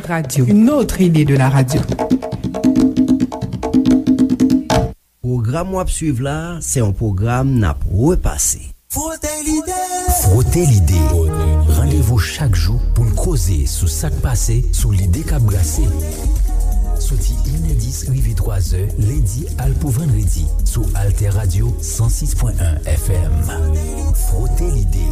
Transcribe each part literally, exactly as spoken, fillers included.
Radio, une autre idée de la radio. Pwogram w ap swiv la, se yon pwogram n ap repase. Frote Lide. Frote Lide. Randevou chak jou pou n koze sou sa k pase, sou lide k ap brase. Soti inè dis rive twazè, lendi al pou vandredi, sou Alter Radio san sis pwen en F M. Frote Lide.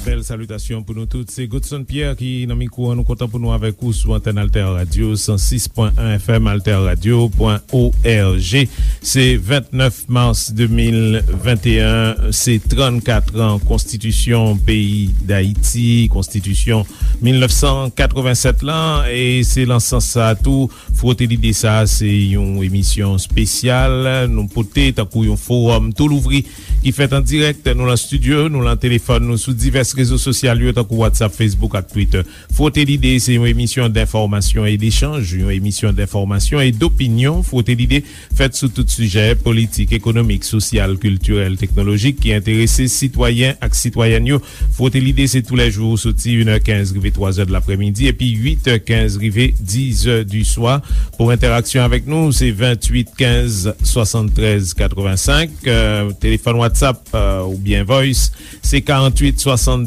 Bèl salitasyon pou nou tout. Se Godson Pierre ki nan mikwo an. Nou kontan pou nou avèk ou sou antèn Alter Radio san sis pwen en F M, alter radio pwen org. Se vennèf mas de mil venteyen, se trannkat an konstitisyon peyi Dayiti, konstitisyon mil nèf san katrevennsèt lan, e se nan sans sa a tou, Frote Lide sa a, se yon emisyon espesyal nou pote tankou yon fowòm tou louvri ki fèt an dirèk. Nou lan estidyo, nou lan telefòn, nou sou divès rezo sosyal yo, tankou WhatsApp, Facebook ak Twitter. Frote Lide se yon emisyon denfòmasyon e dechanj, yon emisyon denfòmasyon e dopinyon. Frote Lide fèt sou tout sijè, politik, ekonomik, sosyal, kiltirèl, teknolojik, ki enterese sitwayen ak sitwayèn yo. Frote Lide se toulèjou, soti inè kenz rive twazè de laprèmidi, epi uitè kenz rive dizè di swa. Pou entèraksyon avèk nou, se venntuit kenz swasanntrèz katrevensenk, euh, telefòn WhatsApp, euh, oubyen Voice, se karanntuit swasanndouz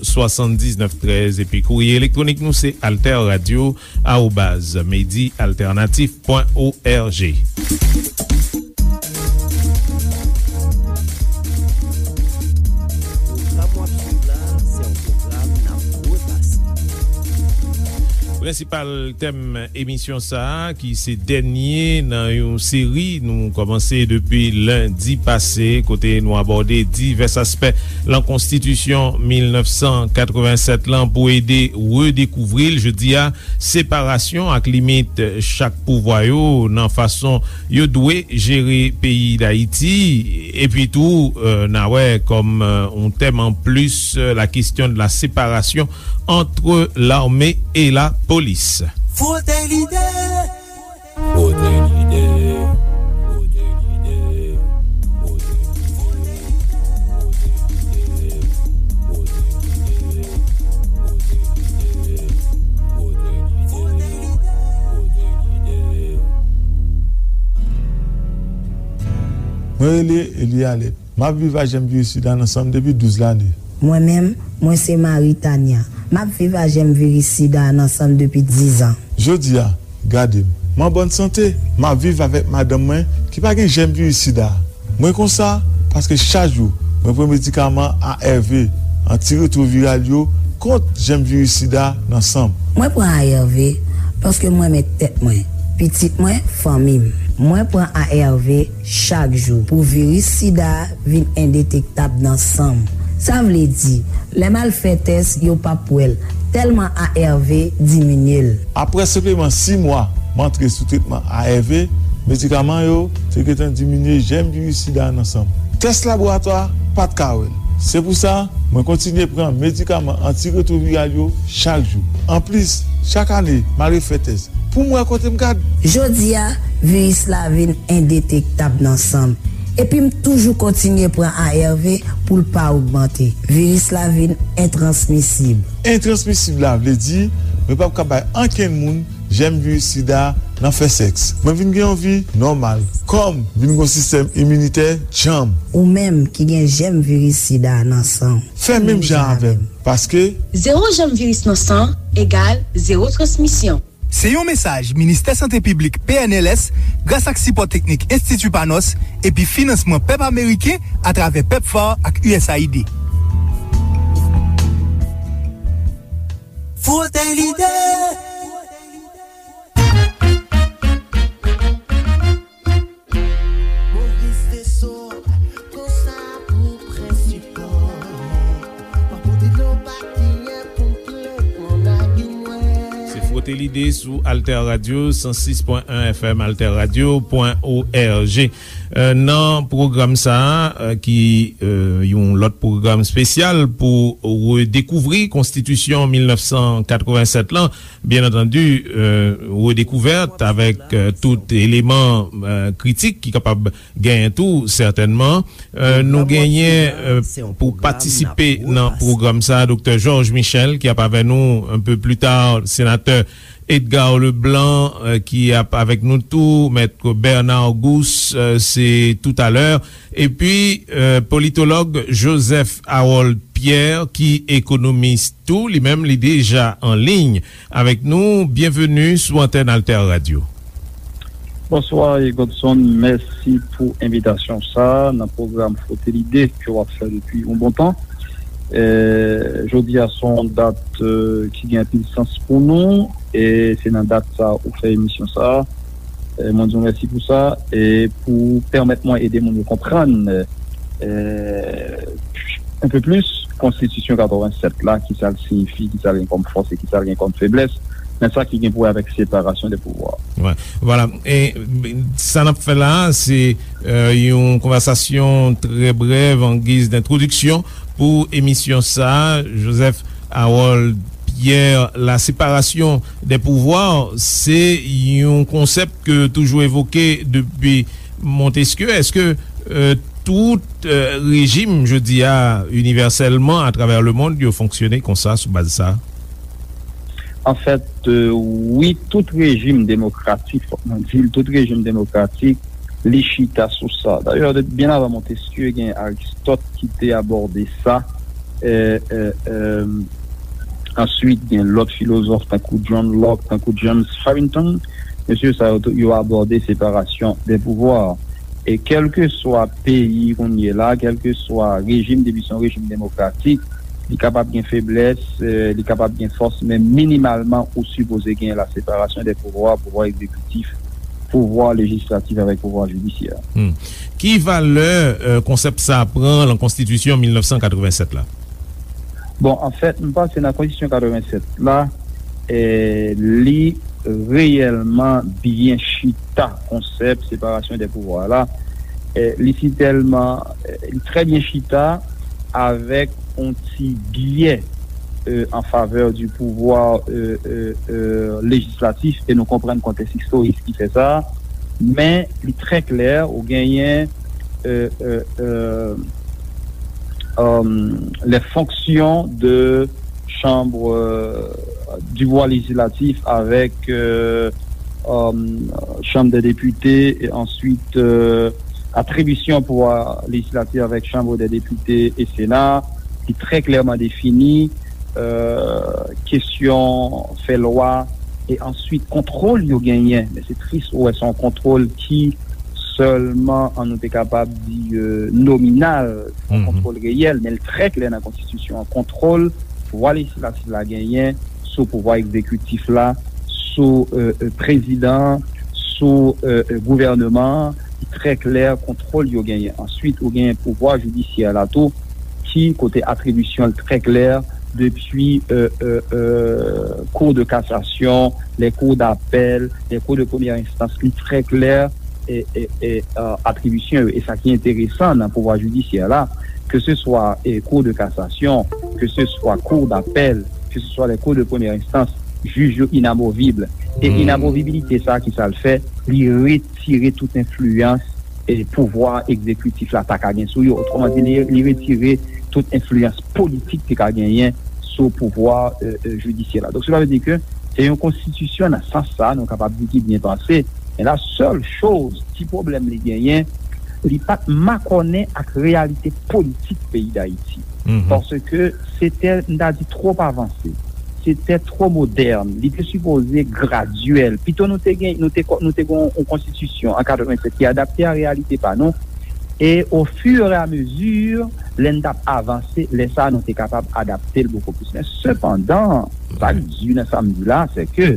swasanndiznèf trèz, epi kourye elektwonik nou se alterradio arobaz medialternatif pwen org. Pwogram w ap swiv la, se yon pwogram n ap repase. Prensipal tèm emisyon sa a, ki se dènye nan yon seri nou kòmanse depi lendi pase, kote nou abòde divès aspè lan konstitisyon mil nèf san katrevennsèt lan pou ede redekouvri l. Jodi a, separasyon ak limit chak pouvwa yo nan fason yo dwe jere peyi Dayiti. Epi tou, euh, n a wè kòm, euh, yon tèm an plis, euh, la question de la séparation entre l'armée et la police. Frote Lide. Frote Lide. Frote Lide. Frote Lide. Frote Lide. Frote Lide. Mwen rele Eli Alèt. M ap viv ak jèm viris sida nan san m depi douz lane. Mwen menm, mwen se Marie Tania. M ap viv ak jèm viris sida nan san m depi diz an. Jodi a, gade m. M an bòn sante. M ap viv avèk madanm mwen ki pa gen jèm viris sida. Mwen konsa paske chak jou mwen pran medikaman A R V, antiretwoviral yo, kont jèm viris sida nan san m. Mwen pran A R V paske m renmen tèt mwen, pitit mwen, fanmi m. Mwen pran A R V chak jou pou viris sida a vin endetektab nan san m. Sa vle di, lè m al fè tès, yo p ap wè l, tèlman A R V diminye l. Apre senpleman sis mwa m antre sou tretman A R V, medikaman yo te gentan diminye jèm viris sida a nan san m. Tès laboratwa pa t ka wè l. Se pou sa, mwen kontinye pran medikaman antiretwoviral yo chak jou. Anplis, chak ane, m al refè tès pou m wè kote m gad. Jodi a, viris la vin endetektab nan san m. Epi m toujou kontinye pran A R V pou l pa ogmante. Viris la vin entransmisib. Entransmisib la vle di, mwen p ap ka bay ankenn moun jèm viris sida a nan fè sèks. Mwen vin gen yon vi nòmal. Kò m vin gen yon sistèm iminitè djanm. Ou menm ki gen jèm viris sida a nan san w, fè menm jan avè m, paske zewo jèm viris nan san egal zewo transmisyon. Se yon mesaj Ministè Sante Piblik, P N L S, gras ak sipò teknik Enstiti Panos epi finansman pèp ameriken atravè PEPFAR ak U S A I D. Frote Lide. Moris Desor, konsa pou prensipal. Pa pote dlo pa kiyen pou m plen nan lagin nwè. Se Frote Lide. sou Alter Radio san sis pwen en F M, alter radio pwen org. Euh, nan pwogram sa a, euh, ki, euh, yon lòt pwogram espesyal pou redekouvri Konstitisyon mil nèf san katrevennsèt lan, byen antandi, euh, redekouvèt avèk, euh, tout eleman, euh, kritik ki kapab genyen tou, sètènman. Euh, nou genyen, euh, pou patisipe nan pwogram sa a, Doktè Georges Michel, ki ap avè nou un peu plus tard, senatè Edgar Leblanc, euh, ki ap avèk nou tou, Mèt Bernard Gousse, euh, se toutalè. Epi, euh, politològ Joseph Harold Pierre, ki ekonomis tou, li menm, li deja an liy avèk nou. Byenveni sou antèn Alter Radio. Bonswa, Godson. Mèsi pou envitasyon sa a nan pwogram Frote Lide ke w ap fè depi yon bon tan. Eh, jodi a se yon dat, eh, ki gen anpil sans pou nou, e se nan dat sa a ou fè emisyon sa a. Eh, mwen di w mèsi pou sa, e pou pèmèt mwen ede moun yo konprann, eh, un peu plus, Konstitisyon katrevennsèt la, ki sa l siyifi, ki sa l gen kòm fòs e ki sa l gen kòm feblès, nan sa ki gen pou wè avèk separasyon de pouvwa. Wè, vwala. E sa n ap fè la a, se, euh, yon konvèsasyon trè brèv an giz dentwodiksyon pou emisyon sa a. Joseph Harold Pierre, la séparation des pouvoirs, se yon konsèp ke toujou evoke depi Montesquieu. Èske, euh, tout, euh, rejim, jodi a, inivèsèlman, atravè lemonn, yo fonksyone konsa, sou baz sa? Anfèt, euh, wi, tout rejim demokratik, fòk mwen di l, tout rejim demokratik, li chita sou sa. Dayè, de, byen avan Montesquieu, gen Aristote ki te abòde sa. Euh, euh, euh, answit, gen lòt filozòf, tankou John Locke, tankou James Harrington. Mesye sa yo, yo abòde separasyon de pouvwa. E kèlkeswa peyi kounye la, kèlkeswa rejim, depi se yon rejim demokratik, li kapab gen feblès, eh, li kapab gen fòs, men minimalman, ou sipoze gen la separasyon de pouvwa, pouvwa egzekitif, pouvwa lejislatif avèk pouvwa jidisyè. Hmm. Ki valè, eh, konsèp sa a pran nan Konstitisyon mil nèf san katrevennsèt la? Bon, anfèt, m panse nan Konstitisyon katrevennsèt la, eh, li reyèlman byen chita konsèp separasyon de pouvwa la. Eh, li si tèlman, eh, li trè byen chita avèk yon ti byè, eh, an favè di pouvwa, eh, eh, eh, lejislatif, e nou konprann kontèks istorik ki fè sa, men li trè klè, ou genyen, eh, eh, eh, euh, les fonctions de chambre, euh, du pouvoir législatif avec, euh, euh, Chambre des députés et ensuite, euh, attribution pouvoir législatif avec Chambre des députés et Sénat, ki trè klèman defini, euh, kesyon fè lwa, e answit kontwòl yo genyen. Men se tris, ou wè, se yon kontwòl ki sèlman, an nou te kapab di, euh, nominal, yon kontwòl reyèl, men l trè klè nan konstitisyon an. Kontwòl pouvwa lejislatif la genyen sou pouvwa egzekitif la, sou, euh, euh, prezidan an, sou, euh, euh, gouvèneman an, li trè klè, kontwòl yo genyen. Answit, ou genyen pouvwa jidisyè la tou, ki kote atribisyon l trè klè, depi, euh, euh, euh, Cour de cassation, les cours d'appel, les cours de première instance, li trè klè, e, e, e, euh, atribisyon yo. E sa ki enteresan nan pouvwa jidisyè la, ke se swa, e, Cour de cassation, ke se swa Cour d'appel, ke se swa les cours de première instance, jij yo inamovib. E inamovibilite sa, ki sa l fè? Li retire tout enfliyans, e, pouvwa egzekitif la ta ka gen sou yo. Otreman di, li, li retire tout enfliyans politik ki ka genyen sou pouvwa, e, e, jidisyè la. Donk, sela vle di ke se yon konstitisyon nan sans sa, nou kapab di ki byen panse. Men la sèl choz, ti pwoblèm li genyen, li pa t makònen ak reyalite politik peyi Dayiti. Paske se te, m ta di, twòp avanse. Se te twò modèn. Li te sipoze gradyèl. Pito nou te gen, nou te, nou te gen yon konstitisyon an katrevennsèt ki adapte a reyalite pa nou. E o fur e a mezi, lè n t ap avanse, lè sa a, nou te kapab adapte l bokou plis. Men sepandan, sa k di nan sa m di la, se ke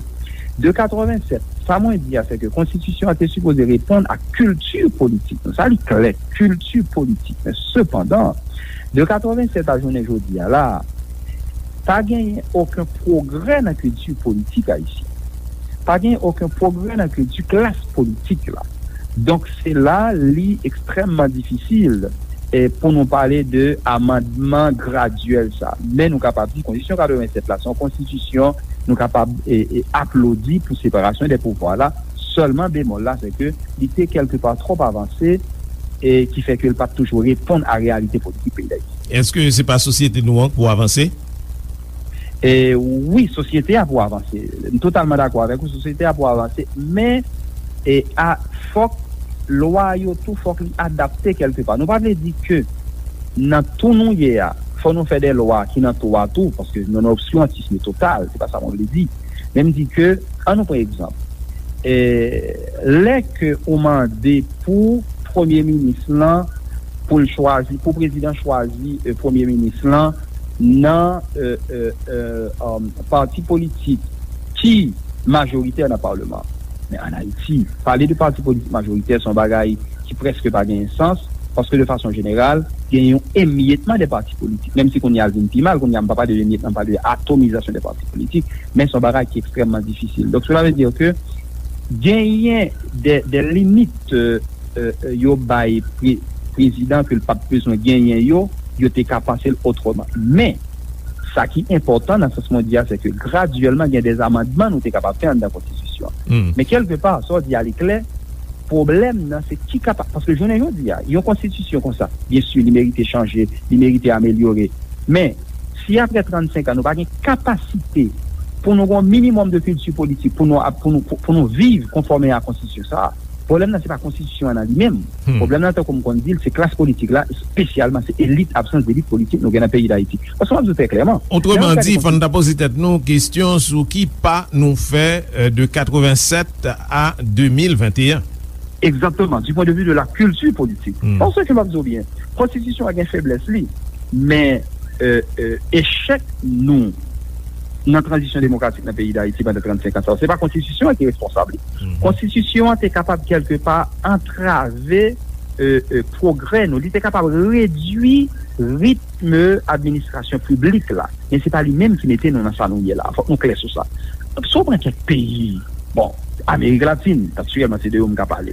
de katrevennsèt, sa mwen di a, se ke konstitisyon an te sipoze reponn ak kilti politik nou. Sa li klè, kilti politik. Men sepandan, de katrevennsèt a jounen jodi a la, pa genyen okenn pwogrè nan kilti politik ayisyen. Pa gen okenn pwogrè nan kilti klas politik la. Donk, se la li ekstrèmman difisil, e, pou nou pale de amandman gradyèl sa. Men nou kapab di konstitisyon katrevennsèt la, se yon konstitisyon nou kapab, e, e, aplodi pou separasyon de pouvwa la. Sèlman bemòl la, se ke li te kèlkepa twòp avanse, e ki fè ke l pa t toujou reponn a reyalite politik peyi Dayiti. Èske se pa sosyete nou an k pou avanse? E, wi, sosyete a pou avanse. M totalman dakò avèk ou, sosyete a pou avanse, men, e, a, fòk lwa yo tou, fòk li adapte kèlkepa. Nou pa vle di ke nan tou nou ye a, fò nou fè de lwa ki nan tou a tou, paske nou nan obskirantism total, se pa sa mwen vle di. Men m di ke, an nou pran egzanp, e, lè ke ou mande pou premye minis lan, pou l chwazi, pou prezidan chwazi, e, premye minis lan nan, e, e, e, um, pati politik ki majoritè nan palman. Men ann Ayiti, pale de pati politik majoritè se yon bagay ki prèske pa genyen sans, paske de fason jeneral, gen yon emyetman de pati politik. Menm si kounye a l vin pi mal, kounye a m pa pale de emyetman, m pale de atomizasyon de pati politik, men se yon bagay ki ekstrèmman difisil. Donk, cela veut dire que genyen de, de limit, e, e, e, yo bay pre-, prezidan ke l pa t bezwen genyen yo, yo te ka panse l otreman. Men, sa ki enpòtan nan sans mwen di a, se ke gradyèlman gen de amandman nou te kapab fè anndan konstitisyon an. Men kèlkepa, sa w di a li klè, pwoblèm nan se ki kapa-, paske jounen jodi a, yon konstitisyon konsa, byen si, li merite chanje, li merite amelyore. Men, si apre trannsenk an, nou pa gen kapasite pou nou gen yon minimòm de kilti politik, pou nou ap, pou nou, pou, pou nou viv konfòme a konstitisyon sa a, pwoblèm nan se pa konstitisyon an nan li menm. Pwoblèm nan, tankou m konn di l, se klas politik la, espesyalman se elit, absans delit politik nou gen nan peyi Dayiti. Paske m ap di w trè klèman, otreman di, fò n ta poze tèt nou kesyon sou ki pa nou fè, e, de katrevennsèt a de mil venteyen. Egzakteman, du point de vue de la culture politique. Paske m ap di w byen, konstitisyon an gen feblès li, men, e, e, echèk nou nan tranzisyon demokratik nan peyi Dayiti pandan trannsenk an sa yo, se pa konstitisyon an ki responsab li. Konstitisyon an te kapab kèlkepa antrave, e, e, pwogrè nou. Li te kapab redui ritm administrasyon piblik la. Men se pa li menm ki mete nou nan sa nou ye la. Fòk nou klè sou sa. Si w pran kèk peyi, bon, Amerik Latin, aktyèlman se de yo m ka pale.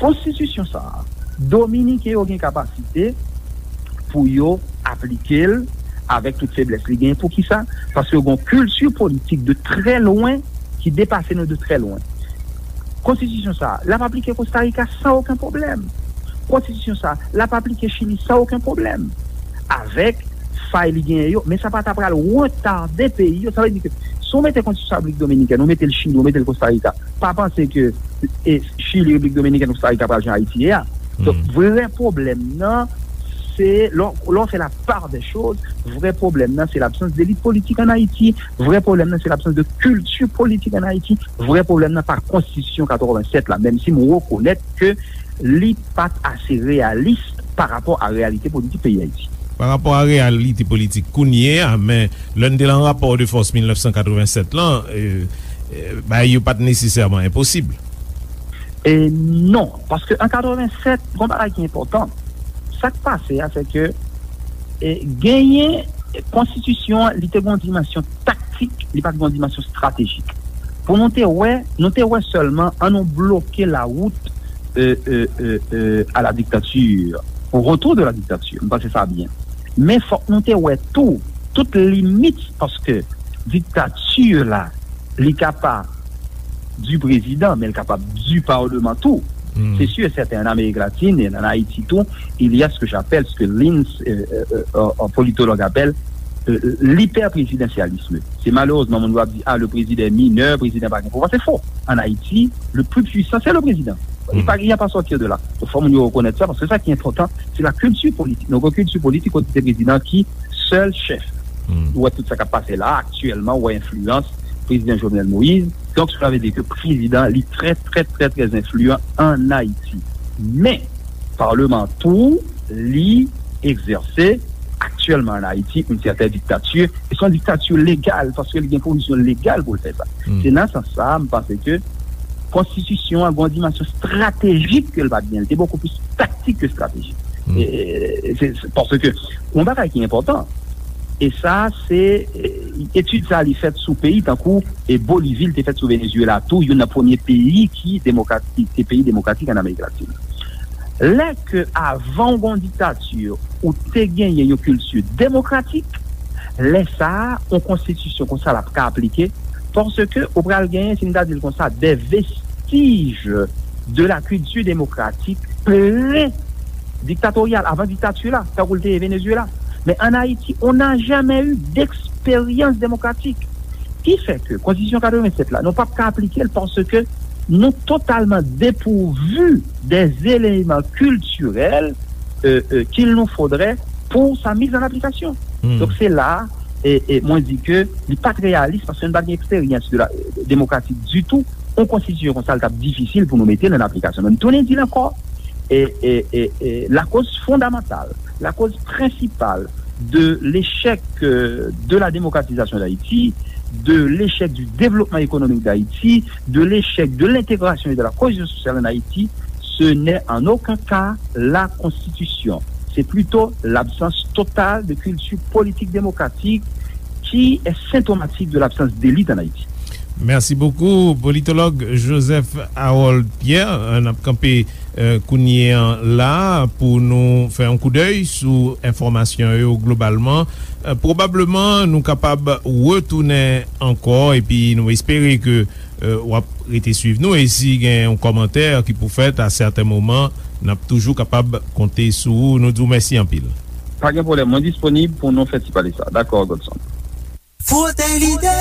Konstitisyon sa a, Dominiken yo gen kapasite pou yo aplike l avèk tout feblès li genyen. Poukisa? Paske yo gen yon kilti politik de trè lwen ki depase nou de trè lwen. Konstitisyon sa a, l ap aplike Kosta Rika san okenn pwoblèm. Konstitisyon sa a, l ap aplike Chili san okenn pwoblèm. Avèk fay li genyen yo, men sa pa ta pral retade peyi yo. Sa vle di ke si w mete konstitisyon Repiblik Dominikèn, ou mete l Chili, ou mete l Kosta Rika, pa panse ke, e, Chili, Repiblik Dominikèn, Kosta Rika pral jan Ayiti ye a. Donk, vrè pwoblèm nan, se lè w, lè w fè la part des choses, vrè pwoblèm nan, se labsans delit politik ann Ayiti, vrè pwoblèm nan, se labsans de kilti politik ann Ayiti, vrè pwoblèm nan pa konstitisyon katrevennsèt la, menm si m rekonèt ke li pa t ase reyalis pa rapò a reyalite politik peyi Ayiti. Pa rapò a reyalite politik kounye a, men lè n te lan rapò de fòs mil nèf san katrevennsèt lan, e, e, bagay yo pa t nesesèman enposib. E non, paske an katrevennsèt, gon bagay ki enpòtan. Sa k pase a, se ke, e, genyen, e, konstitisyon an, li te gen yon dimansyon taktik, li pa t gen yon dimansyon estratejik. Pou nou te wè, nou te wè sèlman, an nou bloke lawout, e, e, e, e, à la dictature, au retour de la dictature. M panse sa byen. Men fòk nou te wè tou, tout limit, paske diktati la, li kapab du président, men l kapab du parlement tou. C'est sûr et certain, en Amérique latine et en Haïti tout, il y a ce que j'appelle, ce que Lins, euh, euh, euh, un politologue appelle, euh, l'hyperprésidentialisme. Se malerezman moun yo ap di, ah, le président est mineur, prezidan pa gen pouvwa. Se fo. En Haïti, le plus puissant, c'est le président. Il n'y a pas à sortir de là. Donk, fò moun yo rekonèt sa, paske sa ki enpòtan, se la kilti politik. Nou gen kilti politik kote se prezidan ki sèl chèf. Ou wè tout sa k ap pase la, aktyèlman, ou wè enfliyans prezidan Jovenel Moïse. Donk, cela veut dire que prezidan, li trè, trè, trè, trè enfliyan ann Ayiti. Men, palman tou, li egzèse aktyèlman ann Ayiti yon sèten diktati, e se yon diktati legal, paske li gen pwovizyon legal pou l fè sa. Se nan sans sa a, m panse ke konstitisyon an gen yon dimansyon estratejik ke l pa t gen. Li te bokou plis taktik ke estratejik. E, e, se, se, paske yon bagay ki enpòtan, e sa, se, e, Etid sa a, li fèt sou peyi tankou, e, Bolivi, li te fèt sou Venezuela tou, youn nan premye peyi ki demokratik, ki te peyi demokratik ann Amerik Latin. Lè ke avan w gen yon diktati, ou te genyen yon kilti demokratik, lè sa a, yon konstitisyon konsa l ap ka aplike, paske ou pral genyen, si n ta di l konsa, de vestij de la kilti demokratik pre-diktatoryal, avan diktati la, tankou l te ye Venezuela. Men ann Ayiti, on n'a jamais eu d'expérience démocratique. Ki fè ke Konstitisyon katrevennsèt la, nou p ap ka aplike l paske nou totalman depouvu dè eleman kiltirèl, euh, euh, qu'il nous faudrait pour sa mise en application. Hmm. Donk, se la, e, e, mwen di ke li pa t reyalis paske nou pa t gen eksperyans de la, demokratik ditou. Yon konstitisyon konsa, l t ap difisil pou nou mete l an aplikasyon. Men m tounen di l ankò, e, e, e, e, lakoz fondamantal, lakoz prensipal de l'échec, euh, de la démocratisation d'Haïti, de l'échec du développement économique d'Haïti, de l'échec de l'intégration et de la cohésion sociale en Haïti, ce n'est en aucun cas la Constitution. C'est plutôt l'absence totale de culture politique démocratique qui est symptomatique de l'absence d'élite en Haïti. Merci beaucoup, politologue Joseph Harold Pierre. N ap kanpe, euh, kounye an la pou nou fè yon koudèy sou enfòmasyon yo globalman. Euh, pwobableman, nou kapab retounen ankò, epi nou espere ke, euh, w ap rete swiv nou. E si gen yon kòmantè ki pou fèt a sèten moman, n ap toujou kapab konte sou ou. Nou di w mèsi anpil. Pa gen pwoblèm, mwen disponib pou nou fè ti pale sa. Dakò, Godson. Frote lide!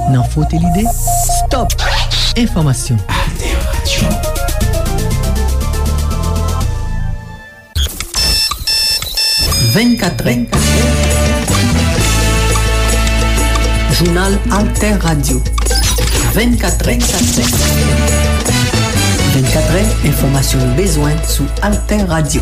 Nan Frote lide, stop! Enfòmasyon. Alter Radio. Vennkatrè. Jounal Alter Radio. Vennkatrè. Vennkatrè, enfòmasyon nou bezwen sou Alter Radio.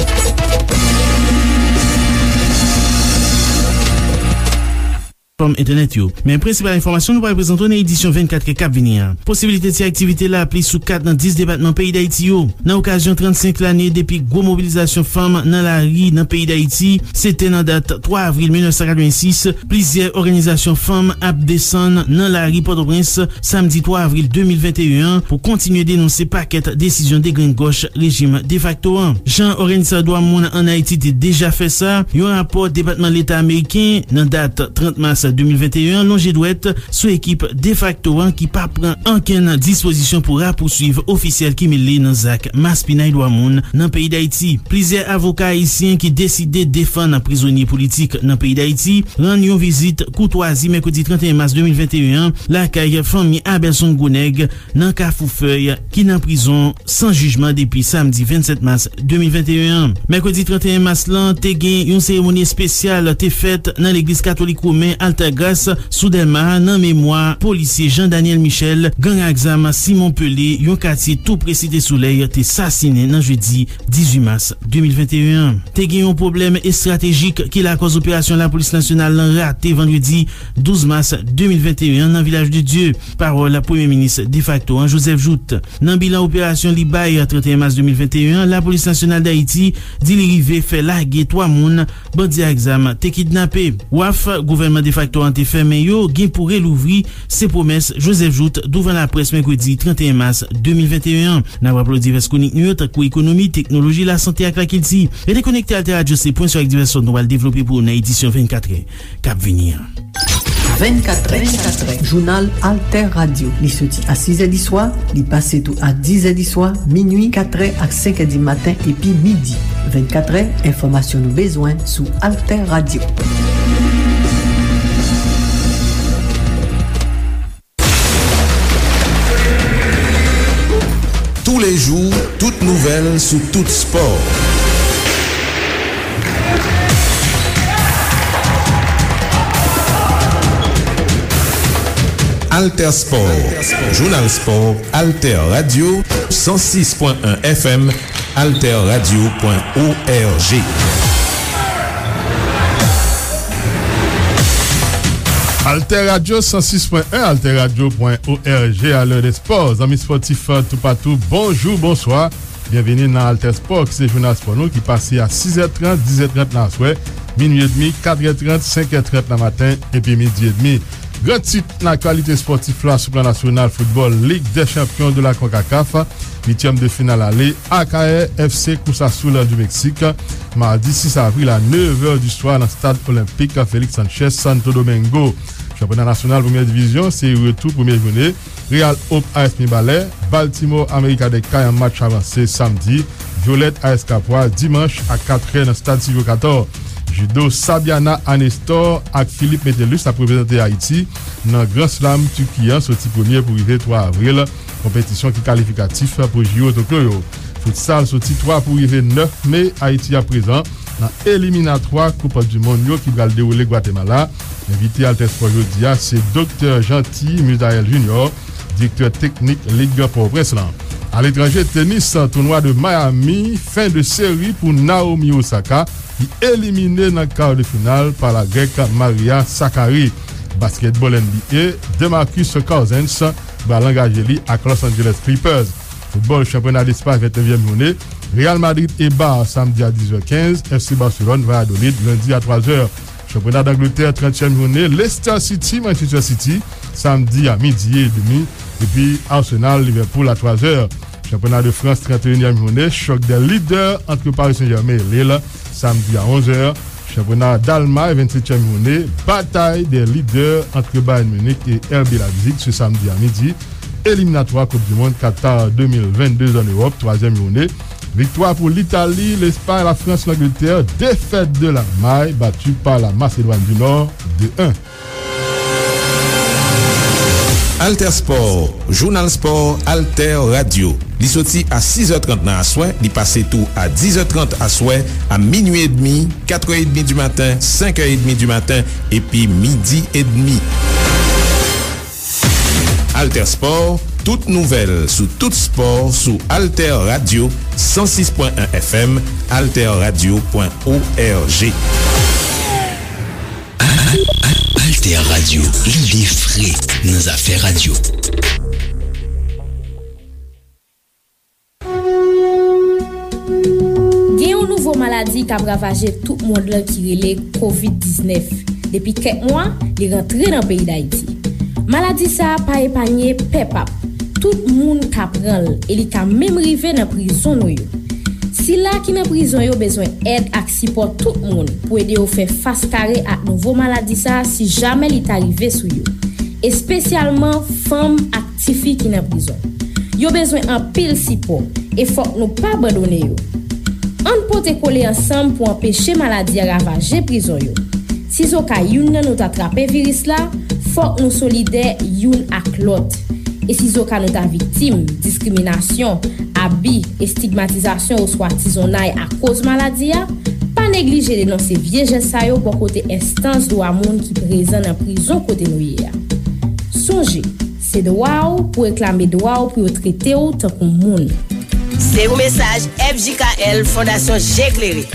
Platfòm entènèt yo. Men prensipal enfòmasyon nou pral prezante w nan edisyon vennkatrè k ap vini an. Posibilite ti aktivite lapli sou kat nan dis depatman peyi Dayiti yo. Nan okazyon trannsenk lane depi gwo mobilizasyon fanm nan lari nan peyi Dayiti, se te nan dat twa avril mil nèf san katrevensis, plizyè òganizasyon fanm ap desann nan lari Pòtoprens samdi twa avril de mil venteyen an pou kontinye denonse pakèt desizyon degrengòch rejim defakto an. Jan òganizatè dwa moun ann Ayiti te deja fè sa, yon rapò Depatman Leta ameriken nan dat trant mas de mil venteyen an lonje dwèt sou ekip defakto an ki pa pran ankenn dispozisyon pou rapousuiv ofisyèl ki mele nan zak maspinay dwa moun nan peyi Dayiti. Plizyè avoka ayisyen ki deside defann prizonye politik nan peyi Dayiti rann yon vizit koutwazi mèkredi trannteyen mas de mil venteyen an lakay fanmi Abelson Gwonèg nan Kafou Fèy ki nan prizon san jijman depi samdi vennsèt mas de mil venteyen an. Mèkredi trannteyen mas lan te gen yon seremoni espesyal te fèt nan legliz katolik women Altagrace sou Dèlma nan memwa polisye Jean Daniel Michel, gang ak zam Simon Pelé, yon katye tou pre Site Solèy, te sasinen nan jedi dizuit mas de mil venteyen an. Te gen yon pwoblèm estratejik ki lakòz operasyon lapolis nasyonal lan rate vandredi douz mas de mil venteyen an nan Vilaj de Dye. Pawòl Premye Minis defakto an, Joseph Jouthe. Nan bilan operasyon li bay trannteyen mas de mil venteyen an, Lapolis Nasyonal Dayiti di li rive fè lage twa moun bandi ak zam te kidnape. Waf gouvènman defakto an te fèmen yo gen pou relouvri, se pwomès Joseph Jouthe douvan laprès mèkredi trannteyen mas de mil venteyen an. N ap raple w divès kwonik nou yo, tankou ekonomi, teknoloji, lasante ak lakilti. Rete konekte Alter Radio, se pwen sou ak divès sòt nou pral devlope pou ou nan edisyon vennkatrè k ap vini an. Vennkatrè, jounal Alter Radio. Li soti a sizè di swa, li pase tou a dizè di swa, minui, katrè ak senkè di maten epi midi. Vennkatrè, enfòmasyon nou bezwen sou Alter Radio. Tous les jours, toute nouvelle sous tout sport. Alter Sport, Jounal Spò, Alter Radio, san sis pwen en F M, alter radio pwen O R G. Alter Radio san sis pwen en, alter radio pwen O R G, a lè de spò. Zanmi spòtif toupatou, bonjou, bonswa. Byenvini nan Alter Spò, ki se jounal spò nou ki pase a sizè trant, dizè trant nan aswè, minui edmi, katrè trant, senkè trant nan maten, epi midi edmi. Gran tit nan aktyalite spòtif la sou plan nasyonal foutbòl, Ligue des Champions de la CONCACAF, uityèm de final ale, Akayè F C Cruz Azul du Mexique, madi sis avril a nèf è di swa nan stad olenpik Félix Sánchez, Santo Domingo. Chanpyona nasyonal premyè divizyon, se retou premyè jounen, Real Hope A S Mibalè, Baltimore America de Kay an match avanse samdi, Violette A S Kapwa dimanch a kat è nan stad Silvio Cator. Judo, Sabiana Anestor ak Philippe Metellus ap reprezante Ayiti nan Grand Slam Turki an soti premye pou rive twa avril, konpetisyon ki kalifikatif pou J O Tokyo yo. Futsal, soti twa pou rive nèf me, Ayiti aprezan nan eliminatwa Koup di Mond yo ki pral dewoule Gwatemala. Envite Alter Sport jodi a se Doktè Jeanty Misael Junior, direktè teknik Lig Pòtoprens lan. Aletranje, tenis, tounwa de Miami, fen de seri pou Naomi Osaka, ki elimine nan kar de final pa la Grèk Maria Sakkari. Basketball N B A, DeMarcus Cousins pral angaje li ak Los Angeles Clippers. Foutbòl, chanpyona Lespas, vennnevyèm jounen, Real Madrid e Bar samdi a dis è kenz, F C Barcelone, Valladolid, lendi a twa zè. Chanpyona Dangletè, trantyèm jounen, Leicester City, Manchester City, samdi a midi edmi, epi Arsenal, Liverpool a twa zè. Chanpyona de Frans, tranteyinyèm jounen, chòk dè lidè ant Paris Saint-Germain e Lille, samdi a onz è. Chanpyona Dalmay, vennsetyèm jounen, batay dè lidè ant Bayern Munich e R B Leipzig, se samdi a midi. Eliminatwa Koup di Mond Qatar de mil vennde an Ewòp, twazyèm jounen. Viktwa pou Litali, Lespay, Lafrans, Langletè, defèt de Lalmay, bati pa la Masedwàn di Nò, de en. Alter Sport, jounal spò Alter Radio. Li soti a sis è trant nan aswè, li pase tou a dis è trant aswè, a minui edmi, kat è edmi di maten, senk è edmi di maten, epi midi edmi. Alter Sport, tout nouvèl sou tout spò sou Alter Radio, san sis pwen en F M, alter radio pwen O R G. Al-, Al-, Alter Radio, lide fre nan zafè radyo. Gen yon nouvo maladi k ap ravaje tout mond lan ki rele kovid diznèf. Depi kèk mwa, li rantre nan peyi Dayiti. Maladi sa a pa epanye pèp ap. Tout moun ka pran l e li ka menm rive nan prizon nou yo. Sila ki nan prizon yo bezwen èd ak sipò tout moun pou ede yo fè fas kare ak nouvo maladi sa a si jamè li ta rive sou yo, espesyalman fanm ak tifi ki nan prizon. Yo bezwen anpil sipò e fòk nou pa abandone yo. Ann pote kole ansanm pou anpeche maladi a ravaje prizon yo. Sizoka youn nan nou ta trape viris la, fòk nou solidè youn ak lòt. E sizoka nou ta viktim diskriminasyon, abi, estigmatizasyon oswa tizonnay akoz maladi a, pa neglije denonse vye jès sa yo bò kote enstans dwa moun ki prezan nan prizon kote nou ye a. Sonje, se dwa w pou reklame dwa w pou yo trete w tankou moun. Se yon mesaj F J K L, Fondasyon Je Klere.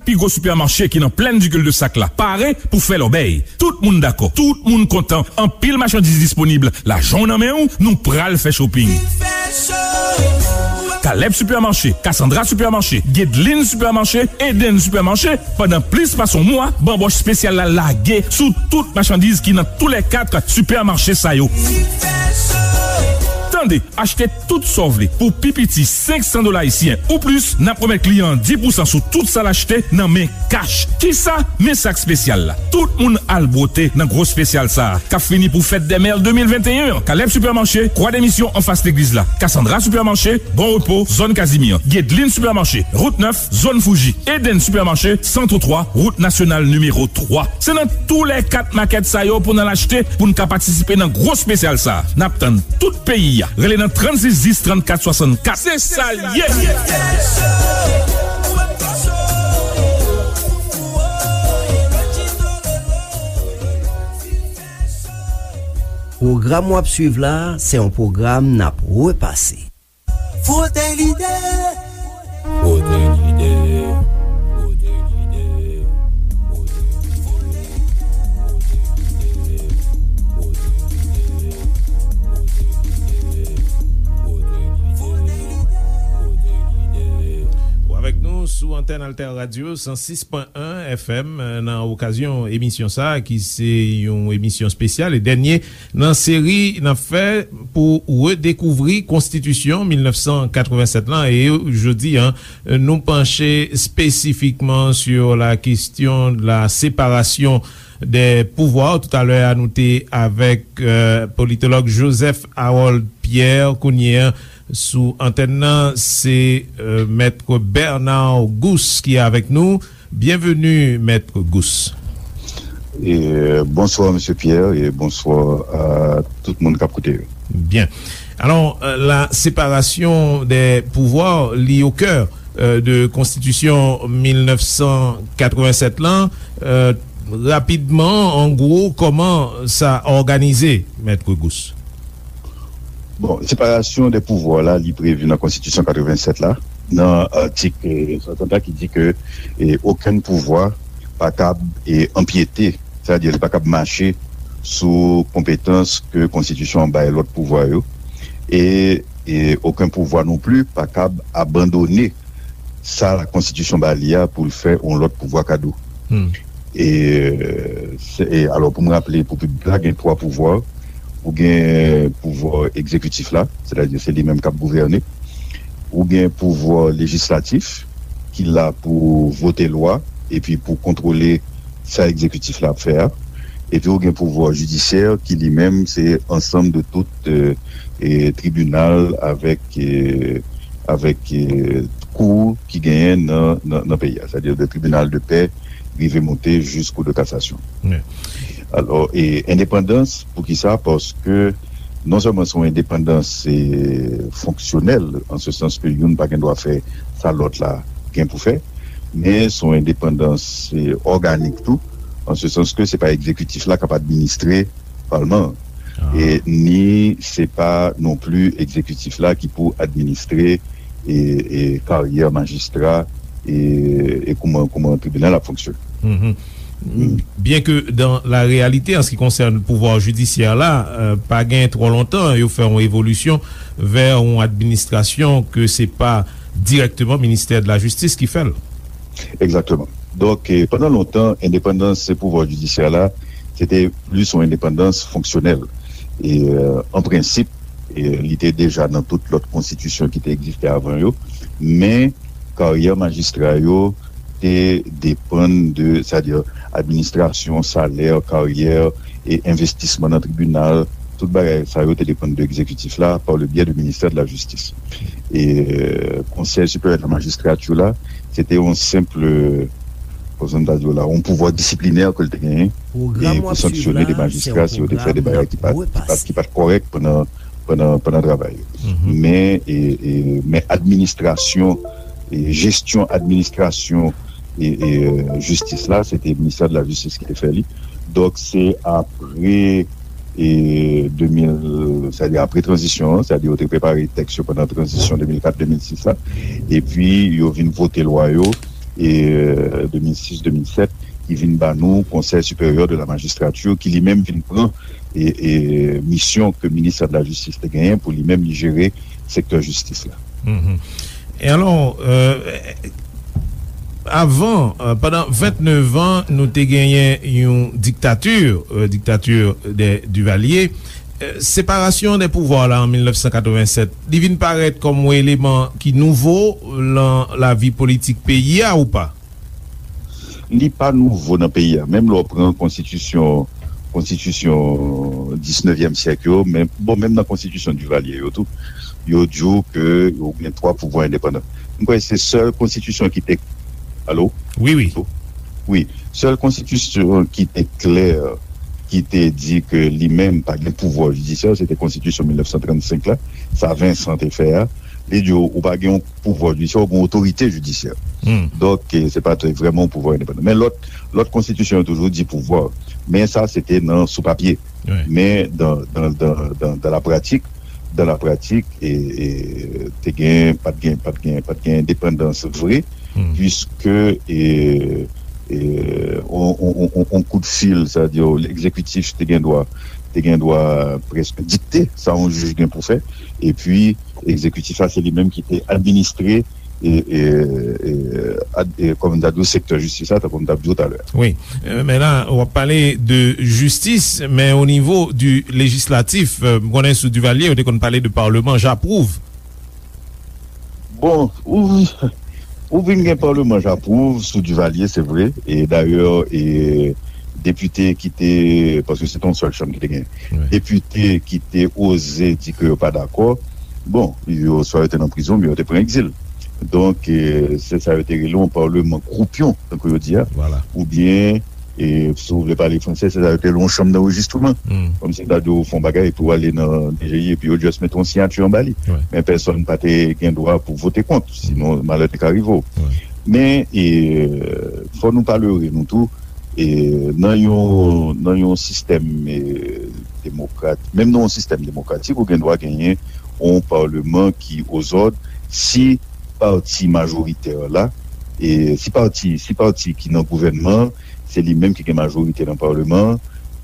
Pi gwo sipèmache ki nan plèn di Cul-de-Sac la pare pou fè lòbèy. Tout moun dakò, tout moun kontan. Anpil machandiz disponib. Lajan w nan men w, nou pral fè shopping. Caleb Supermarché, Cassandra Supermarché, Guedeline Supermarché, Eden Supermarché, pandan plis pase yon mwa, banbòch espesyal la lage sou tout machandiz ki nan toulèkat sipèmache sa yo. Tande, achte tout sa w vle pou pi piti senk san dola ayisyen ou plis, n ap remèt kliyan an dis pousan sou tout sa l achte nan men kach. Kisa? Men sak espesyal la. Tout moun al bwote nan gwo espesyal sa a k ap fini pou fèt dè mè de mil venteyen an. Caleb Supermarché, Croix des Missions anfas legliz la. Cassandra Supermarché, Bon Repos, zòn Kazimyè. Guedeline Supermarché, wout nèf, zòn Fouji. Eden Supermarché, Centre twa, wout nasyonal nimewo twa. Se nan toulèkat makèt sa yo pou n al achte, pou n ka patisipe nan gwo espesyal sa a. N ap tann tout peyi a. Rele nan trannsis dis, trannkat swasankat. Se sa l ye! Pwogram w ap swiv la, se yon pwogram n ap repase. Frote lide. Frote lide. Frote lide. Antèn Alter Radio san sis pwen en F M, nan okazyon emisyon sa a, ki se yon emisyon espesyal e dènye nan seri n ap fè pou redekouvri Konstitisyon mil nèf san katrevennsèt lan. E jodi a, nou panche spesifikman sur la question de la séparation des pouvoirs. Toutalè a, nou te avèk, euh, politològ Joseph Harold Pierre. Kounye a, sou antèn nan, se, euh, Mèt Bernard Gousse ki avèk nou. Byenveni, Mèt Gousse. E, bonswa, Mesye Pierre, e bonswa a tout moun k ap koute yo. Byen. Alò, euh, la séparation des pouvoirs, li o kè, euh, de Konstitisyon mil nèf san katrevennsèt lan. Euh, rapidman, an gwo, kòman sa òganize, Mèt Gousse? Bon, séparation des pouvoirs la, li previ nan Konstitisyon katrevennsèt la, nan atik, euh, swasanntrant ki di ke, eh, okenn pouvwa pa kab, eh, anpyete, sètadi li pa kab mache sou konpetans ke Konstitisyon an bay lòt pouvwa yo, e, e okenn pouvwa non pli pa kab abandone sa Konstitisyon ba li a pou l fè yon lòt pouvwa kado. Hmm. E, se, e, alò, pou m raple pou piblik la, gen twa pouvwa. Ou gen pouvwa egzekitif la, sètadi se li menm k ap gouvène. Ou gen pouvwa lejislatif, ki la pou vote lwa, epi pou kontwole sa egzekitif la ap fè a. Epi ou gen pouvwa jidisyè, ki li menm se ansanm de tout, euh, e, tribinal avèk, e, avèk, e, kou ki genyen nan, nan, nan peyi a, sètadi de tribinal de pè rive monte jis kou de kasasyon. Wi. Alò, e, endepandans, poukisa? Paske non sèlman se yon endepandans, e, fonksyonèl, an se sans ke youn pa gen dwa fè sa lòt la gen pou fè, men se yon endepandans, e, òganik tou, an se sans ke se pa egzekitif la k ap administre palman an. Ah. E ni se pa non pli egzekitif la ki pou administre e, e karyè majistra e, e kouman, kouman tribinal ap fonksyone. Mhm. Byen ke dan la reyalite, an se ki konsène pouvwa jidisyè la, euh, pa gen twò lontan, yo fè yon evolisyon vè yon administrasyon ke se pa dirèkteman ministè de la jistis ki fè l. Egzakteman. Donk, eh, pandan lontan, endepandans pouvwa jidisyè la, se te plis yon endepandans fonksyonèl. E, euh, an prensip, e, li te deja nan tout lòt konstitisyon ki te egziste avan yo, men karyè majistra yo te depann de, sètadi administrasyon, salè, karyè, e envestisman nan tribinal, tout bagay sa yo te depann de egzekitif la, par le biais du ministère de la Justice. E, euh, Konsèy Siperyè de la Majistrati la, se te yon senp, kòman ta di w la, yon pouvwa disiplinè ke l te genyen, e pou sanksyone de majistra si yo te fè de bagay ki pa t, ki pa t, ki pa t kòrèk pandan, pandan, pandan travay yo. Mhm. Men, e, e, men administrasyon, e jesyon administrasyon, e, e, euh, jistis la, se te ministè de la jistis ki te fè li. Donk, se apre, e, de mil, sètadi apre tranzisyon an, sètadi yo te prepare tèks yo pandan tranzisyon de mil kat de mil sis la, epi yo vin vote lwa yo, e, euh, de mil sis, de mil sèt, ki vin ba nou Conseil Supérieur de la Magistrature, ki li menm vin pran, e, e, misyon ke ministè de la jistis te genyen pou li menm li jere sektè jistis la. Mhm. E alò, euh, avan, euh, pandan vennèf an, nou te genyen yon diktati, euh, diktati de Duvalier. Euh, separasyon de pouvwa la an mil nèf san katrevennsèt, li vin parèt kòm yon eleman ki nouvo lan lavi politik peyi a ou pa? Li pa nouvo nan peyi a. Menm lè w pran konstitisyon, konstitisyon disnevyèm syèk yo, men, bon, menm nan konstitisyon Duvalier yo tou, yo di w ke yo gen twa pouvwa endepandan. M kwè se sèl konstitisyon ki te, alo? Wi, wi. Wi. Sèl konstitisyon ki te klè, ki te di ke li menm pa gen pouvwa jidisyè, se te konstitisyon mil nèf san trannsenk la, sa Vincent te fè a. Li di w, ou pa gen yon pouvwa jidisyè, ou gen otorite jidisyè. Hmm. Donk, eh, se pa t vrèman yon pouvwa endepandan. Men lòt, lòt konstitisyon yo toujou di pouvwa. Men sa, se te nan, sou papye. Wi. Men dan, dan, dan, dan, dan la pratik, dan la pratik, e, e, te gen, pa t gen, pa t gen, pa t gen endepandans vre, hmm, puiske, e, e, on, on, on, on, on kout fil, sa di, egzekitif te gen dwa, te gen dwa prèske dikte sa yon jij gen pou fè, epi egzekitif la, se li menm ki te administre e, e, e, ad- e, kòm m ta di w, sektè jistis la, tankou m t ap di w talè a. Wi. Euh, men la, w ap pale de jistis, men o nivo di lejislatif, euh, m konnen sou Duvalier, yo te konn pale de parlement, j'approuve. Bon, ou, ou vin gen parlement, j'approuve, sou Duvalier, se vre. E dayè, e, depite ki te, paske se te yon sèl chanm ki te gen, depite ki te oze di ke yo pa dakò, bon, yo swa yo te nan prizon, oubyen yo te pran egzil. Donk, e, se sa yo te rele yon parlement croupion, tankou yo di a. Oubyen, e, si w vle pale fransè, se sa yo te rele yon chanm d'enregistrement. Kòmsi ta di w fè yon bagay epi w ale nan D G I epi yo just mete yon siyati anba li. Men pèsonn pa te gen dwa pou vote kont, sinon malè te ka rive w. Men, e, fò nou pa lere nou tou, e, nan yon, nan yon sistèm, e, demokrat, menm nan yon sistèm demokratik, ou gen dwa genyen yon parleman ki ozòd si pati majoritè la, e si pati, si pati ki nan gouvènman an, se li menm ki gen majorite nan parleman an,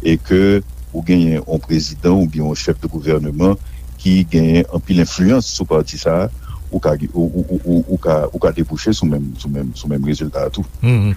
e ke ou genyen yon prezidan oubyen yon chèf de gouvèneman ki genyen anpil enfliyans sou pati sa a, ou ka, ou, ou, ou, ou, ou ka, ou ka debouche sou menm, sou menm, sou menm rezilta a tou. Mhm.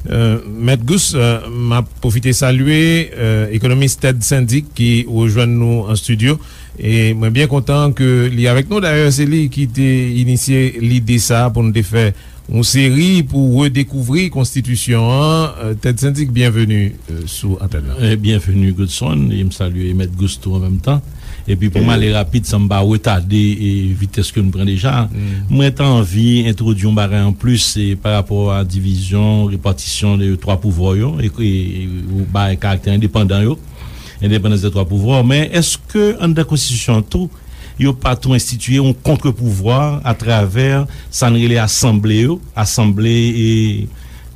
Euh, Mèt Gous, euh, m ap pwofite salye, euh, ekonomis Ted Syndic ki rejwenn nou an estidyo. E mwen byen kontan ke li avèk nou. Dayè, se li ki te inisye lide sa a pou n te fè yon seri pou redekouvri konstitisyon an. Euh, Ted Syndic, byenveni, euh, sou antèn nan. Eh, byenveni, Godson, e m salye Mèt Gous tou an menm tan. Epi pou m ale rapid, san m pa retade, e, vitès ke n pran deja, mwen ta anvi entwodui yon bagay anplis, e, pa rapò a divizyon, repatisyon de twa pouvwa yo, e, e, ou bay karaktè endepandan yo, endepandans de twa pouvwa. Men èske anndan konstitisyon an tou, yo pa tou enstitiye yon kontrpouvwa atravè sa n rele asanble yo, asanble, e,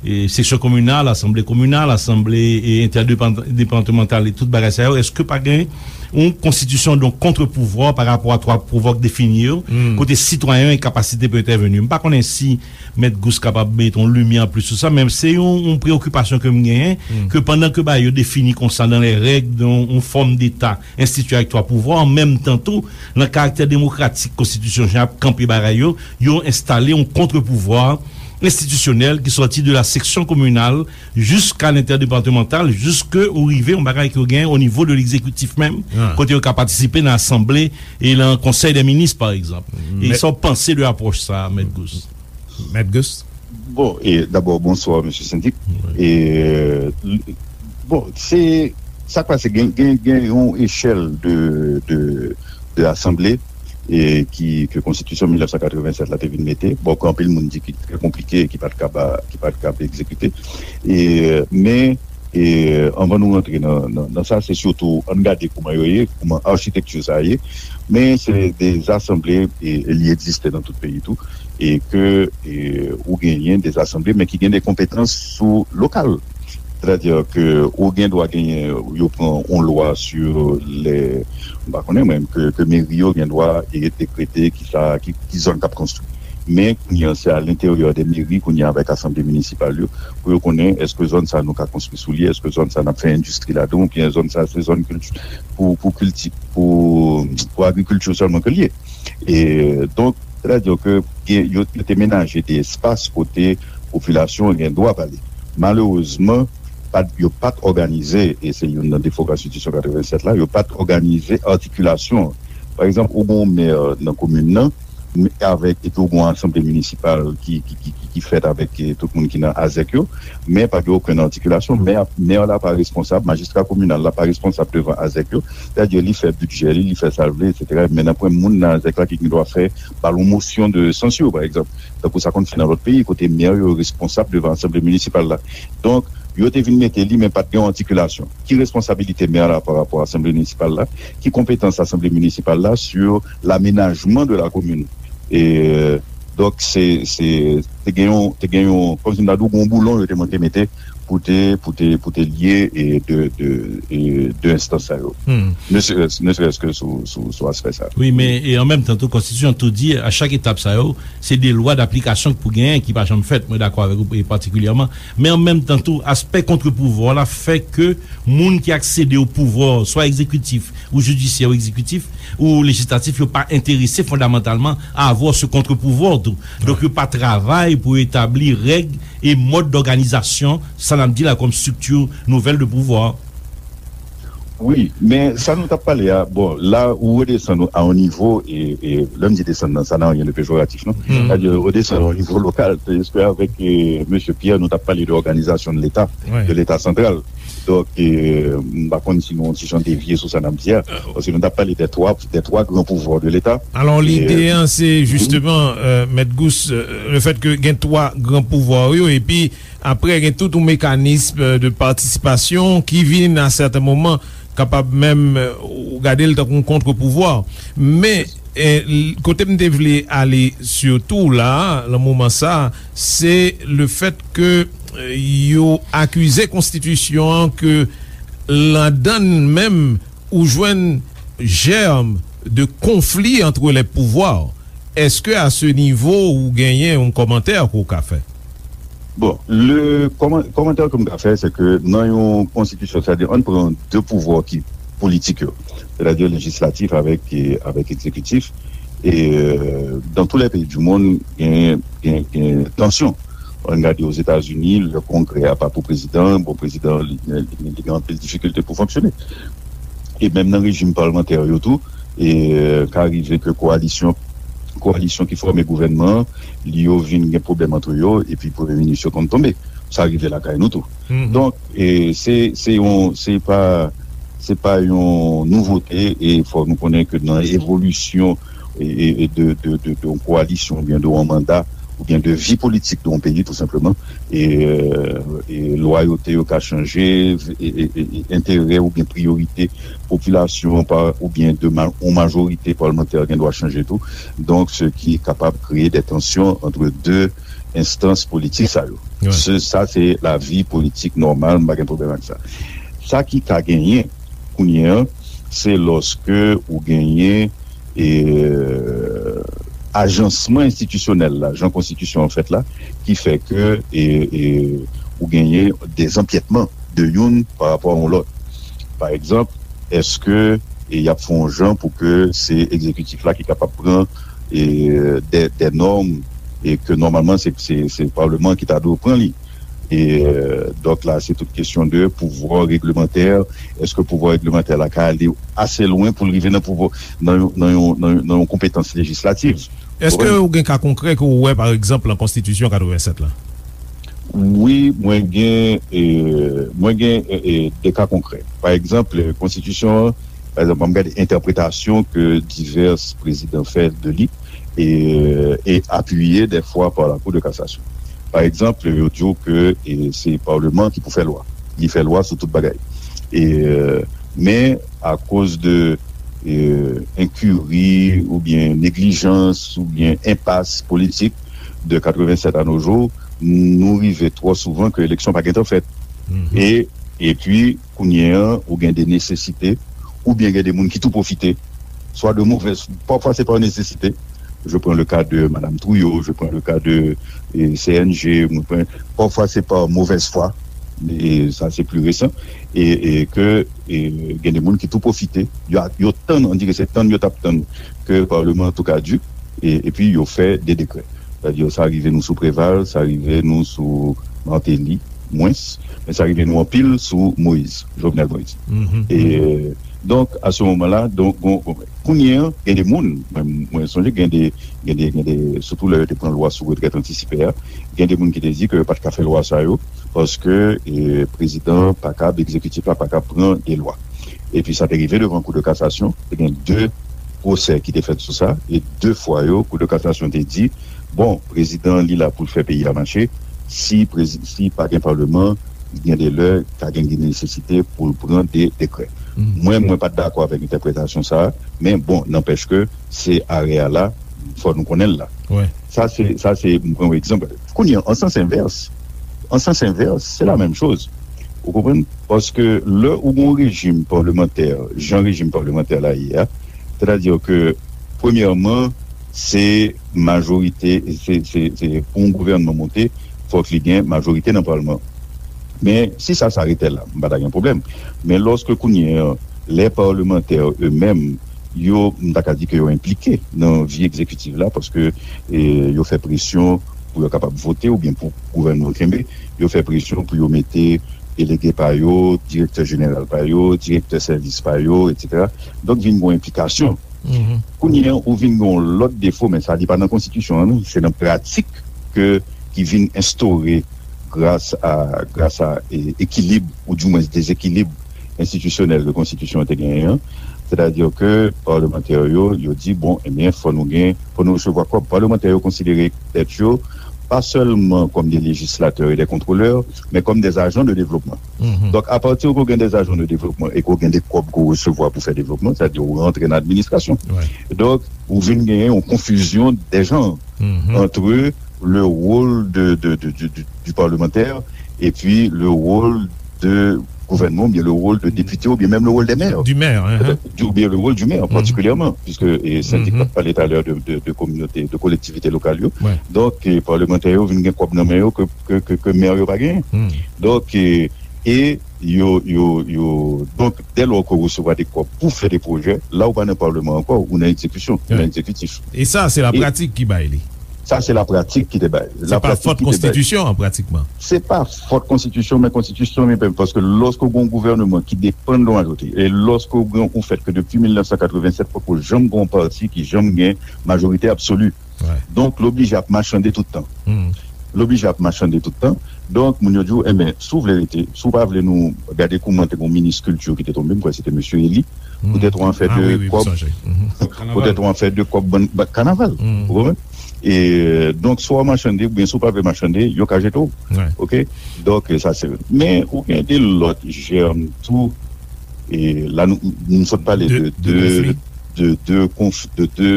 e, seksyon kominal, asanble kominal, asanble, e, entèdepatmantal e tout bagay sa yo? Èske pa gen yon konstitisyon, donk, kontrpouvwa pa rapò a twa pouvwa k defini yo, kote sitwayen yo gen kapasite pou entèveni? M pa konnen si Mèt Gous kapab mete yon limyè anplis sou sa, men se yon, yon preyokipasyon ke m genyen, ke pandan ke bagay yo defini konsa dans les règles, yon, yon fòm deta enstitiye avèk twa pouvwa, an menm tan tou, nan karaktè demokratik konstitisyon jan ap kanpe bagay yo, yo enstale yon kontrpouvwa enstitisyonèl ki sòti de la seksyon kominal jiska lentèdepatmantal, jiske ou rive yon bagay ke w gen o nivo de legzekitif menm, kote yo ka patisipe nan asanble e nan konsèy dè minis, pa egzanp. E sa w panse de apwòch sa a, Mèt Gous? Mèt Gous? Bon, e dabò, bonswa, mesye Sendik. E, bon, se, sa k pase, gen, gen, gen yon echèl de, de, de asanble, e ki, ke konstitisyon mil nèf san katrevennsèt la te vin mete. Bon, ke anpil moun di ki trè konplike, ki pa t kab, ki pa t kab egzekite. E, men, e, anvan nou rantre nan, nan, nan sa, se sitou, ann gade kouman yo ye, kouman achitekti sa ye. Men se de asanble, e, e li egziste nan tout peyi tou, e ke, e, ou genyen de asanble, men ki gen de konpetans sou lokal. Sètadi ke ou gen dwa genyen, yo pran yon lwa sou lè, m pa konnen mwen, ke, ke meri yo gen dwa, e, dekrete ki sa, ki, ki zòn k ap konstwi. Men kounye a, se a lenteryè de meri, kounye a, avèk asanble minisipal yo, pou yo konnen èske zòn sa nou ka konstwi sou li, èske zòn sa n ap fè endistri ladan, oubyen zòn sa se zòn kilti, pou, pou kilti, pou, pou agrikilti sèlman ke l ye. E, donk, sètadi ke gen, yo, yo te menaje de espas kote popilasyon an gen dwa pale. Malerezman, pa t, yo pa t òganize, e se youn nan defo konstitisyon katrevennsèt la, yo pa t òganize atikilasyon an. Pa egzanp, ou gen yon mè nan komin nan, men avèk, epi ou gen yon asanble minisipal ki, ki, ki, ki, ki fèt avèk, e, tout moun ki nan azèk yo, men pa gen okenn atikilasyon. Mè, mè la pa responsab, majistra kominal la pa responsab devan azèk yo. Sètadi li fè bidjè li, li fè sa l vle, etsetera. Men nanpwen moun nan azèk la ki gen dwa fè, ba l yon mosyon de sansyon, pa egzanp. Tankou sa konn fèt nan lòt peyi, kote mè yo responsab devan asanble minisipal la. Donk, yo te vin mete li, men pa t gen yon atikilasyon. Ki responsabilite mè la pa rapò a asanble minisipal la? Ki konpetans asanble minisipal la sur l'aménagement de la commune? E, donk, se, se, te gen yon, te gen yon, kòmsi m ta di w, yon boulon yo te monte mete pou te, pou te, pou te lye, e, de, de, e, de enstans sa yo. Ne serait-ce, ne serait-ce que sou, sou, sou aspè sa. Wi, men, e an menm tan tou, konstitisyon tou di, a chak etap sa yo, se de lwa daplikasyon k pou genyen ki pa janm fèt. Mwen dakò avèk ou, e patikilyèman. Men an menm tan tou, aspè kontrepouvwa la fè ke moun ki aksede o pouvwa, swa egzekitif ou jidisyè ou egzekitif, ou lejislatif yo pa enterese fondamantalman à avoir ce contre-pouvoir tou. Donk yo pa travay pou etabli règ e mòd dòganizasyon sa n ap di la kòm strikti nouvèl de pouvwa. Wi, men sa nou t ap pale a, bon, la ou redesann a yon nivo, e, e lè m di desann nan, sa nan anyen de pejoratif, non? Sa di redesann a yon nivo lokal, se avèk e, mesye Pierre, nou t ap pale de òganizasyon de Leta, de Leta santral. Donk, e, m pa konn si nou yon ti jan devye sou sa n ap di a, paske nou t ap pale de twa, de twa gran pouvwa de Leta. Alò, lide an, se jisteman, Mèt Gous, le fèt ke gen twa gran pouvwa yo, epi Apre, gen tout yon mekanis de patisipasyon ki vin a sèten moman kapab menm ou gade l tankou yon kontre-pouvwa. Men, kote m te vle ale sitou la, nan moman sa, se le fèt ke yo akize konstitisyon an ke ladan l menm ou jwenn jèm de konfli antre lè pouvwa. Èske a se nivo ou genyen yon kòmantè ke w ka fè? Bon, le kòmantè ke m ka fè, se ke nan yon konstitisyon, sètadi ann pran de pouvwa ki politik yo, sètadi lejislatif avèk, avèk egzekitif, e dans tous les pays du monde, gen, gen, gen tansyon. Ann gade Ozetazini, le Kongrè a pa pou prezidan, bon, prezidan, li, li, li gen anpil difikilte pou fonksyone. E menm nan rejim palmantè yo tou, e ka rive ke kowalisyon, kowalisyon ki fòme gouvènman an, li yo vin gen pwoblèm antre yo, epi premye minis yo konn tonbe. Sa rive lakay nou tou. Donk, e se, se yon, se pa, se pa yon nouvote, e fòk nou konnen ke nan evolisyon e, e, e de, de, de, de yon kowalisyon oubyen de yon manda oubyen de vi politik de yon peyi, tou senpleman, e, e lwayote yo ka chanje, e, e, e, e enterè oubyen priyorite popilasyon pa, oubyen de ma, yon majorite palmantè gen dwa chanje tou. Donk, se ki kapab kreye de tansyon antre de enstans politik sa yo. Se, sa se lavi politik nòmal, m pa gen pwoblèm ak sa. Sa ki ka genyen kounye an, se lòske ou genyen e, ajansman enstitisyonèl la, jan konstitisyon an fèt la, ki fè ke e, e, ou genyen dezanpyètman de youn pa rapò a yon lòt. Pa egzanp, èske e, y ap fè yon jan pou ke se egzekitif la ki kapab pran e, de, de nòm e ke nòmalman se, se, se palman ki ta dwe pran li? E, donk la, se tout kesyon de pouvwa reglemantè. Èske pouvwa reglemantè la ka ale ase lwen pou l rive nan pouvwa, nan yon, nan yon, nan yon, nan yon konpetans lejislatif? Èske ou gen ka konkrè ke w wè, pa egzanp, nan Konstitisyon katrevennsèt la? Wi, mwen gen, e, mwen gen e, e, de ka konkrè. Pa egzanp, konstitisyon an, pa egzanp, ann gade entèpretasyon ke divès prezidan fè de li, e, e apiye dèfwa pa la Cour de cassation. Pa egzanp, yo di w ke e, se palman ki pou fè lwa. Li fè lwa sou tout bagay. E, men, akoz de e, enkiri oubyen neglijans oubyen enpas politik de katrevennsèt à nos jours, nou rive twò souvan ke eleksyon pa gentan fèt. E, epi, kounye an, ou gen de nesesite, oubyen gen de moun ki tou pwofite, swa de movèz, pafwa se pa nesesite. Je prends le cas de Madame Trouillot, je prends le cas de e, C N G, mwen pran, pafwa se pa movèz fwa, e sa se pli resan, e, e ke e, gen de moun ki tou pwofite, yo, yo tann, on dirait se tann yo t ap tann ke palman an tou kaduk, e, epi yo fè de dekrè. Sètadi sa rive nou sou Preval, sa rive nou sou Martelly, mwens, men sa rive nou anpil sou Moïse, Jovenel Moïse. E, donk, a se moman la, donk, bon, bon, kounye an, gen de moun, mwen, mwen sonje gen de, gen de, gen de, sitou lè yo te pran lwa sou retrèt antisipe a, gen de moun ki te di ke yo pa t ka fè lwa sa yo, paske e, prezidan an pa kab, egzekitif la pa kab pran de lwa. Epi sa te rive devan Kou de kasasyon, te gen de pwosè ki te fèt sou sa, e de fwa yo, Kou de kasasyon te di, bon, prezidan an li la pou l fè peyi a mache, si prezi, si pa gen palman, gen de lè, ka gen nesesite pou l pran de dekrè. Mwen, mwen pa t dakò avèk entèpretasyon sa a, men bon, nanpèch ke se arè a la, fò nou konnen l la. Sa se, sa se, m pran yon egzanp. Kounye an, an sans envès, an sans envès, se la menm choz. Ou konprann? Paske lè ou gen yon rejim palmantè, jan rejim palmantè la ye a, sètadi ke, premyèman, se majorite, se, se, se, pou yon gouvènman monte, fòk li gen majorite nan palman. Men, si sa, sa rete la, m pa ta gen pwoblèm. Men lòske kounye an, lè palmantè yo menm, yo, m ta ka di ke yo enplike nan vi egzekitif la, paske, e, yo fè presyon pou yo kapab vote oubyen pou gouvènman yo kenbe, yo fè presyon pou yo mete delege pa yo, direktè jeneral pa yo, direktè sèvis pa yo, etsetera. Donk, vin gen yon enplikasyon. Kounye a, ou vin gen yon lòt defo, men sa, li pa nan konstitisyon an, non, se nan pratik ke, ki vin enstore gras a, gras a, e, ekilib, oudimwens dezekilib enstitisyonèl ke konstitisyon an te genyen an. Sètadi ke palmantè yo, yo di, bon, ebyen, fò nou gen, fò nou resevwa kòb. Palmantè yo konsidere tèt yo pa sèlman kòm de lejislatè e de kontwolè, men kòm de ajan de devlopman. Donk, apati ke w gen de ajan de devlopman e ke w gen de kòb ke w resevwa pou fè devlopman, sètadi ou rantre nan administrasyon. Donk, ou vin genyen yon konfizyon de janr entre le rôle de, de, de, de, de, du parlementaire et puis le rôle de gouvènman, oubyen le rôle de député, oubyen menm le rôle des maires. Du maire, hein. Peut-être, du, oubyen le rôle du maire, particulièrement, puisque, e, Sandy t ap pale talè de, de, de kominote, de kolektivite lokal yo. Donk, e, palmantè yo vin gen kòb nan men yo ke, ke, ke, ke mè yo pa genyen. Donk, e, e yo, yo, yo, donk, dè lò ke w resevwa de kòb pou fè de pwojè, la ou pa nan palman ankò, ou nan egzekisyon, ou nan egzekitif. E sa, se lapratik ki bay li. Sa, se lapratik ki te bay. Se pa fòt konstitisyon an, pratikman. Se pa fòt konstitisyon, men konstitisyon li menm, paske lòske w gen yon gouvènman ki depann de yon majorite, e lòske w gen yon fèt ke depi mil nèf san katrevennsèt, poko janm gen yon pati ki janm gen majorite absoli. Donk, l oblije ap machande tout tan. L oblije ap machande tout tan. Donk, moun yo di w, enben, si w vle rete, si w pa vle nou gade kouman te gen yon minis kilti ki te tonbe, m kwè se te mesye Elie, poutèt yon afè de kòb, poutèt yon afè de kòb bann, bann kanaval. Ou konprann? E, donk, si w machande, oubyen si w pa vle machande, yo ka jete w. Oke? Donk, sa se, men ou gen de lòt jèm tou. E la, nou, nou sot pale de, de, de, de konf-, de, de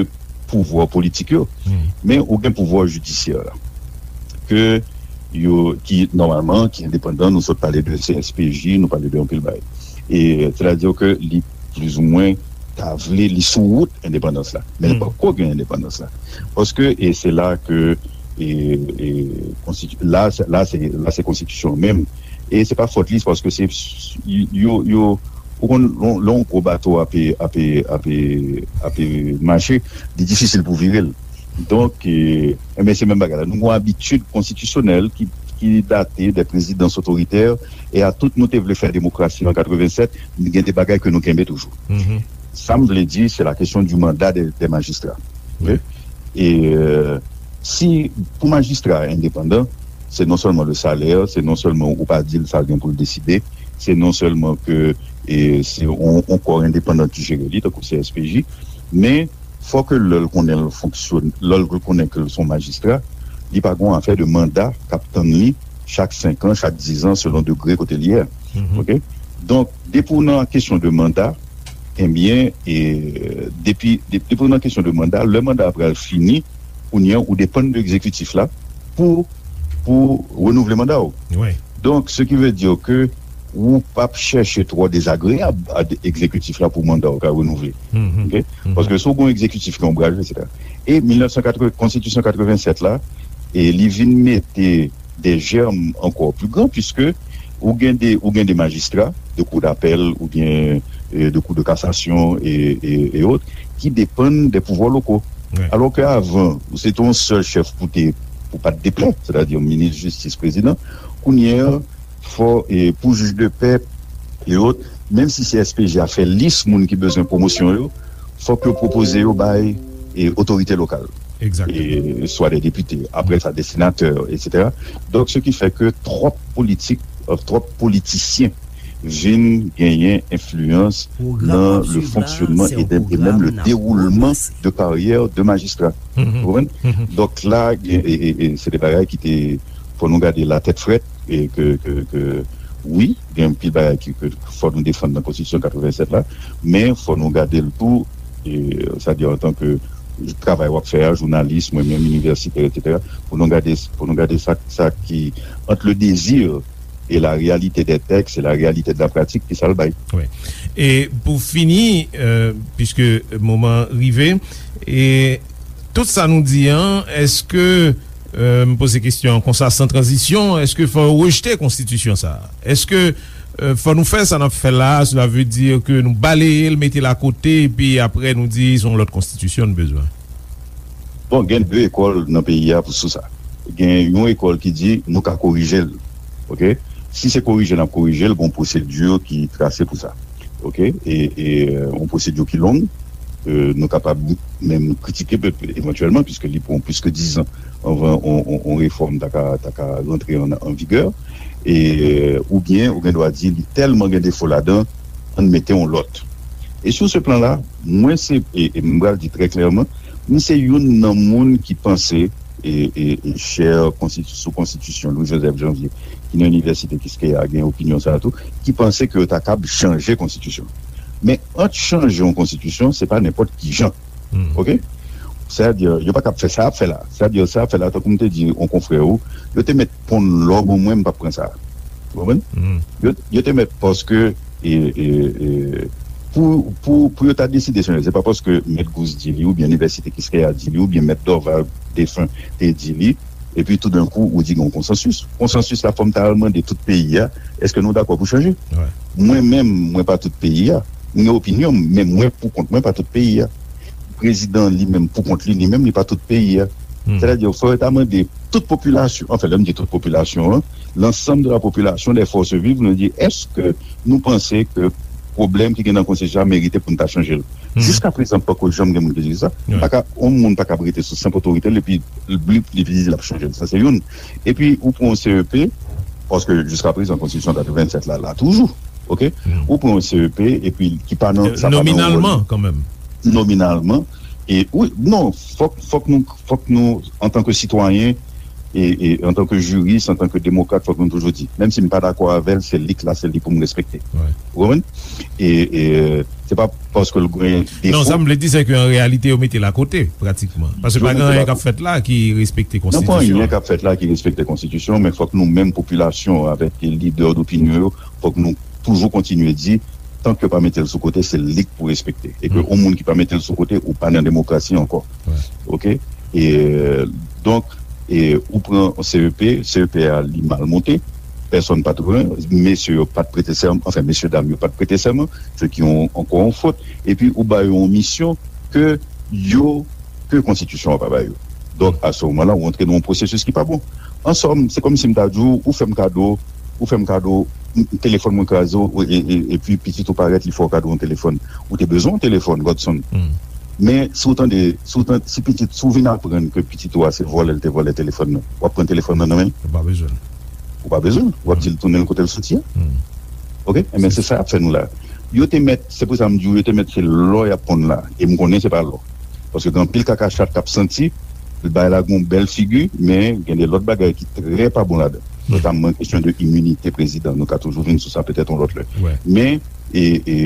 pouvwa politik yo. Men ou gen pouvwa jidisyè la. Ke yo, ki, nòmalman, ki endepandan, nou sot pale de C S P J, nou pale de anpil bagay. E, sètadi ke li plizoumwen ta vle, li sou wout endepandans la. Men li poko gen endepandans la. Paske, e se la ke, e, e, konstiti-, la, se, la, se, la, se konstitisyon menm. E se pa fòt li, se paske se, yo, yo, ou konn, lè yon gwo bato ape, ape, ape, ape mache, li difisil pou vire l. Donk, e, enben, se menm bagay la. Nou gen yon abitid konstitisyonèl ki, ki date de prezidans otoritè, e a tout nou te vle fè demokrasi an katrevennsèt, gen de bagay ke nou kenbe toujou. Sa m vle di, se la kesyon di manda de, de majistra. Oke? E, e, si, pou majistra endepandan, se non sèlman le salè, se non sèlman ou pa di l sa l gen pou l deside, se non sèlman ke, e, se yon, yon kò endepandan ki jere li, tankou C S P J, men fò ke lè l konnen l fonksyone, lè l konnen ke l se yon majistra, li pa gen yon afè de manda k ap tann li chak senk an, chak diz an, selon degre kote l ye a. Oke? Donk, depi w nan kesyon de manda, ebyen, e, depi, de-, depi w nan kesyon de manda, lè manda a pral fini, kounye a, ou depann de egzekitif la pou, pou renouvle manda w. Donk, ce qui veut dire que ou p ap chèche twò dezagreyab a de-, egzekitif la pou manda w ka renouvle. Oke? Paske si w gen yon egzekitif ki onbraje, etsetera. E mil nèf san katreven, konstitisyon katrevennsèt la, e li vin mete de jèm ankò pli gran, puiske ou gen de, ou gen de majistra de kou dapèl oubyen, e, de kou de kasasyon e, e, e ot, ki depann de pouvwa loko. Alò ke avan, ou se te yon sèl chèf pou te, pou pa t deplè, sètadi minis jistis, prezidan. Kounye a, fò, e, pou jij de pè e ot, menm si C S P J a fè lis moun ki bezwen pwomosyon yo, fòk yo pwopoze yo bay, e, otorite lokal. E, swa de depite, apre sa de senatè, etsetera. Donk, ce qui fait que twòp politik, e, twòp politisyen vin genyen enfliyans nan le fonksyonman e de, e menm le dewoulman de karyè de majistra. Ou konprann? Donk la, e, e, e, e se de bagay ki te, fò nou gade la tèt frèt, e ke, ke, ke, wi, gen anpil bagay ki, ke fò nou defann nan konstitisyon katrevennsèt la, men fò nou gade l tou, e, sètadi antanke travay w ap fè a, jounalis, mwen menm, inivèsitè, etsetera, pou nou gade, pou nou gade sa, sa ki, entre le désir et la réalité des textes et la réalité de la pratique, ki sa l bay. Wi. E pou fini, e, puiske moman rive, e tout sa nou di an, èske, e, m poze kesyon an konsa, san tranzisyon, èske fò yo rejte konstitisyon sa a? Èske Euh, fò nou fè sa n ap fè la, cela veut dire que nou baleye l, mete l akote, epi apre nou di se yon lòt konstitisyon n bezwen. Bon, gen de ekòl nan peyi a pou sou sa. Gen yon ekòl ki di nou ka korije l. Oke? Si se korije n ap korije l, gen yon pwosedi ki trase pou sa. Oke? E, e, euh, yon pwosedi ki long. Euh, nou kapab menm kritike pe-, evantyèlman, piske li pran plis ke dizan anvan on, on, on refòm ta ka, ta ka rantre an, an vigè. E, euh, oubyen, ou gen dwa di li tèlman gen defo ladan, ann mete yon lòt. E sou se plan la, mwen se, e, e m pral di trè klèman, mwen se youn nan moun ki panse, e, e, e chè konstiti-, sou konstitisyon Louis Joseph Janvier, ki nan Inivèsite Kiskeya, gen opinyon sa a tou, ki panse ke yo ta kab chanje konstitisyon. Men ant chanje yon konstitisyon, se pa nenpòt ki jan. Oke? Sètadi, yo pa kab fè sa y ap fè la. Sètadi, sa y ap fè la, tankou m te di yon konfrè ou, yo te mèt ponn lò ban mwen, m p ap pran sa. Ou konprann? Yo, yo te mèt paske, e, e, e, pou, pou, pou yo ta deside chanje, se pa paske Mèt Gous di li, oubyen Inivèsite Kiskeya di li, oubyen Mèt Dorval defen te di li, epi toudenkou, ou di gen yon konsansis. Konsansis la, fò m ta al mande tout peyi a, èske nou dakò pou chanje? Mwen menm, mwen pa tout peyi a. M gen opinyon m, men mwen pou kont mwen pa tout peyi a. Prezidan li menm pou kont li, li menm li pa tout peyi a. Sètadi, fò yo ta mande tout popilasyon, anfen, lè m di tout popilasyon an, l'ensemble de la population, des forces vives, nou di, èske nou panse ke pwoblèm ki gen nan konstitisyon an merite pou n ta chanje l? Jiska prezan, poko janm gen moun ki di sa. Pa ka, yon moun pa ka rete sou senp otorite l epi li, li di l ap chanje l. Sa se youn. Epi ou pran yon C E P, paske jiska prezan konstitisyon katrevennsèt la, la toujou. Oke? Ou pran yon C E P epi ki pa nan, sa pa nan yon ròl. Nominalman, kanmenm. Nominalman. E wi, non, fòk, fòk nou, fòk nou, antanke sitwayen, e, e antanke jiris, antanke demokrat, fòk nou toujou di, menm si m pa dakò avè l, se li k la, se li pou m respekte. Ou konprann? E, e se pa paske l gen defo. Non, sa m vle di, se ke an reyalite, yo mete l akote, pratikman. Paske pa gen anyen k ap fèt la ki respekte konstitisyon an. Non, pa anyen k ap fèt la ki respekte konstitisyon, men fòk nou menm popilasyon, avèk lidè dopinyon yo, fòk nou toujou kontinye di, tank yo pa mete l sou kote, se li k pou respekte. E ke yon moun ki pa mete l sou kote, ou pa nan demokrasi ankò. Oke? E, euh, donk, e, ou pran C E P, C E P a, li mal monte, pèsonn pa t renmen, mesye yo pa t prete sèman, anfen, mesye dam yo pa t prete sèman, se ki yon, ankò yon fot. Epi ou ba yo yon misyon ke yo, ke konstitisyon an pa ba yo. Donk, a se moman la, ou antre nan yon pwosesis ki pa bon. An sòm, se kòmsi m ta di w, ou fè m kado, ou fè m kado, m, telefòn mwen kraze, ou, e, e, epi pitit ou parèt, li fè w kado yon telefòn. Ou te bezwen yon telefòn, Godson. Men, si w tande, si w tande, si pitit, si w vin aprann ke pitit ou a se vòlè l te vòlè telefòn nan, w ap pran telefòn nan nan men l? Ou pa bezwen l. Ou pa bezwen l. W ap di l tounen l kote l soti a. Oke? Enben, se sa y ap fè nou la. Yo te mèt, se pou sa m di w, yo te mèt se lò y ap ponn la. E m konnen se pa lò. Paske gen anpil kaka chat k ap santi, bay la gon bèl figi, men gen de lòt bagay ki trè pa bon ladan. Notamman kesyon de iminite prezidan, nou ka toujou vin sou sa petèt yon lòt lè. Men, e, e,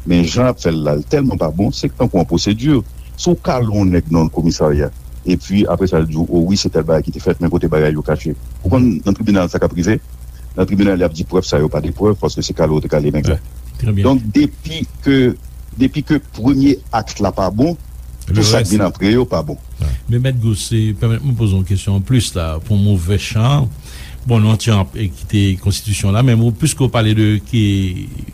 men jan y ap fè l la, l tèlman pa bon, se tankou yon pwosedi. Si w kale yon nèg nan yon komisarya, epi apre sa, l di w, o wi, se tèl bagay ki te fèt, men kote bagay yo kache. Ou konn nan tribinal sa k ap rive? Nan tribinal, y ap di prèv sa yo pa de prèv, paske se kale w te kale nèg la. Donk, depi ke, depi ke premye akt la pa bon, tout sa k vin apre yo pa bon. Men Mèt Gous, se, pèmèt mwen poze yon kesyon anplis la, pou movè chan. Bon, nou antre an, e, kite konstitisyon la, men ou, piske w pale de, ki,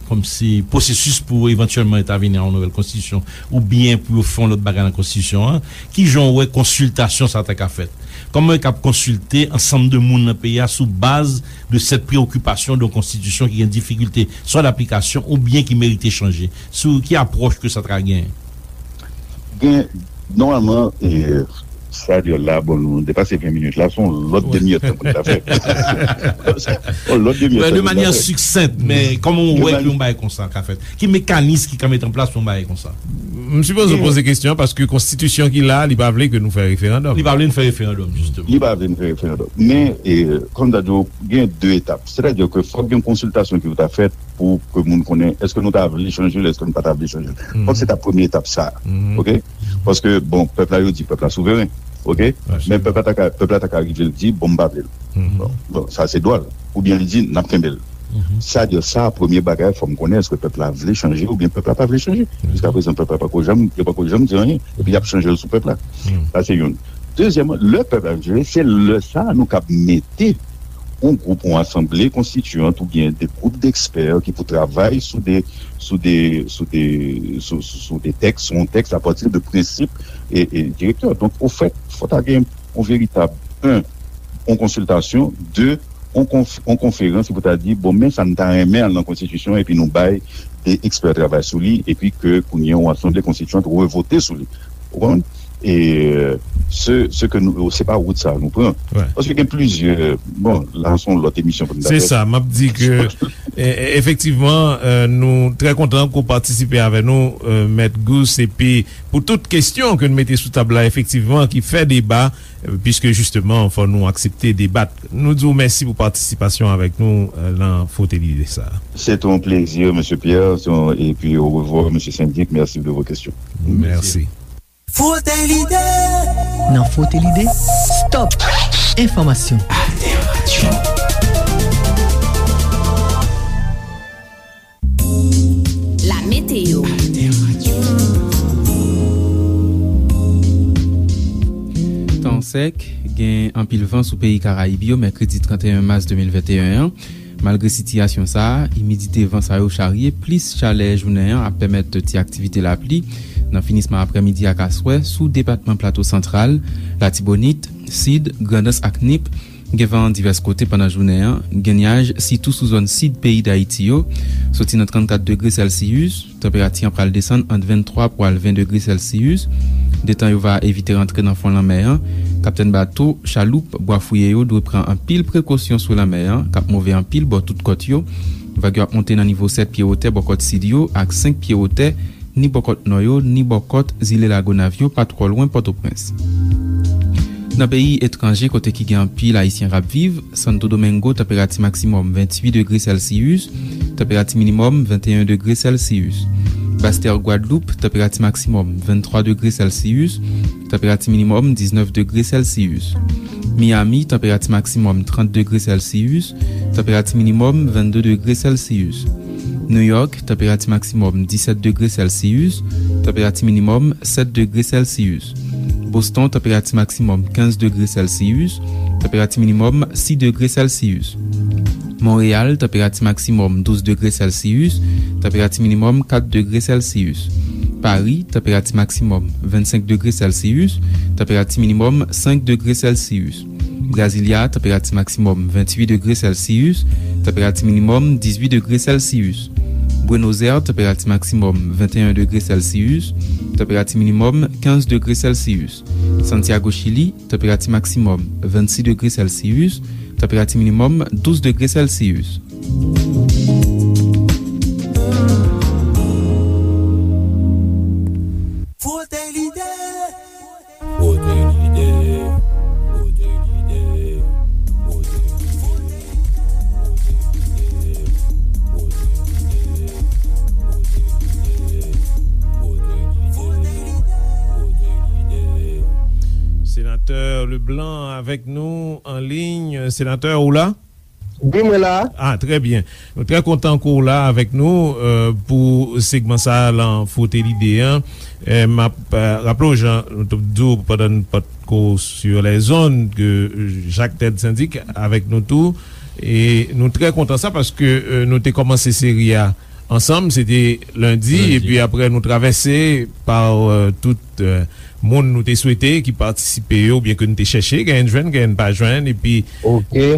kòmsi, pwosesis pou evantyèlman entèvini a yon nouvèl konstitisyon, oubyen pou yo fè yon lòt bagay nan konstitisyon an, kijan w wè konsiltasyon sa ta ka fèt? Kòman yo kab konsilte ansanm de moun nan peyi a sou baz de sèt preyokipasyon de yon konstitisyon ki gen difikilte swa daplikasyon oubyen ki merite chanje? Sou ki apwòch ke sa ta ka genyen? Gen, nòmalman, e, sa di la, bon, nou depase ven minit la, se yon lòt demi èdtan pou n ta fè. Yon lòt demi èdtan pou n ta fè. De manyè siksent, men kòman w wè ke yon bagay konsa ka fèt? Ki mekanis ki ka mete an plas pou yon bagay konsa? M sipoze w poze kesyon an paske konstitisyon ki la, li pa vle ke nou fè referandòm. Li pa vle n fè referandòm, jisteman. Li pa vle n fè referandòm. Men, e, kòm m ta di w, gen de etap. Sètadi ke fòk gen konsiltasyon ki pou ta fèt pou ke moun konnen èske nou ta vle chanje l, èske nou pa ta vle chanje l. Fòk se ta premye etap sa. Oke? Paske, bon, pèp la, yo di pèp la souveren. Oke? Men pèp la ta ka, pèp la ta ka rive l di, bon, m pa vle l. Bon, bon, sa se dwa l. Oubyen li di, n ap kenbe l. Sa di sa, premye bagay, fò m konnen èske pèp la vle chanje oubyen pèp la pa vle chanje. Jiska prezan, pèp la pako janm, yo pako janm di anyen. Epi y ap chanje l sou pèp la. Sa se youn. Dezyèmman, lè pèp la vle chanje, se lè sa a nou kab mete yon gwoup, yon asanble konstitiyant oubyen de gwoup dekspè ki pou travay sou de, sou de, sou de, sou, sou, sou de tèks, sou yon tèks apati de prensip e, e direktè. Donk, ofèt, fò ta gen yon veritab, en, yon konsiltasyon, de, yon konf-, yon konferans ki pou ta di, bon, men sa n ta renmen al nan konstitisyon, epi nou bay de ekspè travay sou li, epi ke kounye a yon asanble konstitiyant revote sou li. Ou konprann? E, se, se ke nou, se pa wout sa nou pran. Paske gen plizyè, bon, la se yon lòt emisyon pou nou ta fè. Se sa, m ap di ke, e, e, efektivman, e, nou trè kontan ke w patisipe avè nou, e, Mèt Gous, epi pou tout kesyon ke n mete sou tab la, efektivman, ki fè deba, e, piske jisteman, fò nou aksepte debat. Nou di w mèsi pou patisipasyon avèk nou, e, nan Frote Lide sa. Se te yon plezi, mesye Pierre, se yon, epi orevwa, mesye Sendik, merci de vos questions. Mèsi. Frote Lide. Nan Frote Lide, stop enfòmasyon. Alter Radio. La météo. Tan sèk, gen anpil van sou peyi Karayib yo, mèkredi trannteyen mas de mil venteyen an. Malgre sitiyasyon sa a, imidite van sa yo charye plis chalè jounen an ap pèmèt ti aktivite lapli nan finisman aprèmidi ak aswè sou depatman Plato Santral, Latibonit, Sid, Grandans ak Nip. Gen van divès kote pandan jounen an, gen nyaj sitou sou zòn sid peyi Dayiti yo, soti nan trannkat degre sèlsiyis, tanperati an pral desann ant venntwa pou al ven degre sèlsiyis. Detan yo va evite rantre nan fon lanmè an, kaptèn bato, chaloup, bwa fouye yo dwe pran anpil prekosyon sou lanmè an, k ap move anpil bò tout kòt yo. Vag yo ap monte nan nivo sèt pye wotè bò kòt sid yo ak senk pye wotè ni bò kòt nò yo, ni bò kòt zile Lagonav yo, pa twò lwen Pòtoprens. Nan peyi etranje, kote ki gen anpil Ayisyen k ap viv, Santo Domingo, tanperati maksimòm venntuit degre sèlsiyis, tanperati minimòm venteyen degre sèlsiyis. Bastè Gwadloup, tanperati maksimòm venntwa degre sèlsiyis, tanperati minimòm diznèf degre sèlsiyis. Miami, tanperati maksimòm trant degre sèlsiyis, tanperati minimòm vennde degre sèlsiyis. New York, tanperati maksimòm disèt degre sèlsiyis, tanperati minimòm sèt degre sèlsiyis. Boston, tanperati maksimòm kenz degre sèlsiyis, tanperati minimòm sis degre sèlsiyis. Monreyal, tanperati maksimòm douz degre sèlsiyis, tanperati minimòm kat degre sèlsiyis. Pari, tanperati maksimòm vennsenk degre sèlsiyis, tanperati minimòm senk degre sèlsiyis. Brasilia, tanperati maksimòm venntuit degre sèlsiyis, tanperati minimòm dizuit degre sèlsiyis. Buenos Aires, tanperati maksimòm venteyen degre sèlsiyis, tanperati minimòm kenz degre sèlsiyis. Santiago, Chili, tanperati maksimòm vennsis degre sèlsiyis, tanperati minimòm douz degre sèlsiyis. Frote lide. Frote lide. Frote lide. Frote lide. Senatè Leblanc avèk nou an liy. Senatè, ou la? Wi, mwen la. Ah, trè byen. Nou trè kontan ke w la avèk nou, euh, pou segman sa a lan Frote Lide an. Eh, m ap, euh, raple w, jan nou t ap di w pandan n pa t ko sur les ondes, ke Jacques Ted Syndic avèk nou tou. E nou trè kontan sa paske, euh, nou te kòmanse seri a ansanm, se te lendi, epi apre nou travèse pa, euh, tout, euh, moun nou te swete ki patisipe yo, oubyen ke nou te chèche, genyen n jwenn, genyen n pa jwenn, epi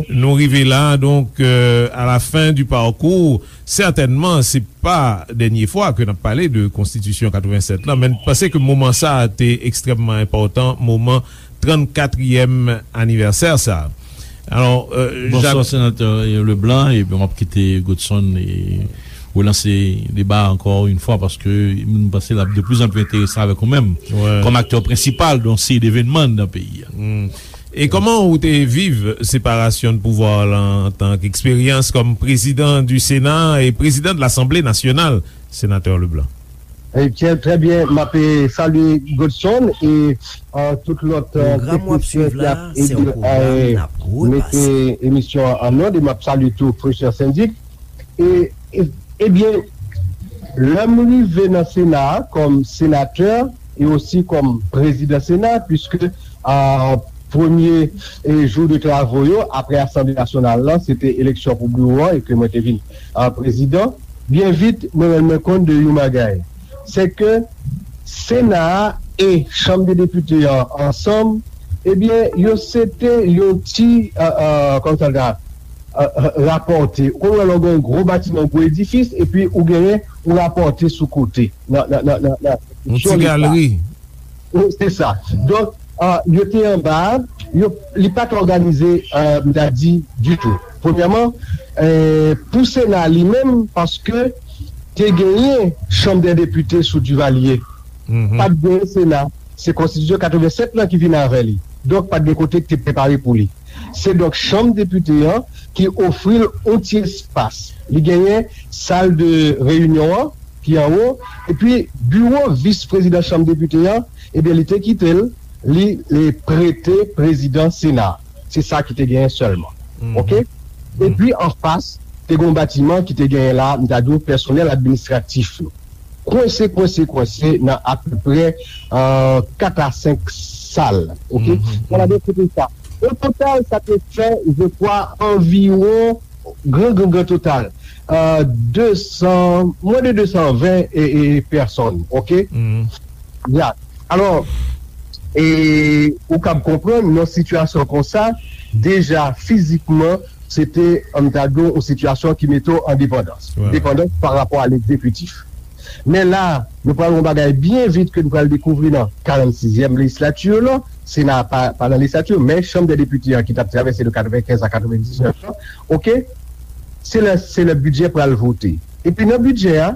nou rive la. Donk, euh, à la fin du parcours, sètènman, se pa dènye fwa ke n ap pale de konstitisyon katrevennsèt lan, men n panse ke moman sa a te ekstrèmman enpòtan, moman trannkatriyèm anivèsè sa a. Alò, euh, Jacques. Bonswa, Senatè Leblanc, epi m ap kite Godson e relanse deba a ankò yon fwa, paske m panse l ap de plus en plus enteresan avèk ou menm, kòm aktè prensipal de yon seri devènman nan peyi a. E kòman ou te viv separasyon de pouvwa la antanke eksperyans kòm prezidan du Sénat e prezidan de l'Assemblée nationale, Senatè Leblanc? Eh, trè, trè byen, m ap, eh, salye Godson e, eh, tout lòt, eh, teknisyen ki ap ede, eh, mete emisyon an, an nòd, e m ap salye tou frè Syndic. E, e, ebyen, lè m rive nan Sena a kòm senatè e osi kòm prezidan Sena, piske, eh, premye e, jou de travo yo, apre Asanble Nasyonal la, se te eleksyon pou biwo a, e ke mwen te vin a, prezidan. Byen vit, mwen rann mwen kont de yon bagay. Se ke Sena a e Chanm de Depite an ansanm, ebyen, yo se te yon ti, a, a, kòman sa ta, a, a, rapòte. Ou konn wè lè w gen yon gwo batiman, yon gwo edifis, epi ou genyen yon rapòte sou kote, nan, nan, nan, nan, nan konstriksyon li. Yon ti galeri. Wi, se sa. Donk, a, yo te anba, yo, li pa t òganize, a, m ta di, ditou. Premyèman, e, pou Sena li menm, paske te genyen Chanm dè Depite sou Divalye. Mhm. Pa t genyen Sena. Se konstitisyon katrevennsèt lan ki vin avè li. Donk, pa t gen kote ki te prepare pou li. Se donk Chanm Depite an ki ofri l yon ti espas. Li genyen sal de reyinyon an, ki anwo, epi biwo vis prezidan Chanm Depite an, ebyen, li te kite l, li, li prete prezidan Sena. Se sa ki te genyen sèlman. Mhm. Oke? Mhm. Epi, anfas, te gen yon batiman ki te genyen la, m ta di w, pèsonèl administratif yo. Kwense, kwense, kwense nan apeprè, euh, kat a senk sal. Oke? Mhm. Sa vle di, se te sa. O total, sa te fè, je crois, anviwon, gran, gran, gran total, euh, de san, mwens de de san ven e, e, pèsòn. Oke? Mhm. Ya. Alò, e, ou kab konprann, nan sitiyasyon konsa, deja fizikman, se te, an m ta di w, yon sitiyasyon ki mete w an depandans. Wi, wi. Depandans pa rapò a legzekitif. Men la, nou pral yon bagay byen vit ke nou pral dekouvri nan karannsizyèm lejislati lan. Sena pa, pa nan lejislati, men Chanm dè Depite an ki t ap travèse de katrevenkenz a katrevendiznèf lan, oke? Se lè, se lè bidjè pral vote. Epi nan bidjè a,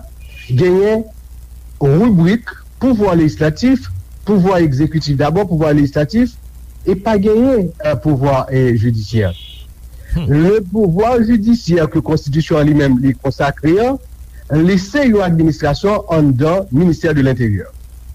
genyen ribrik pouvwa lejislatif, pouvwa egzekitif dabò, pouvwa lejislatif, e pa genyen, euh, pouvwa, euh, jidisyè. Hmm. Le pouvwa jidisyè ke konstitisyon an li menm li konsakre an, li se yon administrasyon anndan ministè de lenteryè.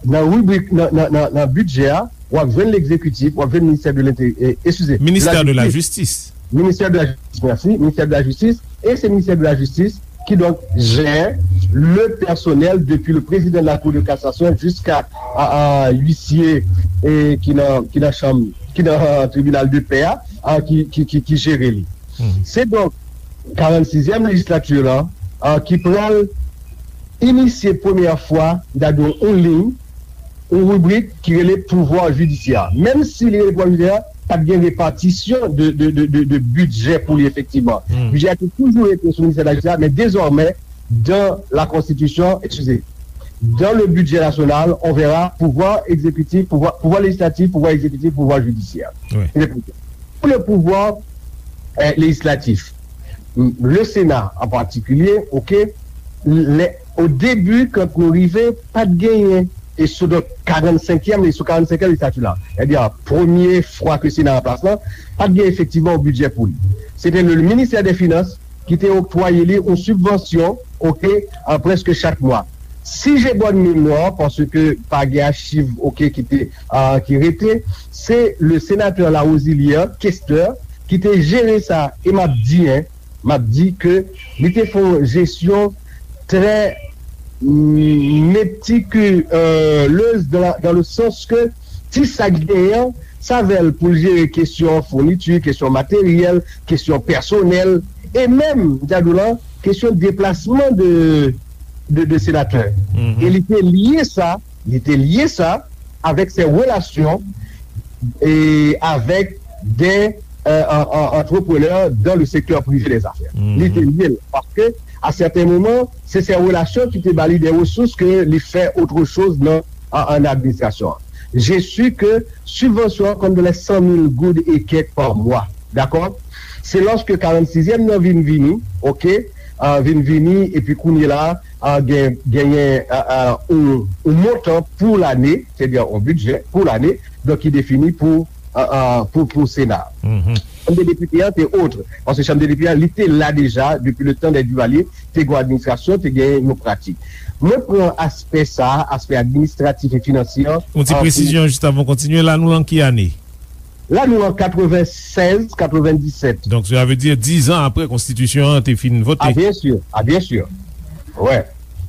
Nan ribrik, nan, nan, nan, nan bidjè a, w ap jwenn legzekitif, w ap jwenn ministè de lenteryè, eskize, Ministère de la Justice. Ministè de la Jistis, mèsi, Ministè de la Jistis, e se Ministè de la Jistis ki donk jè le pèsonèl depi le président de la Cour de cassation jiska a, a, huissier, e, ki nan, ki nan chanm, ki nan, euh, tribinal de pè a, a, ki, ki, ki, ki jere li. Hmm. Se donk karannsizyèm lejislati lan, a, ki pral inisye premyè fwa, m ta di w, yon liy, yon ribrik ki rele pouvwa jidisyè. Menm si li rele pouvwa jidisyè, pa t gen repatisyon de, de, de, de, de bidjè pou li efektivman. Hmm. Bidjè a te toujou rete sou ministè de la jistis, men dezòmè, dans la Constitution, excusez, dans le budget national, on verra pouvoir exécutif, pouvoir, pouvoir législatif, pouvoir exécutif, pouvoir judiciaire. Wi. Pou le pouvwa, eh, lejislatif, le Sena an patikilye, oke, lè, o debi, kan nou rive, pa t genyen, e sou donk karannsenkyèm, e sou karannsenkyèm lejislati la, sètadi premye fwa ke Sena an plas lan, pa t gen efektivman yon bidjè pou li. Se te le ministè dè finans ki te oktwaye li yon sibvansyon, oke, an prèske chak mwa. Si j'ai bonne mémoire, paske pa gen achiv, oke, ki te, ah, ki rete, se le sénateur Larosilière, kestè, ki te jere sa, e m ap di, en, m ap di ke li te fè yon jesyon trè, mm, meticuleuse dans la, dans le sens ke ti sa k genyen, sa avè l pou l jere kesyon founiti, kesyon materyèl, kesyon pèsonèl, e menm, m ta di w la, kesyon deplasman de, de, de senatè. Mhm. E li te lye sa, li te lye sa avèk ses relations et avec des, euh, en, en, entrepreneurs dans le secteur privé des affaires. Mhm. Li te lye l, paske, à certains moments, se ses relations ki te ba li des ressources ke li fè autre chose nan, an, an administrasyon an. Je suis que sibvansyon an konn de les cent mille goud et quelques par mois. Dakò? Se lòske karannsizyèm nan vin vini, oke, ah, vin vini, epi kounye la, ah, gen, genyen, ah, ah, yon, yon montan pou lane, sètadi yon bidjè pou lane, donk ki defini pou, ah, ah, pou, pou Sena. Mhm. Chanm de depite an te otre, paske chanm de depite an, li te la deja depi le tan dè Duvalier, te gen yon administrasyon, te gen yon pratik. Mwen pran aspè sa, aspè administratif e finansye an, yon ti, ah, presizyon jis avan w kontinye, la nou lan ki ane? La, nou an katrevennsèz, katrevendisèt. Donk, sa vle di diz an apre konstitisyon an te fin vote. Ah, byen si. Ah, byen si. Wè.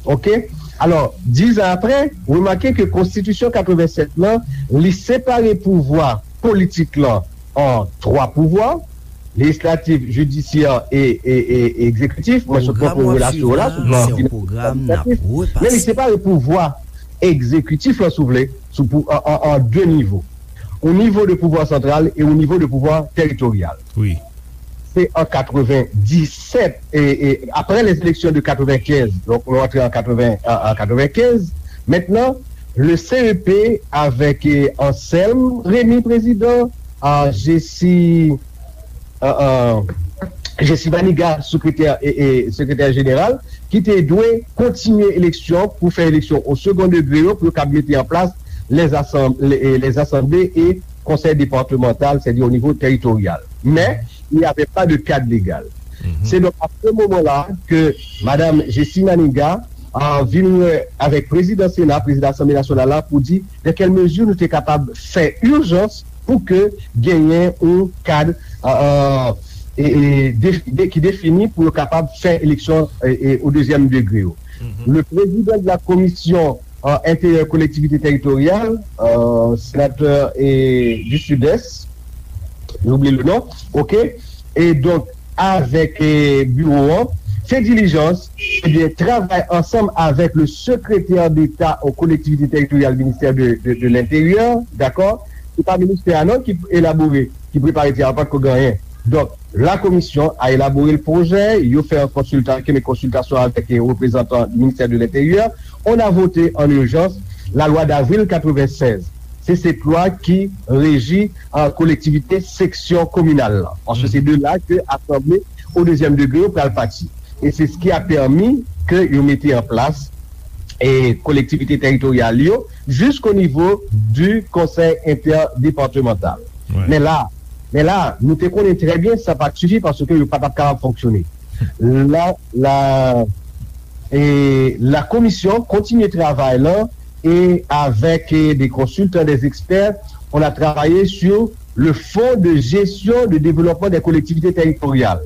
Oke. Alò, diz an apre, remake ke konstitisyon katrevensèt lan, li separe pouvwa politik lan an twa pouvwa, lejislatif, jidisyè e, e, e, e egzekitif. Mwen sot pran pou relasyon yo la, sou pwogram administratif. Men li separe pouvwa egzekitif lan, si w vle, sou pou, an, an, an de nivo. O nivo de pouvwa santral e o nivo de pouvwa teritoryal. Wi. Se an katrevenndisèt, e, e, apre les élections de katrevenkenz, donk nou antre an katreven, an, an katrevenkenz, mentnan, le C E P avèk, e, Anselme Rémy, prezidan, a, Jessie, a, a, Jessie Manigat, sekretè, e, e, sekretè jeneral, ki te dwe kontinye eleksyon pou fè eleksyon o second degré yo, pou yo kab mete an plas les asanm-, les, les assemblées et conseils départementaux, c'est-à-dire au niveau territorial. Mais il n'y avait pas de cadre légal. Se donk a se moman la ke Madam Jessie Manigat, a, vin wè avèk prezidan Sena, prezidan Asanble Nasyonal la, pou di nan kèl mezi nou te kapab fè ijans pou ke genyen yon kad, a, a, e, e, de, de, ki defini pou yo kapab fè eleksyon, e, e, o dezyèm degre yo. Le président de la commission, euh, intérieur, collectivité territoriale, euh, sénateur, e, du Sud-Est, j'oublie le nom, ok? E donk, avèk, e, biwo an, fè dilijans, ebyen, travay ansanm avèk le secrétaire d'État aux collectivités territoriales, ministè de, de, de l'Intérieur, dakò? Se pa ministè a non ki elabore, ki prepare ti a, pa t ko gen anyen. Donk, la commission a élaboré le projet, yo fè an konsilta-, ke men konsiltasyon avèk, e, reprezantan du ministère de l'Intérieur. On a voté en urgence la loi d'avril quatre-vingt-seize. Se, se lwa ki reji, a, kolektivite seksyon kominal lan. Paske se de la ke asanble o dezyèm degre yo pral pati. E se s ki a pèmi ke yo mete an plas, e, kolektivite teritoryal yo, jisko nivo du konsèy entèdepartemantal. Men la, men la, nou te konnen trè byen sa pa t sifi paske yo pa t ap kapab fonksyone. La, la, e, la komisyon kontinye travay lan e avèk, e, des consultants, des experts, on a travaillé sur le fonds de gestion de développement des collectivités territoriales,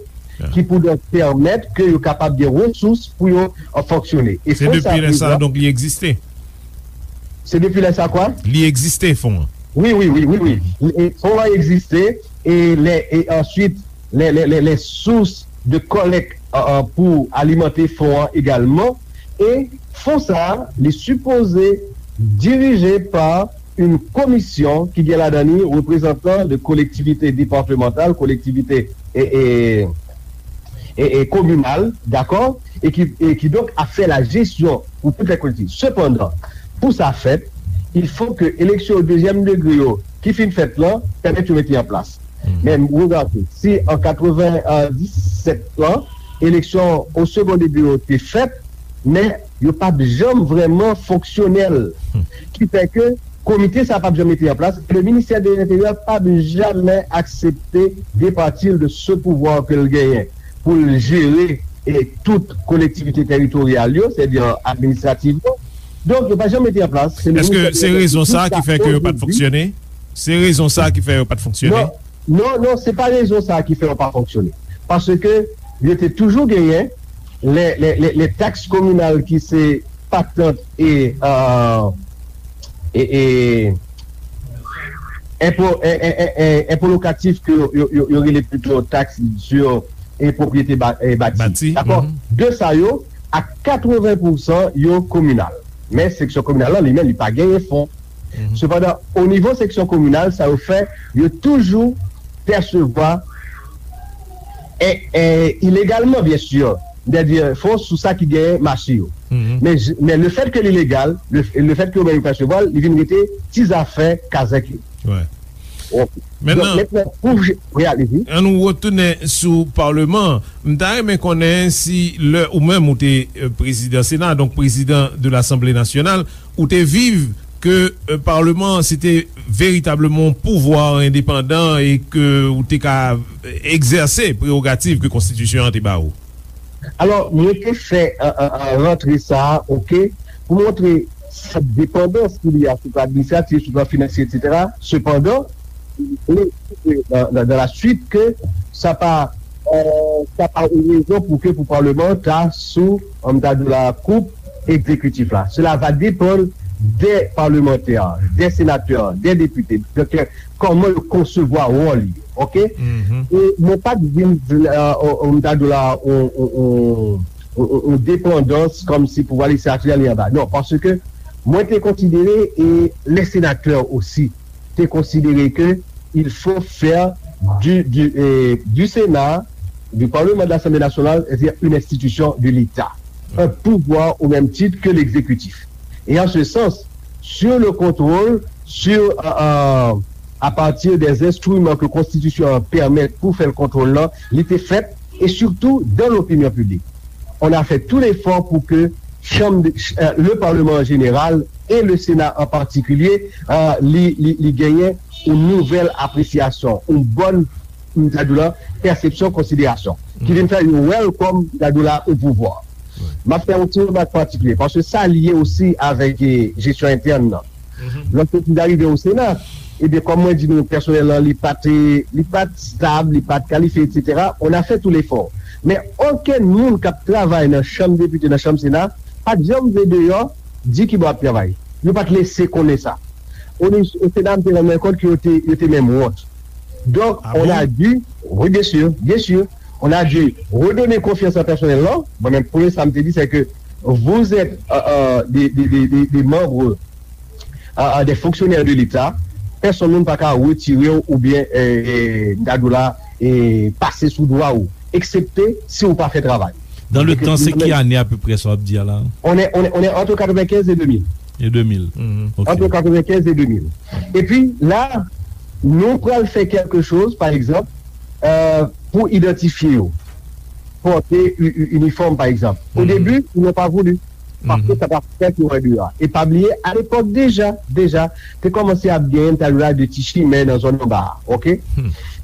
ki pou donk pèmèt ke yo kapab gen resous pou yo, e, fonksyone. E se fon sa depi lè sa, prezan, donk, li egziste? Se depi lè sa kwa? Li egziste, fon an. Wi, wi, wi, wi, wi. E fon an egziste, e lè, e answit, lè, lè, lè, lè sous de kòlèk, e, e, pou alimante fon an egalman. E fon sa a, li sipoze dirije pa yon komisyon ki gen ladan li reprezantan de kolektivite departemantal, kolektivite, e, e, e, e kominal, dakò? E ki, e ki donk ap fè la jesyon pou tout lè kolektivite. Sepandan, pou sa fèt, il faut que eleksyon dezyèm degre yo ki fin fèt lan, pèmèt yo mete an plas. Men ou gade, si an katrevenndisèt lan, eleksyon o second degré yo te fèt, men yo pa t janm vrèman fonksyonèl. Ki fè ke komite sa p ap janm mete an plas, e le ministè de l'Intérieur p ap jamè aksepte departi l de ce pouvoir ke l genyen pou l jere, e, tout kolektivite teritoryal yo, sètadi administrativman. Donk, yo pa janm mete an plas. Se le Èske ministè de se l'Intérieur rezon sa ki fè ke yo pa t fonksyone? Se rezon sa ki fè yo pa t fonksyone? Non, non, non, se pa rezon sa ki fè yo pa fonksyone. Paske yo te toujou genyen lè, lè, lè, lè taks kominal ki se patant e, e, e, e, enpo, e, e, e, e, enpo lokatif ke yo, yo, yo, yo rele plito taks sur, e, pwopriyete ba, e, bati. Bati, dakò? De sa yo, a katreven pousan yo kominal. Men seksyon kominal lan, li menm, li pa genyen fon. Sepandan, o nivo seksyon kominal, sa yo fè, yo toujou pèsevwa, e, e, ilegalman, byen si, sètadi fon sou sa ki genyen mache yo. Men, men le fèt ke li legal, le, le fèt ke yo menm yo pèsevwa l, li vin rete ti zafè kazèk yo. Wi. Ok. Donk, mentnan, pou je, wi, alezi. An nou retounen sou Palman an. M ta renmen konnen si lè ou menm ou te, e, prezidan Sena, donk prezidan de Lasanble Nasyonal, ou te viv ke, e, Palman an se te veritableman yon pouvwa endepandan e ke ou te ka egzèse prewogativ ke konstitisyon an te ba ou? Alò, mwen te fè, e, e, e, rantre sa a, ok, pou montre sèt depandans ki li a sou plan administratif, sou plan finansye, etsetera. Sepandan, li montre nan, nan, nan la suite ke sa pa, e, sa pa yon rezon pou ke pou Palman an ta sou, an ta di la, koup egzekitif la. Cela va dépendre des parlementaires, des sénateurs, des députés. Donk, euh, kòman yo konsevwa wòl yo, oke? E mwen pa t vin, euh, euh, m ta di w la, on, on, on, on, on depandans kòmsi pouvwa lejislatif la li anba. Non, paske mwen te konsidere, e les sénateurs aussi, te konsidere ke il faut faire du, du, euh, du Sénat, du Parlement de l'Assemblée nationale, c'est-à-dire une institution de l'État, un pouvoir au même titre que l'exécutif. Et en ce sens, sur le contrôle, sur, euh, euh, à partir des instruments que Constitution pèmet pou fè l kontwòl la, li te fèt, et surtout dans l'opinion publique. On a fait tout l'effort pour que Chambre de, euh, le Parlement en général et le Sénat en particulier, euh, li, li, li genyen yon nouvèl apresyasyon, yon bòn, m ta di w la, pèsepsyon, konsiderasyon, ki vin fè yo wè l kòm, m ta di w la, yon pouvwa. M ap fè yon ti remak patikilye, paske sa lye osi avèk, eh, jesyon entèn nan. Lòske m t arive o Sena, ebyen, kòm mwen di nou, pèsonèl lan, li pa t, li pa t stab, li pa t kalifye, etsetera, on a fait tout l'effort. Men okenn moun k ap travay nan chanm depite, nan chanm Sena, pa t janm vle deyò di ki bò y ap travay. Yo pa t lese konnen sa. O, o Sena, m te rann mwen kont ke yo te, yo te menm wont. Donc, on a dû, oui, bien sûr, bien sûr, on a dû redonner confiance à personnel là. Mwen menm, premye sa m te di, c'est que vous êtes, euh, euh, des, des, des, des, des membres, euh, euh, des fonctionnaires de l'État. Pèsonn moun pa ka retire w oubyen, euh, euh, m ta di w la, euh, pase sou dwa ou, eksepte si ou pa fè travay. Dans le temps, c'est ki ane apeprè sa w ap di a la? On est, on est, on est entre quatre-vingt-quinze et deux mille. Et deux mille. Entre quatre-vingt-quinze et deux mille. Epi la, nou pral fè quelque chose, par exemple, euh, pour identifier yo. Porter u- u- uniforme, par exemple. Au début, ils n'ont pas voulu. Parce que ça va faire qu'il y aura du A. Et pas oublier, à l'époque déjà, déjà, te kòmanse ap gen, m ta di w la, de ti chimen nan zòn anba a, oke?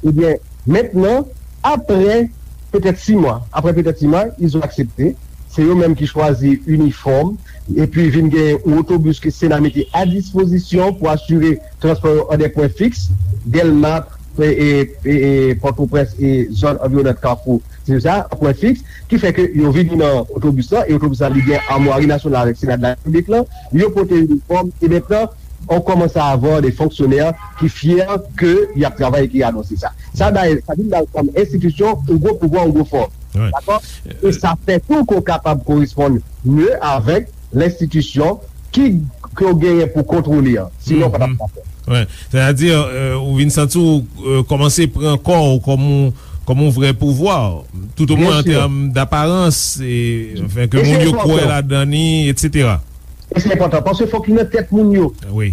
Ebyen, mentnan, apre petèt sis mwa, apre petèt sis mwa, ils ont accepté. Se yo menm ki chwazi inifòm, epi vin gen yon otobis ke Sena mete a dispozisyon pou asire transpò yo an de pwen fiks, Dèlma, e, e, e, e, Pòtoprens e zòn anviwonant Kafou, se sa, an pwen fiks, ki fè ke yo vini nan otobis la, e otobis la li gen amwari nasyonal avèk Sena de la Repiblik la, yo pote inifòm, e mentnan, on commence à avoir des fonctionnaires ki fyè ke y ap travay e ki anonse sa. Sa bay, sa vin bay kòm enstitisyon yon gwo pouvwa, yon gwo fòs. Dakò? E sa fè tou ke w kapab koresponn mye avèk lenstitisyon ki, ke w genyen pou kontwole an. Sinon, w pa t ap ka fè. Wi. Sètadi, euh, ou vin santi w, euh, kòmanse pran kò w kòm yon, kòm yon vrè pouvwa, toutomwen an tèm daparans, e, anfen, ke moun yo kwè ladan li, etsetera. E se enpòtan, paske fòk li nan tèt moun yo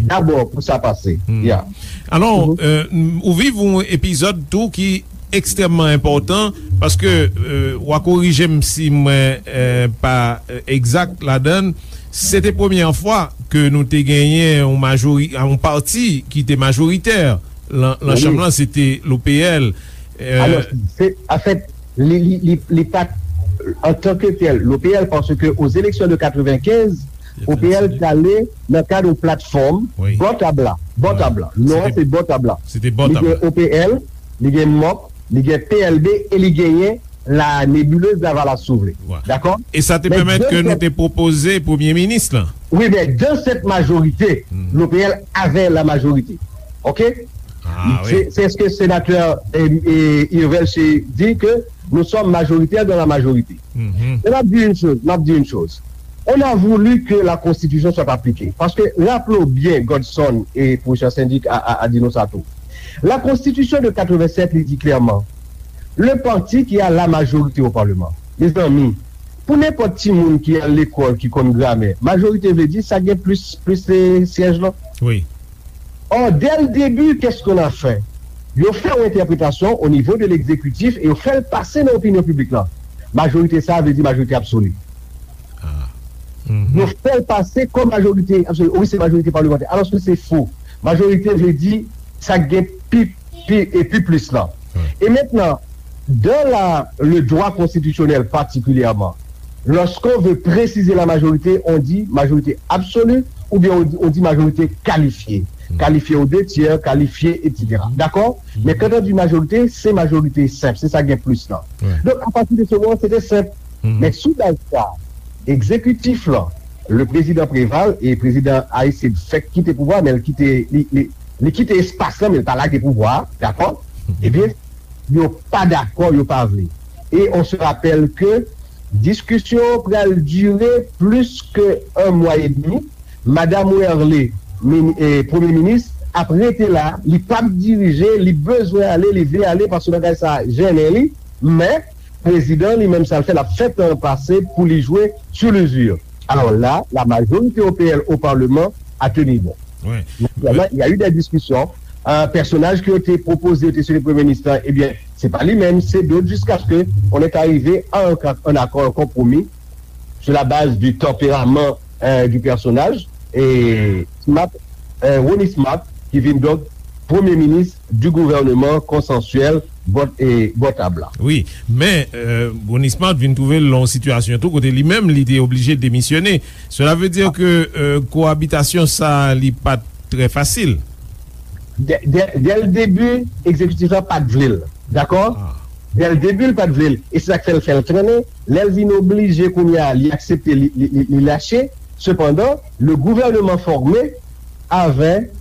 dabò pou sa pase. Ya. Alò, euh, ou viv yon epizòd tou ki ekstrèmman enpòtan, paske, euh, w a korije m si mwen, euh, pa, euh, egzak ladan l. Se te premyè fwa ke nou te genyen yon majori-, yon pati ki te majoritè lan, lan chanm lan, se te l'O P L. Euh, Alò, se, anfèt, li, li, li, li pa t antanke tèl, l'O P L, paske aux élections de quatre-vingt-quinze, O P L t ale nan kad yon platfòm bò tab la. Bò tab la. Non an se bò tab la. Li gen O P L, li gen mòk, li gen P L B e li genyen la nébuleuse Lavalas, si w vle. Dakò? E sa te pèmèt ke nou te pwopoze premye minis lan. Wi, mais dans cette majorité, l'O P L avait la majorité. OK? C'est, c'est ce que sénateur, eh, eh, Irvel se di ke nous sommes majoritaires dans la majorité. Men m ap di yon choz, m ap di yon choz. On a voulu que la constitution soit appliquée. Paske, raple w byen, Godson e pwofesè Sendik a, a, a di nou sa tou. La constitution de quatre-vingt-sept, li di klèman, le parti qui a la majorité au Parlement. Mezanmi, pou nenpòt timoun ki al lekòl, ki konn gramè, majorite vle di sa gen plis, plis, eh, syèj lan. Wi. Or, dès le début, qu'est-ce qu'on a fait? Yo fè yon entèpretasyon o nivo de legzekitif e yo fè l pase nan opinyon piblik lan. Majorite sa a vle di majorite absoli. Yo fè l pase kòm majorite absoli. Wi, se majorite palimantè. Alòske se fo. Majorite vle di sa k gen pi, pi, e pi plis lan. E mentnan, dans la, le droit constitutionnel particulièrement, lorsqu'on veut préciser la majorité, on dit majorité absolue ou bien on dit, on dit majorité qualifiée. Qualifiée aux deux tiers, qualifiée, et cetera. D'accord? Men quand on dit majorité, se majorite senp, se sa gen plis lan. Donk, apati de se moman, se te senp. Men sou baz sa, egzekitif lan, le prezidan Preval, e prezidan Aristide fèk kite pouvwa, men l kite, li, li, li kite espas lan, men l pa lage pouvwa a, dakò? Ebyen, yo pa dakò, yo pa vle. E on se rapèl ke diskisyon pral dire plis ke un mwa edmi. Madam Werlé, mini- eh, premye minis, ap rete la, li p ap dirije, li bezwen ale, li vle ale, paske bagay sa a jennen li, men prezidan li menm sa l fè, l ap fè tan pase pou li jwe sou lizir. Alors là, la majorité O P L au Parlement a tenu bon. Ouais. Naturellement, il y a eu des discussions. Euh, pèsonaj ke yo te pwopoze, yo te site premye minis la, ebyen, se pa li menm, se dòt, jiskaske on est arrivé à un, un accord, un compromis sur la base du tempérament euh, du personnage, et Smart, euh, Ronnie Smart, ki vin donk premye minis du gouvènman konsansyèl bò, e, bò tab la. Wi, men euh, Ronnie Smart vin twouve l nan yon sitiyasyon tou kote li menm li te oblije demisyone. Cela veut dire que euh, koabitasyon sa li pa t trè fasil. Dès, dès, dès le début, egzekitif la pa t vle l. Dakò? Dès le début, l pa t vle l. E se sa k fè l fè l trennen. Lè l vin oblije kounye a, li aksepte, li, li, li, li lache. Sepandan, le gouvernement formé avait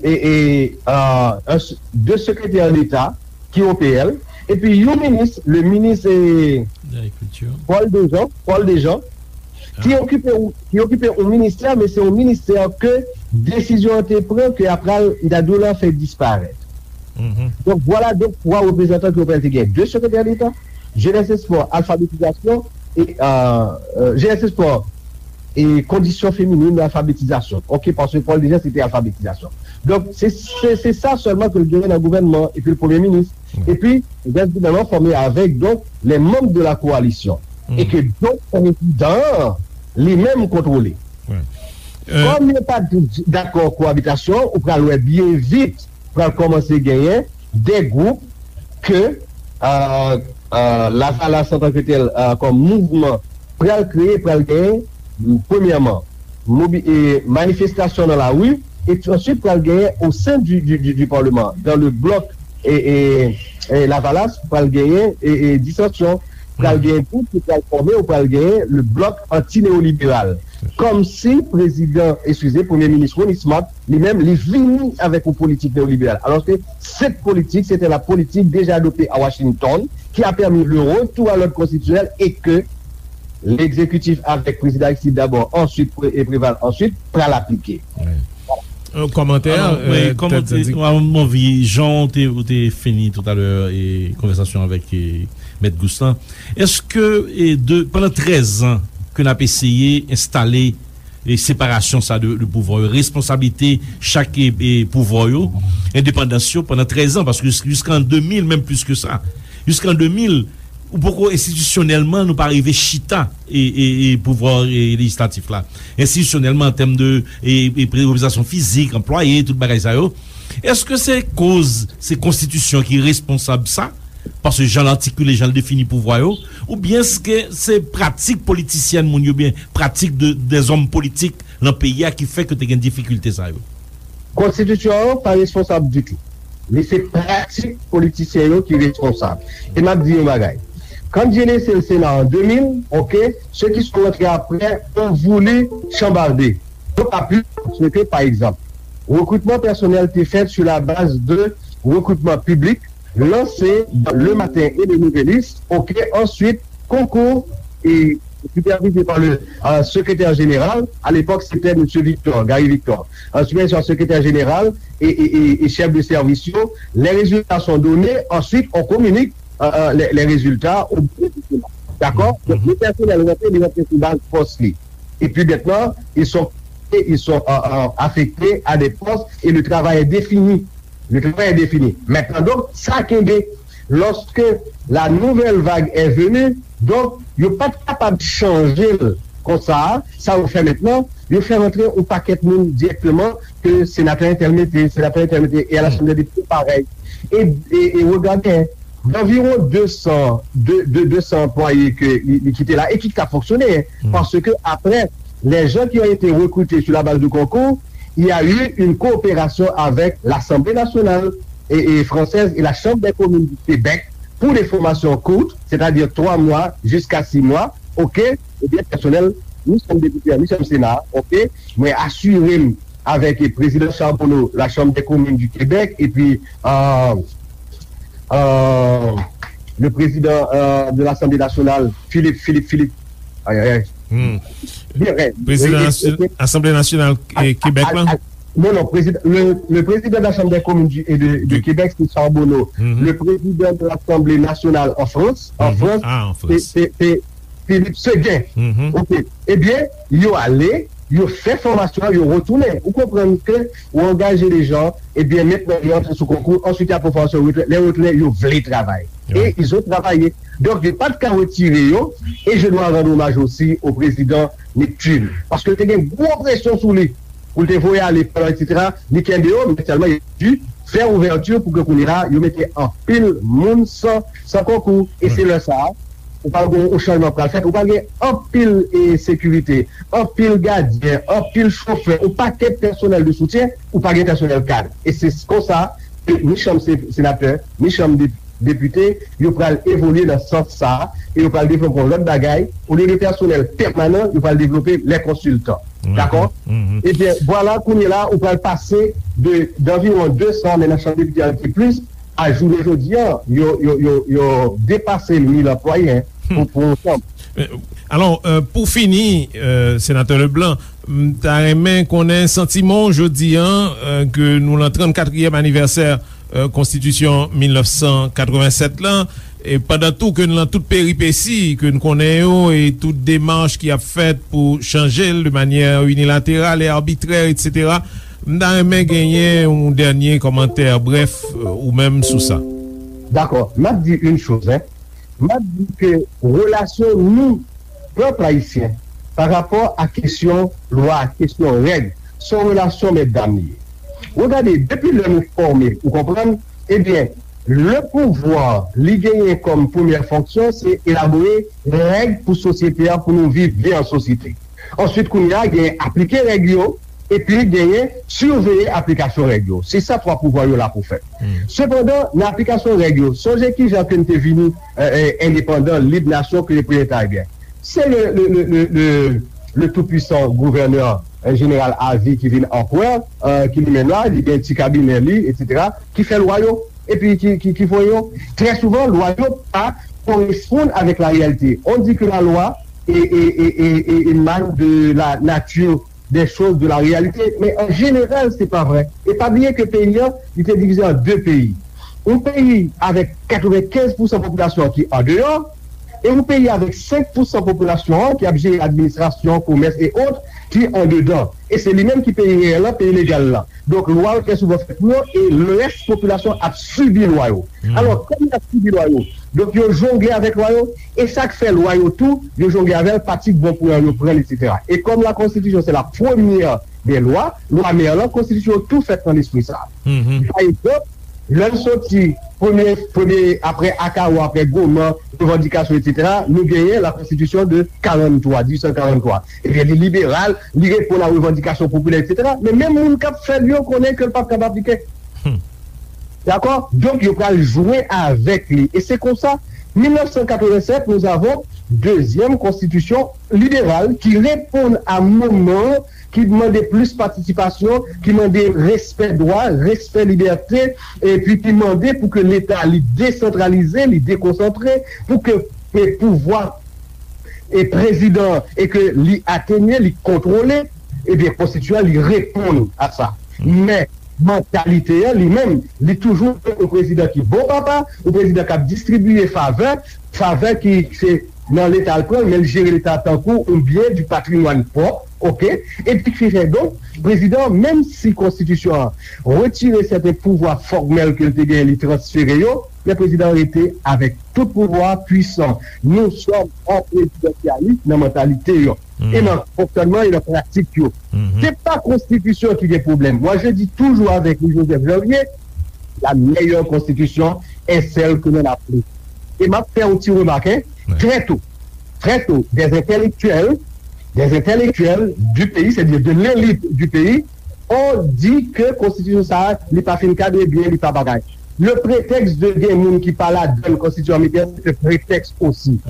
et, et, euh, un, deux secrétaires d'État ki O P L, epi yon minis, le minis eh, Agriculture. Paul Dejean, Paul Dejean, ki okipe ki okipe yon ministè, men se yon ministè ke desizyon an te pran ke apral Dadou la fè disparèt. Donk vwala donk twa reprezantan ke yo pral te gen. De sekretè deta, jenès espò, alfabetizasyon, e euh, euh, jenès espò, e kondisyon feminin, alfabetizasyon. Ok, paske Paul Dejean se te alfabetizasyon. Donk se se se sa sèlman ke l genyen nan gouvènman epi l premye minis. Epi gouvènman fòme avèk donk les membres de la coalition e ke donk prezidan an li menm kontwole. Kòm yo pa dakò koabitasyon, ou pral wè byen vit pral kòmanse genyen de gwoup ke euh, euh, Lavalas antanke tèl euh, kòm mouvman pral kreye, pral genyen premyèman mobi, e, manifestasyon nan lari, epi answit pral genyen au sein du, du, du, du parlement, dans le bloc e, e, e Lavalas, pral genyen e, e disansyon, pral genyen gwoup ki pral fòme, ou pral genyen le bloc anti-néolibéral. Kòmsi prezidan, eskize, premye minis Ronnie Smart, li menm, li vini avèk yon politik neyoliberal. Alòske cette politique, c'était la politique déjà adoptée à Washington, qui a permis le retour à l'ordre constitutionnel et que l'exécutif avec président Aristide d'abord, ensuite Pré- et Préval ensuite, pral aplike. Un commentaire Alors, oui, euh, comme Ted on dit, Zadig. Mwen anvi, jan w te, w te fini tout à l'heure e konvèsasyon avèk e, Mèt Gous lan, èske e, de, pandan trèz an ke n ap eseye enstale e separasyon sa de, de pouvwa yo, responsablite chak e, e pouvwa yo, endepandans yo pandan trèz an, paske jis- jiskan de mil, menm plis ke sa, jiskan de mil, ou poko enstitisyonèlman nou pa rive chita e, e, e pouvwa e, lejislatif la. Enstitisyonèlman an tèm de e, e, reprezantasyon fizik, anplwaye, tout bagay sa yo. Èske se koz se konstitisyon ki responsab sa? Paske jan l atikile, jan l defini pouvwa yo, oubyen èske se pratik politisyèn moun yo, byen pratik de, dèzòm politik nan peyi a ki fè ke te gen difikilte sa yo? Konstitisyon an pa responsab ditou. Li se pratik politisyen yo ki responsab. E m ap di yon bagay. Quand j'ai laissé le Sénat en deux mille, ok, ceux qui sont rentrés après ont voulu chambarder. D'autant plus que, par exemple, recrutement personnel était fait sur la base de recrutement public lancé dans Le Matin et Le Nouvelliste, ok, ensuite, concours et supervisé par le euh, secrétaire général. À l'époque, c'était M. Victor, Gary Victor. Euh, supervisé par le secrétaire général et, et, et, et chef de service. Les résultats sont donnés. Ensuite, on communique euh, euh, les, les résultats au bureau du Sénat. D'accord? Donc, le personnel rentré, il rentre sous base poste. Et puis maintenant, ils sont, ils sont euh, euh, affectés à des postes et le travail est défini. Le travail est défini. Maintenant, donc, sa kenbe, lorsque la nouvelle vague est venue, donc, yo pa t kapab chanje l konsa, sa yo fè mentnan, yo fè rantre yon pakèt moun dirèkteman ke senatè entèl mete, senatè entèl mete, e a Lasanble de Depite parèy. E, e, e regade, d'environ deux cents, de, de deux cents anplwaye ke li, li kite la e ki ka fonksyone, paske apre, les gens qui ont été recrutés sur la base du concours, il y a eu une coopération avec l'Assemblée nationale et, et française et la Chambre des communes du Québec pour des formations courtes, c'est-à-dire trois mois jusqu'à six mois, ok, eh bien, personnel ni chanm depite a, ni chanm sena a, oke? Mwen asire m avèk prezidan Charbonneau, la Chambre des communes du Québec, epi euh, euh, le président euh, de l'Assemblée nationale, Philippe, Philippe, Philippe. Ay, ay, ay. Hmm. Bien, ouais. Prezidan Asanble Nasyonal Kebèk la? Non, non, président, le, le président de la Chambre des communes du, et de, de Québec, c'est Charbonneau. Le président de l'Assemblée nationale en France, en France, c'est, c'est, c'est Philippe Séguin. OK. Ebyen, yo ale, yo fè fòmasyon, yo retounen. Ou konprann ke ou angaje de jan, ebyen, mentnan yo antre sou konkou, answit y ap fè fòmasyon, yo retounen. Lè yo retounen, yo vle travay. E ils ont travaillé. Donk, yo pa t ka retire yo, e je dois rendre hommage aussi au président Neptune. Paske te gen gwo presyon sou li pou l te voye ale, etsetera. Li kenbe yo, men sèlman, il a dû fè ouvèti pou ke kounye a, yo mete anpil moun san, san konkou. E se lè sa a, ou pral gen yon chanjman pral fèt, ou pral gen anpil e, sekirite, anpil gadyen, anpil chofè, yon pakèt pèsonèl de soutyen, ou pa gen pèsonèl kad. E se konsa, ni chanm se, senatè, ni chanm de, depite, yo pral evolye nan sans sa a, e yo pral devlope yon lòt bagay, olye de pèsonèl pèmanan, yo pral devlope lè konsiltan. Dakò? Ebyen, vwala, kounye la, ou pral pase de, d'anviwon de san, men nan chanm depite a, ki plis, a jounen jodi a, yo, yo, yo, yo depase mil anplwaye, hein, pou, pou yon chanm. Alò, euh, pou fini, euh, Senatè Leblanc, m ta renmen konnen santiman w jodi a, euh, ke nou lan trannkatriyèm anivèsè, euh, Konstitisyon mil nèf san katrevennsèt lan, e pandan tou ke n lan tout peripesi ke n konnen yo, e tout demach ki ap fèt pou chanje l de manyè inilateral e arbitrè, etsetera, m ta renmen genyen yon dènye kòmantè brèf, euh, ou menm sou sa. Dakò, m ap di yon choz, hein. M ap di ke relasyon nou, pèp ayisyen, pa rapò a kesyon lwa, kesyon règ, se yon relasyon mètdam li ye. Ou gade, depi lè nou fòme, ou konprann, ebyen, le pouvwa li genyen kòm premyè fonksyon, se elabore règ pou sosyete a, pou nou viv byen an sosyete. Answit, kounye a, genyen aplike règ yo, epi genyen siveye aplikasyon règ yo. Se sa twa pouvwa yo la pou fè. Sepandan, nan aplikasyon règ yo, sonje kijan ke n te vini, euh, euh, endepandan, lib, nasyon, ke le premye Karibyen. Se le, le, le, le, le, le tou pwisan gouvènè, euh, jeneral avi ki vin anperè, euh, ki li menm la, li gen ti kabinè li, etsetera, ki fè lwa yo, epi ki, ki, ki voye yo. Trè souvan, lwa yo pa koresponn avèk la reyalite. On dit que la loi é, é, é, é, é, émane de la nature des choses, de la réalité. Men an jeneral, se pa vrè. E pa bliye ke peyi an, li te divize an de peyi. Yon peyi avèk katrevenkenz pousan popilasyon an ki andeyò, e yon peyi avèk senk pousan popilasyon an ki ap jere administrasyon, komès e ot, ki andedan. E se li menm ki peyi reyèl lan, peyi legal lan. Donk, lwa yo trè souvan fèt pou yo, e lès popilasyon ap sibi lwa yo. Alò, kòm y ap sibi lwa yo, donk yo jongle avèk lwa yo, e sa k fè lwa yo tou, yo jongle avè l, pati k bon pou yo, yo pran l, etsetera. E kòm la Constitution, c'est la première des lois, lwa mè lan, konstitisyon yo tou fèt nan lespri sa. Pa egzanp, lè n soti premye, premye, apre Akao, apre Goman, revandikasyon, etsetera, nou genyen la Constitution de quarante-trois, dix-huit cent quarante-trois. Ebyen, li liberal, li reponn a revandikasyon popilè, etsetera. Men menm moun k ap fè l yo konnen ke l p ap kab aplike. Dakò? Donk, yo pral jwe avèk li. E se konsa, mil nèf san katrevennsèt, nous avons deuxième constitution libérale qui répond à moman ki mande plis patisipasyon, ki mande respè dwa, respè libète, epi ki mande pou ke Leta li desantralize, li dekonsantre, pou ke, ke pouvwa e prezidan e ke li atenye, li kontwole, ebyen, konstitiyan li reponn a sa. Men, mantalite an li menm, li toujou yon prezidan ki bon papa, yon prezidan k ap distribiye favè, favè ki se nan Leta l pran l, men l jere Leta tankou yon byen du patrimoine pwòp, oke? Epi ki fè donk, prezidan an, menm si konstitisyon an retire sèten pouvwa fòmèl ke l te genyen, li transfere yo, men prezidan an rete avèk tout pouvwa pwisan. Nous sommes en présidentialisme nan mantalite yo. E nan fonksyònman e nan pratik yo. Se pa konstitisyon ki gen pwoblèm. Moi, je dis toujours avec Louis Joseph Janvier, la meilleure constitution est celle que l'on applique. E m ap fè yon ti remak, hein, très tôt, très tôt, des intellectuels, des intellectuels du pays, c'est-à-dire de l'élite du pays, ont dit que konstitisyon sa a, li pa fin kadre byen, li pa bagay. Le prétexte de gen moun ki pa ladan konstitisyon ameriken, se te prétexte aussi.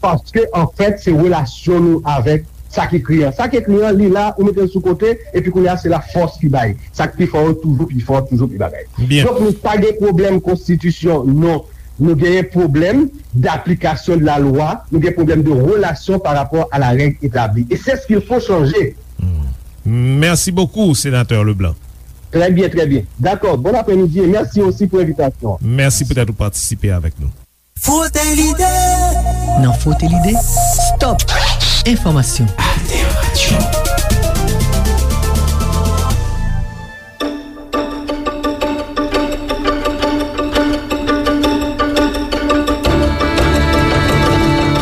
Paske, an fèt, se relasyon nou avèk sa k ekri an. Sa k ekri an, li la, ou mete l sou kote, epi kounye a, se la fòs ki bay. Sa k pi fò yo toujou pi fò, toujou pi bagay. Byen. Donk, nou pa gen pwoblèm konstitisyon, non. Nou genyen pwoblèm d'application de la loi, nou gen pwoblèm de relation par rapport à la règle établie. Et c'est ce qu'il faut changer. Hmm. Merci beaucoup, Sénateur Leblanc. Très bien, très bien. D'accord. Bon après-midi et merci aussi pour l'invitation. Mèsi poutèt ou patisipe avèk nou. Frote lide. Nan Frote lide, stop enfòmasyon. Alter Radio.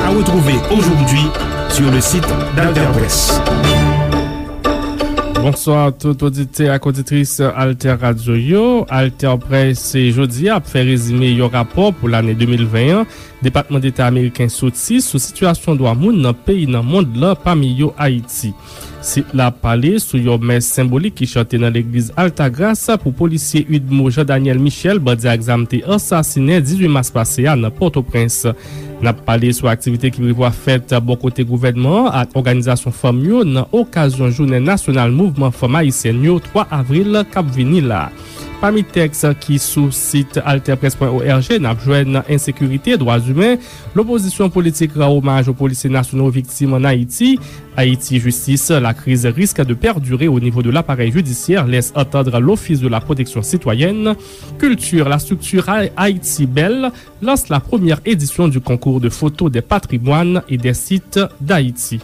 À retrouver aujourd'hui sur le site d'Alter Presse. Bonswa tout oditè ak oditris Alter Radio yo. Alter Presse jodi a ap fè rezime yon rapò pou lane de mil ven an Depatman Deta ameriken soti sou sitiyasyon dwa moun nan peyi nan mond lan, pami yo Ayiti. Sit la ap pale sou yon mès senbolik ki chante nan legliz Altagrace pou polisye UDMO Jean Daniel Michel, bandi ak zam te ansasinen dizuit mas pase a nan Pòtoprens. N ap pale sou aktivite ki prevwa fèt bò kote gouvènman an ak òganizasyon fanm yo nan okazyon jounen nasyonal mouvman fanm ayisyèn yo twa avril k ap vini la. Pami tèks ki sou sit alter presse pwen org, n ap jwenn ensekirite, dwa imen, lopozisyon politik rann omaj o polisye nasyonal viktim ann Ayiti, Ayiti jistis, la crise risque de perdurer au niveau de l'appareil judiciaire, laisse entendre l'Office de la protection citoyenne, culture, la structure Haïti Belle lance la première édition du concours de photos des patrimoines et des sites d'Haïti.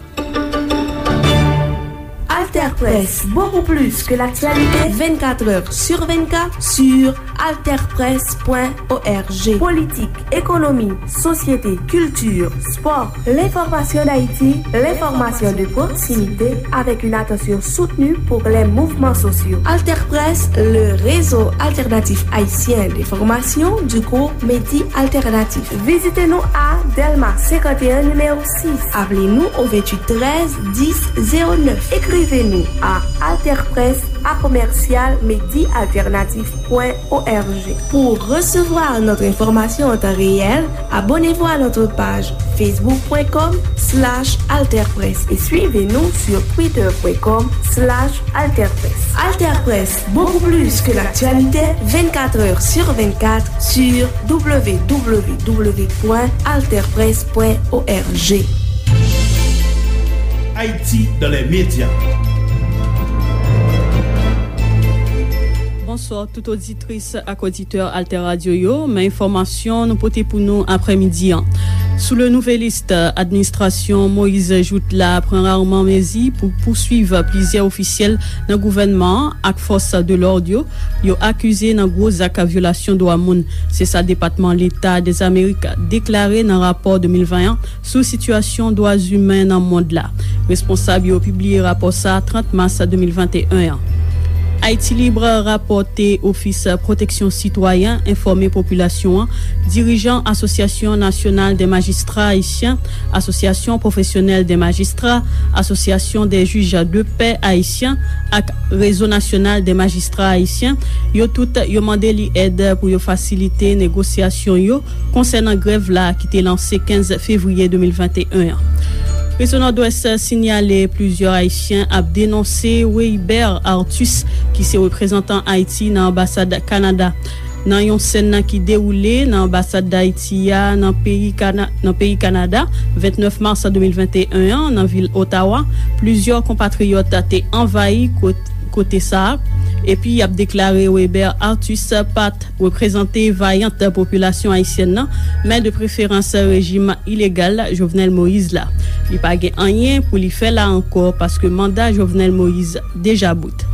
Alter Presse, beaucoup plus que l'actualité, vingt-quatre heures sur vingt-quatre sur alter presse point org. Politique, économie, société, culture, sport, l'information d'Haïti, l'information de proximité avec une attention soutenue pour les mouvements sociaux. Alter Presse, le réseau alternatif haïtien d'information du groupe Medi Alternatif. Vizite nou a Dèlma senkant e en, nimewo sis. Aple nou o venntuit trèz dis zewo nèf. Ekrive nou a alterpresse a komèsyal medi alternatif pwen org. Pour recevoir notre information en temps réel, abonnez-vous à notre page facebook point com slash alterpresse et suivez-nous sur twitter point com slash alterpresse. Alter Presse, beaucoup plus que l'actualité, vingt-quatre heures sur vingt-quatre sur w w w point alter presse point org. Haïti dans les médias. Bonswa, tout oditris ak oditè Alter Radio yo. Men enfòmasyon nou pote pou nou aprèmidi an. Sous le Nouvelliste, administrasyon Moïse Jouthe la pran raman mezi pou pouswiv plizyè ofisyèl nan gouvènman an ak fòs de lòd yo, yo akize nan gwo zak vyolasyon dwa moun. Se sa Depatman Leta Dèzamerik deklare nan rapò de mil ven an sou sitiyasyon dwa imen nan mond la. Responsab yo pibliye rapò sa a trant mas de mil venteyen an. Haïti Libre rapòte Ofis Pwoteksyon Sitwayen enfòme popilasyon an, dirijan Asosyasyon Nasyonal dè Majistra Ayisyen, Asosyasyon Pwofesyonèl dè Majistra, Asosyasyon dè Jij de Pè Ayisyen ak Rezo Nasyonal dè Majistra Ayisyen, yo tout yo mande li èd pou yo fasilite negosyasyon yo konsènan grèv la ki te lanse kenz fevriye de mil venteyen an. Rezo Nòdwès sinyale plizyè Ayisyen ap denonse Weibert Arthus, ki se reprezantan Ayiti nan anbasad Kanada. Nan yon sèn ki dewoule nan anbasad Dayiti a nan peyi Kana-, nan peyi Kanada, vennèf mas de mil venteyen an, nan vil Ottawa, plizyè konpatriyòt te anvayi kot-, kote sa a, epi y ap deklare Weber Arthus pa t reprezante vayant popilasyon ayisyèn nan, men de preferans rejim ilegal Jovenel Moïse la. Li pa gen anyen pou li fè la ankò paske manda Jovenel Moïse deja bout.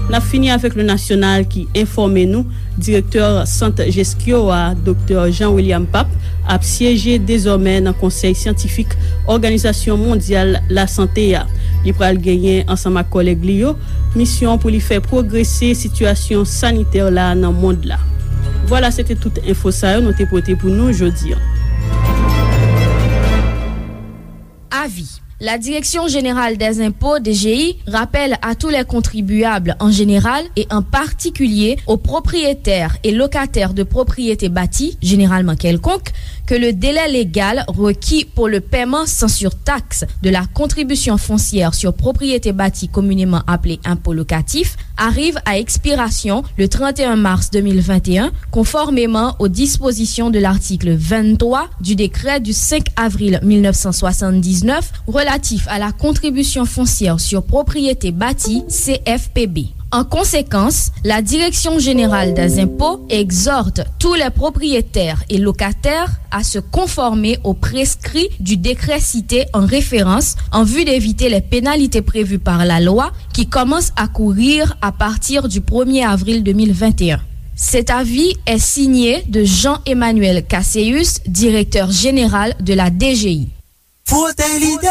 N ap fini avèk Le National ki enfòme nou, direktè Sant Jeskyo a, Doktè Jean William Pape, ap syeje dezòmè nan Konsèy Syantifik Òganizasyon Mondyal Lasante a. Li pral genyen, ansanm ak kòlèg li yo, misyon pou li fè pwogrese sitiyasyon sanitè la nan mond la. Vwala, se te tout enfo sa yo nou te pote pou nou jodi an. Avi. La Direction Générale des Impôts, D G I, rappelle à tous les contribuables en général et en particulier aux propriétaires et locataires de propriétés bâties, généralement quelconques, que le délai légal requis pour le paiement sans surtaxe de la contribution foncière sur propriété bâtie communément appelée impôt locatif arrive à expiration le trente et un mars deux mille vingt et un, conformément aux dispositions de l'article vingt-trois du décret du cinq avril mille neuf cent soixante-dix-neuf relatif à la contribution foncière sur propriété bâtie, C F P B. En conséquence, la Direction générale des impôts exhorte tous les propriétaires et locataires à se conformer aux prescrits du décret cité en référence en vue d'éviter les pénalités prévues par la loi qui commencent à courir à partir du premier avril deux mille vingt et un. Cet avis est signé de Jean-Emmanuel Casséus, directeur général de la D G I. Frote l'idée.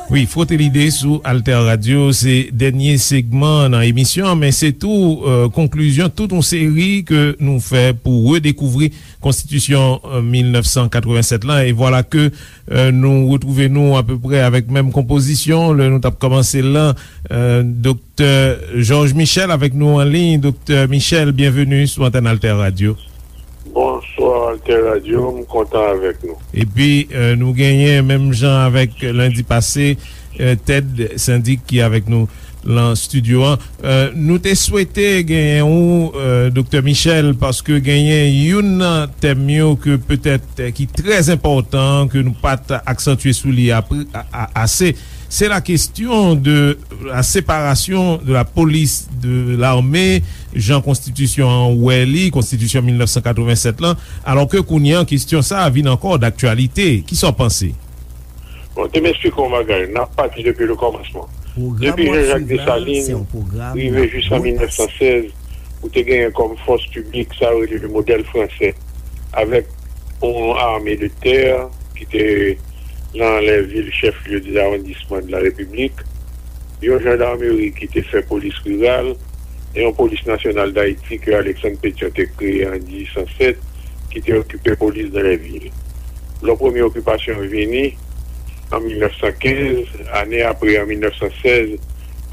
Wi, Frote Lide sou Alter Radio, se dènye segman nan emisyon an, men se tou, euh, konklizyon tout yon seri ke nou fè pou redekouvri Konstitisyon, euh, mil nèf san katrevennsèt lan. E vwala ke, euh, nou retwouve nou apeprè avèk menm konpozisyon lè nou t ap kòmanse l lan. Euh, Doktè Georges Michel avèk nou an liy. Doktè Michel, byenveni sou antèn Alter Radio. Bonswa, Alter Radio, m kontan avèk nou. Epi, euh, nou genyen, menm jan avèk lendi pase, euh, Ted Syndic ki avèk nou lan estidyo an. Euh, nou te swete genyen ou, euh, Doktè Michel, paske genyen youn nan tèm yo ke petèt, euh, ki trè enpòtan, ke nou pa t aksantye sou li apre, a, a, ase. Se la kesyon de la separasyon de la polis de lame, jan konstitisyon an wè li, konstitisyon mil nèf san katrevennsèt lan, alò ke kounye an kesyon sa a vin ankò daktyalite. Kisa w panse? Bon, te m esplike w yon bagay. N ap pati depi le kòmansman. Depi Jean-Jacques Dessalines rive jis an mil nèf san sèz, ou te genyen kòm fòs piblik sa yo rele le modèl fransè, avèk yon ame de tè ki te nan lè vil chèf lye de lawondisman de la Repiblik, yon jandarmeri ki te fè polis riral, e yon polis nasyonal Dayiti ke Alexandre Pétion te kreye an dizuit san sèt, ki te okipe polis dan lè vil. Lò premye okipasyon yo vini, an mil nèf san kenz, ane apre, an mil nèf san sèz,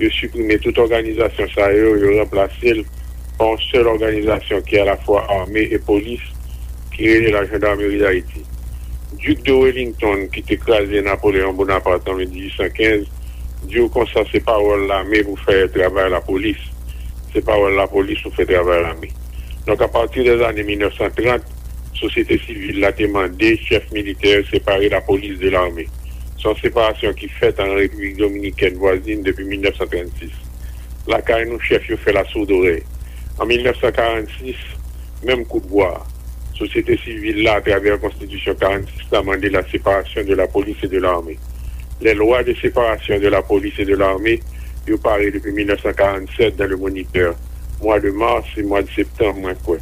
yo siprime tout òganizasyon sa yo, yo ranplase l pa yon sèl òganizasyon ki alafwa ame e polis, ki rele la Gendarmerie d'Haïti. Duc de Wellington, ki te kraze Napoléon Bonaparte an dizuit san kenz, di w konsa se pawòl lame pou fè travay lapolis. Se pawòl lapolis pou fè travay lame. Donk, apati dèzane mil nèf san trant, sosyete sivil la te mande chèf militè separe lapolis de lame. Se yon separasyon ki fèt an Repiblik Dominikèn vwazin depi mil nèf san trannsis. Lakay nou, chèf yo fè lasoudorèy. An mil nèf san karannsis, menm kout bwa a, sosyete sivil la, atravè konstitisyon karannsis la, mande la séparation de la police et de l'armée. Les lois de séparation de la police et de l'armée, yo pare depi mil nèf san karannsèt dans le Moniteur, mwa de mas e mwa de septanm, mwen kwè.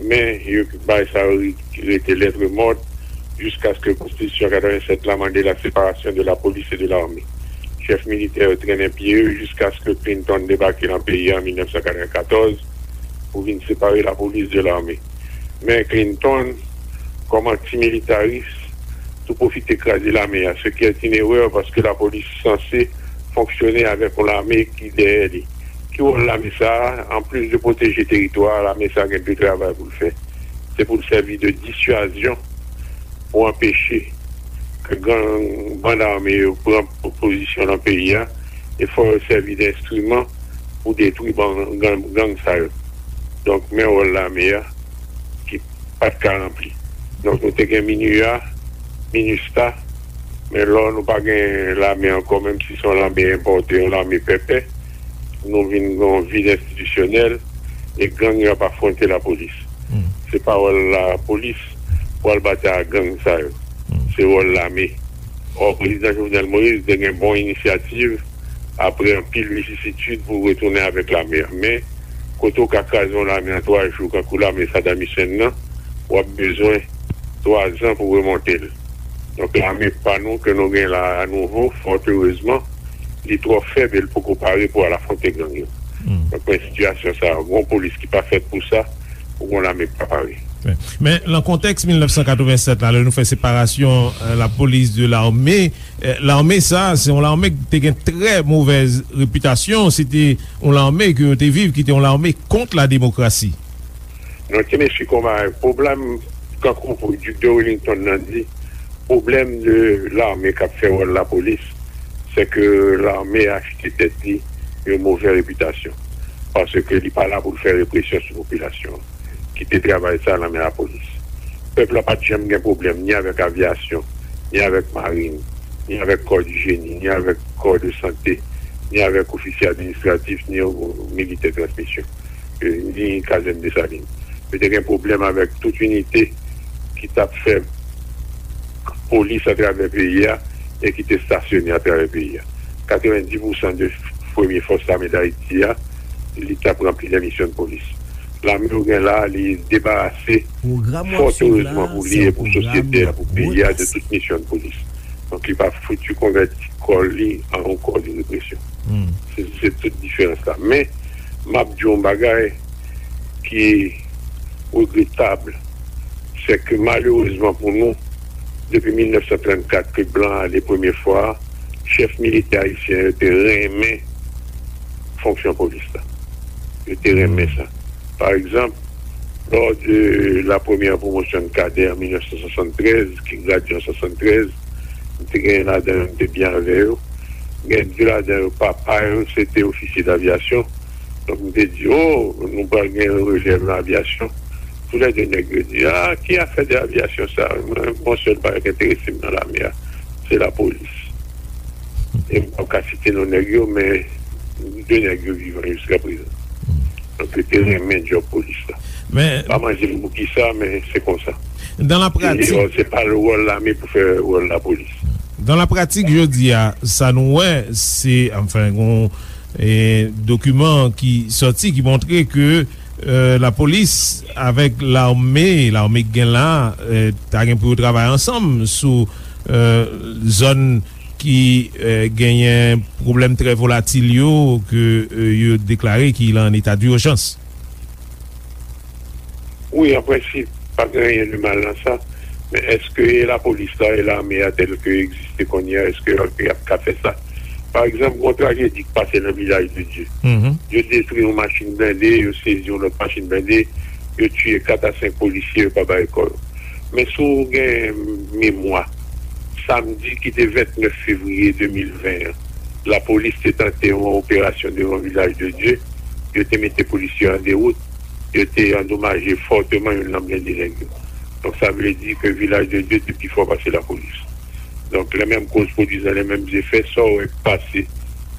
Men, yo bay sa yo rete lettre morte jiskaske konstitisyon katrevennsèt la mande la séparation de la police et de l'armée. Chèf militè yo trennen pye yo jiskaske Clinton debake nan peyi a an mil nèf san katrevenkatòz pou vin separe lapolis de lame. Men Clinton, kòm antimilitaris, tou pwofite kraze lame a, ce qui est une erreur paske lapolis sanse fonksyone avèk yon lame ki dèyè li. Ki wòl lame sa a? Anplis de pwoteje teritwa a, lame sa a gen de travay pou l fè. Se pou l sèvi de dissuasion pou anpeche ke gang, bann ame yo pran po-, pozisyon nan peyi a, e fò yo sèvi de enstriman pou detwi ban-, gang, gang sa yo. Donk, men wòl lame a ki pa t ka ranpli. Donk, nou te gen MINUA, MINUSTAH, men lò nou pa gen lame ankò, menm si se yon lame enpòte, yon lame pèpè, nou vin gen yon vid enstitisyonèl, e gang yo ap afwonte lapolis. Se pa wòl lapolis pou al batay ak gang sa yo. Se wòl lame. Ò, prezidan Jovenel Moïse te gen bon inisyativ apre anpil visisitid pou retounen avèk lame a. Men, kote w ka kraze yon lame an twa jou, kankou lame Saddam Hussein nan, w ap bezwen twa zan pou remonte l. Donk, lame pa nou ke nou gen la a nouvo, fòt erezman, li twò fèb e l poko pare pou al afwonte gang yo. Donk, men sitiyasyon sa a, gon polis ki pa fèt pou sa, ou gon lame ki pa pare. Men, lan kontèks mil nèf san katrevennsèt la, lè nou fè separasyon, euh, la police de l'armée, Eh, lame sa, se yon lame ki te gen trè movèz repitasyon. Se te yon lame ke yo te viv, ki te yon lame kont la demokrasi. Non, ti mesye konba, pwoblèm, kankou Duc de Wellington nan di, pwoblèm de lame k ap fè wòl lapolis, se ke lame achte tèt li yon movè repitasyon. Paske li pa la pou l fè represyon sou popilasyon an. Kite travay sa nan men lapolis. Pèp la pa t janm gen pwoblèm ni avèk avyasyon, ni avèk marin, ni avèk kò di jeni, ni avèk kò de sante, ni avèk ofisye administratif, ni militè transmisyon, eh, ni kazèn Desalin. Yo te gen pwoblèm avèk tout inite ki t ap fè polis atravè peyi a e ki te stasyone atravè peyi a. Katrevenndis pousan de premye fòs lame Dayiti a, li t ap ranpli de misyon polis. Lame yo gen la, li debarase, fòt erezman pou li e pou sosyete a, pou peyi a, de tout misyon polis. Donk, li pa fouti konvèti kò li an yon kò de represyon. Se, se tout diferans la. Men, m ap di yon bagay ki regretab, se ke malerezman pou nou, depi mil nèf san trannkat ke blan ale premye fwa, chèf militè ayisyen yo te renmen fonksyon polis la. Yo te renmen sa. Pa egzanp, lò de la premyè pwomosyon de kadè an mil nèf san swasanntrèz, ki gradye an swasanntrèz, te gen ladan yo, m te byen avè yo. Gen de ladan yo, papa yo, se te ofisye davyasyon. Donk, m te di, "O, nou pral gen relèv nan avyasyon." Toulède nèg yo di, "A, ki afè de avyasyon sa? Mwen, m gon sèl bagay k enterese m nan lame a, se lapolis." E m p ap ka site non nèg yo, men de nèg yo vivan jiskaprezan. Donk, yo te renmen djòb polis la. Men pa manje m pou kisa, men se konsa. Dan la pratik, se pa wòl lame pou fè wòl lapolis. Dan la pratik, jodi a, sa nou wè, se, anfen, gon, e, dokiman ki sòti, ki montre ke, e, lapolis avèk lame, lame k gen la, e, ta gen pou yo travay ansanm sou, e, zòn ki, e, genyen pwoblèm trè volatil yo ke, e, yo deklare ki lan eta dijans. Wi, an prensip, pa gen anyen de mal nan sa. Men èske e lapolis la e lame a tèl ke egziste kounye a, èske y ap, y ap ka fè sa? Pa egzanp, gon trajedi k pase nan Vilaj de Dye. Yo detwi yon machin blende, yo sezi yon lòt machin blende, yo tiye kat a senk polisye, yo pa bay kò yo. Men si w gen memwa, samdi ki te vennèf fevriye de mil ven an, lapolis te tante yon operasyon devan Vilaj de Dye, yo te mete polisye an dewout, yo te andomaje fòteman youn nan blende nèg yo. Donk, sa vle di ke Vilaj de Dye te pi fò pase lapolis. Donk, lè menm koz pwodui lè menm zefè, sa w wè k pase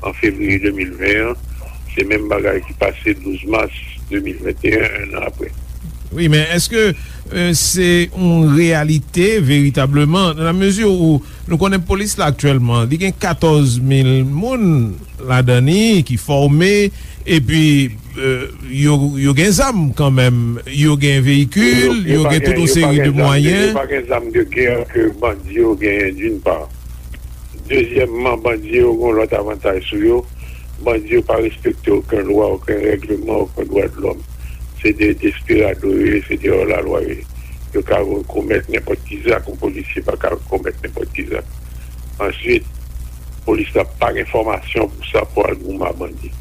an fevriye de mil ven an, se menm bagay ki pase douz mas de mil venteyen, en an apre. Wi, men èske, e, se yon reyalite veritableman, nan la mezi ou nou konnen polis la aktyèlman, li gen katòz mil moun ladan li ki fòme, epi, e, yo, yo gen zam kanmenm, yo gen veyikil, yo gen tout yon seri de mwayen. Yo pa gen zam de gè ke bandi yo genyen, d'une part. Dezyèmman, bandi yo gen yon lòt avantaj sou yo. Bandi yo pa respekte okenn lwa, okenn règleman, okenn dwa de lòm. Se de desperado yo ye, se de hors la loi yo ye. Yo ka komèt nenpòt ki zak, yon polisye pa ka komèt nenpòt ki zak. Answit, polis la pa gen fòmasyon pou sa, pou al goumen ak bandi.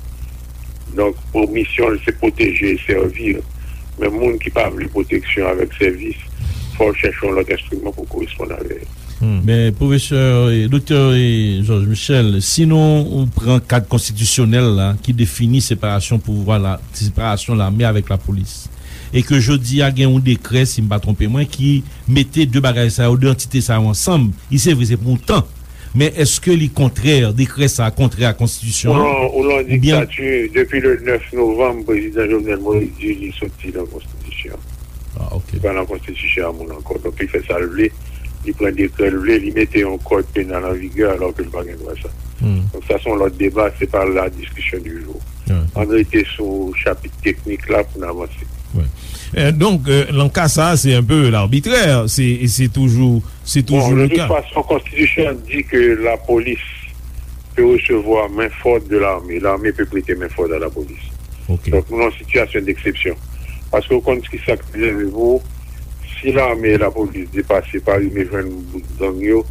Donk, pou misyon l, se pwoteje e sèvi. Men moun ki pa vle pwoteksyon avèk sèvis, fò l chèche yon lòt enstriman pou koresponn avè l. Men, pwofesè, e, doktè, e, Georges Michel, si nou pran kad konstitisyonèl la, ki defini separasyon pouvwa la, separasyon lame avèk lapolis, e ke jodi a gen yon dekrè, si m pa twonpe mwen, ki mete de bagay sa yo, de antite sa yo ansanm, li se vre, se pou yon tan. Men èske li kontrè, dekrè sa a kontrè a konstitisyon an? Ou lan, ou lan diktati, depi le nèf novanm, prezidan Jovenel Moïse di li soti nan konstitisyon an. Ah, ok. Li pa nan konstitisyon an moun ankò. Donk, li fè sa l vle, li pran dekrè l vle, li mete yon kòd penal an vigè alò ke l pa gen dwa sa. Donk, sa se yon lòt deba, se pa la diskisyon di jou. Ann rete sou chapit teknik la pou n avanse. E, donk, e, nan ka sa a, se enpe labitrè, se, se toujou, se toujou le ka. Bon, de toute façon, konstitisyon an di ke lapolis peut recevoir main forte de l'armée. L'armée peut prêter main forte à la police. Ok. Donk, nou nan sitiyasyon deksepsyon. Paske ou konn ki sa k rive pou, si lame e lapolis depase pa rive jwenn bout gang yo,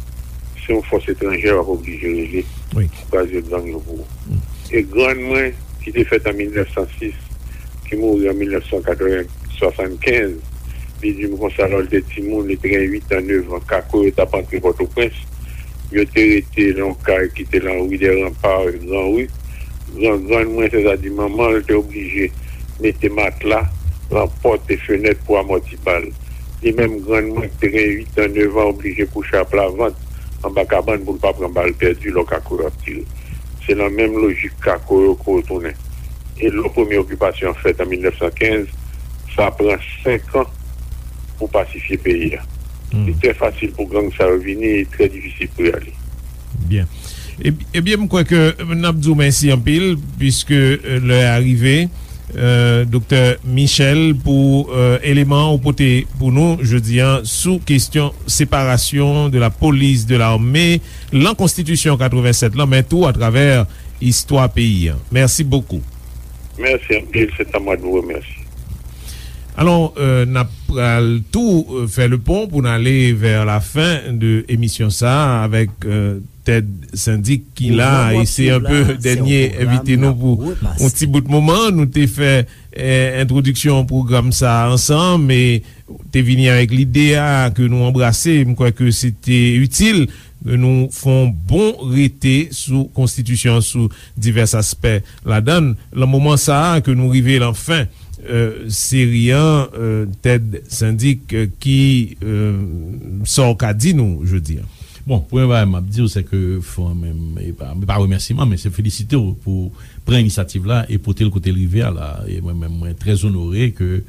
Se yon fòs etranjè w ap oblije rele pou kraze gang yo pou ou. E grann mwen, ki te fèt an mil nèf san sis, ki mouri an mil nèf san katreven, swasannkenz, li di m konsa, lò l te timoun, li te gen uit an, nèf an, kako yo t ap antre Pòtoprens, yo te rete nan yon kay ki te nan ri dè Ranpa, Gran Ri. Gran, grann mwen, sètadi manman l, te oblije mete matla nan pòt e fenèt pou amòti bal. Li menm, grann mwen, ki te gen uit an, nèf an, oblije kouche aplavant anba kabann pou l pa pran bal pèdi lò kako yo ap tire. Se nan menm lojik kako yo ke w tounen. E lò premye okipasyon an fèt an mil nèf san kenz, sa pran senk an pou pasifye peyi a. Li trè fasil pou gang sa yo vini, e trè difisil pou y ale. Byen. Ebyen, m kwè ke n ap di w mèsi anpil, piske lè a rive. Doktè Michel, pou eleman ou pote pou nou jodi a sou kesyon séparation de la police de l'armée lan konstitisyon katreven sèt lan, men tou atravè istwa peyi a. Mèsi bokou. Mèsi anpil, se ta mwen de remèsye. Alò, n ap pral tou fè le pon pou n ale vè la fen de emisyon sa a avèk Ted Syndic ki la, e se anpe dènye envite nou pou yon ti bout moman. Nou te fè entwodiksyon pwogram sa a ansanm e te vini avèk lide a ke nou anbrase. M kwè ke se te itil ke nou fè yon bon rete sou konstitisyon an, sou divès aspè ladan l. Lan moman sa a ke nou rive lan fen seri an, Ted Syndic, ki sa w ka di nou jodi a? Bon, premye bagay m ap di w, se ke fò menm, e pa, e pa remèsiman, men se felisite w pou pran inisyativ la e pote l kote l rive a la. E mwen menm, mwen trè onore ke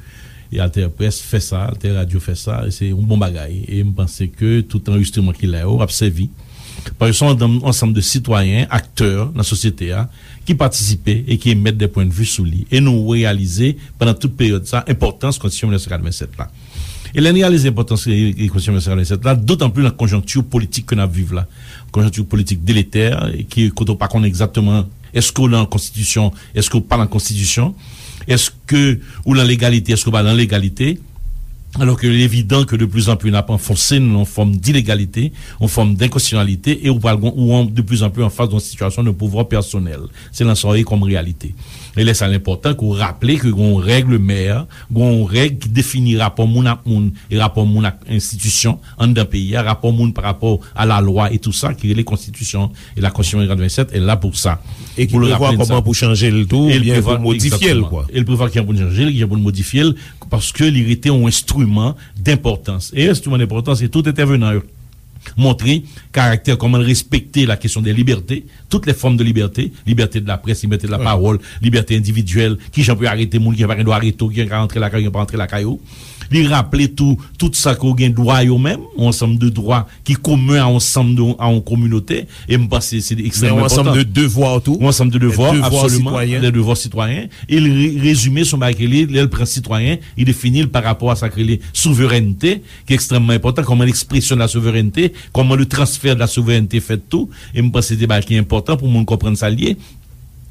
e Alter Press fè sa, Alter Radio fè sa, e se yon bon bagay. E m panse ke tout anrejistreman ki la yo ap sèvi. Paske se yon ansanm, ansanm de sitwayen, aktè nan sosyete a, ki patisipe e ki emèt de pwennvi sou li. E nou reyalize, pandan tout peryòd sa, enpòtans Konstitisyon mil nèf san katreven sèt la. E lè n reyalize enpòtans e, e Konstitisyon mil nèf san katreven sèt la, dotan plis nan konjonkti politik ke n ap viv la. Konjonkti politik deletè, e ki, kote w pa konnen egzakteman èske w lan konstitisyon, èske w pa lan konstitisyon, èske ou lan legalite, èske w pa lan legalite. Alò ke li evidan ke de plis an plis n ap anfonse n lan yon fòm dilegalite, yon fòm denkonstitisyonalite, e ou pral gon, ou an, de plis an plis an fas de yon sitiyasyon de pouvwa pèsonèl. Se lan sa w ye kòm reyalite. E lè sa l enpòtan ke w raple ke gon règlemè, gon règ ki defini rapò moun ak moun e rapò moun ak enstitisyon anndan peyi a, rapò moun pa rapò a lalwa e tou sa ki rele konstitisyon. E la Constitution de quatre-vingt-sept est là pour ça. E ki prevwa kòman pou chanje l tou, oubyen pou modifye l, kwa. E l prevwa kijan pou n chanje l, kijan pou n modifye l, paske li rete yon enstriman denpòtans. E enstriman denpòtans, e tout entèvenan yo montre karaktè, kòman l respekte la kesyon de libète, tout lè fòm de libète, libète de la près, libète de la pawòl, libète endividyèl, kijan pou yo arete moun, kijan pa gen dwa arete w, kijan ka rantre lakay ou, kijan pa rantre lakay ou. Li raple tou, tout sa ke w gen dwa yo menm, yon ansanm de dwa ki komen a yon ansanm de, a yon kominote, e m panse se ekstrèmman enpòtan. Men yon ansanm de devwa tou. Yon ansanm de devwa, absoliman, de devwa sitwayen. E l re-, rezime se yon bagay ke li, lè l pran sitwayen, li defini l pa rapò a sa k rele souverènte, ki ekstrèmman enpòtan, kòman l'expression de la souveraineté, kòman le transfert de la souveraineté fèt tou, e m panse se bagay ki enpòtan pou moun konprann sa l ye.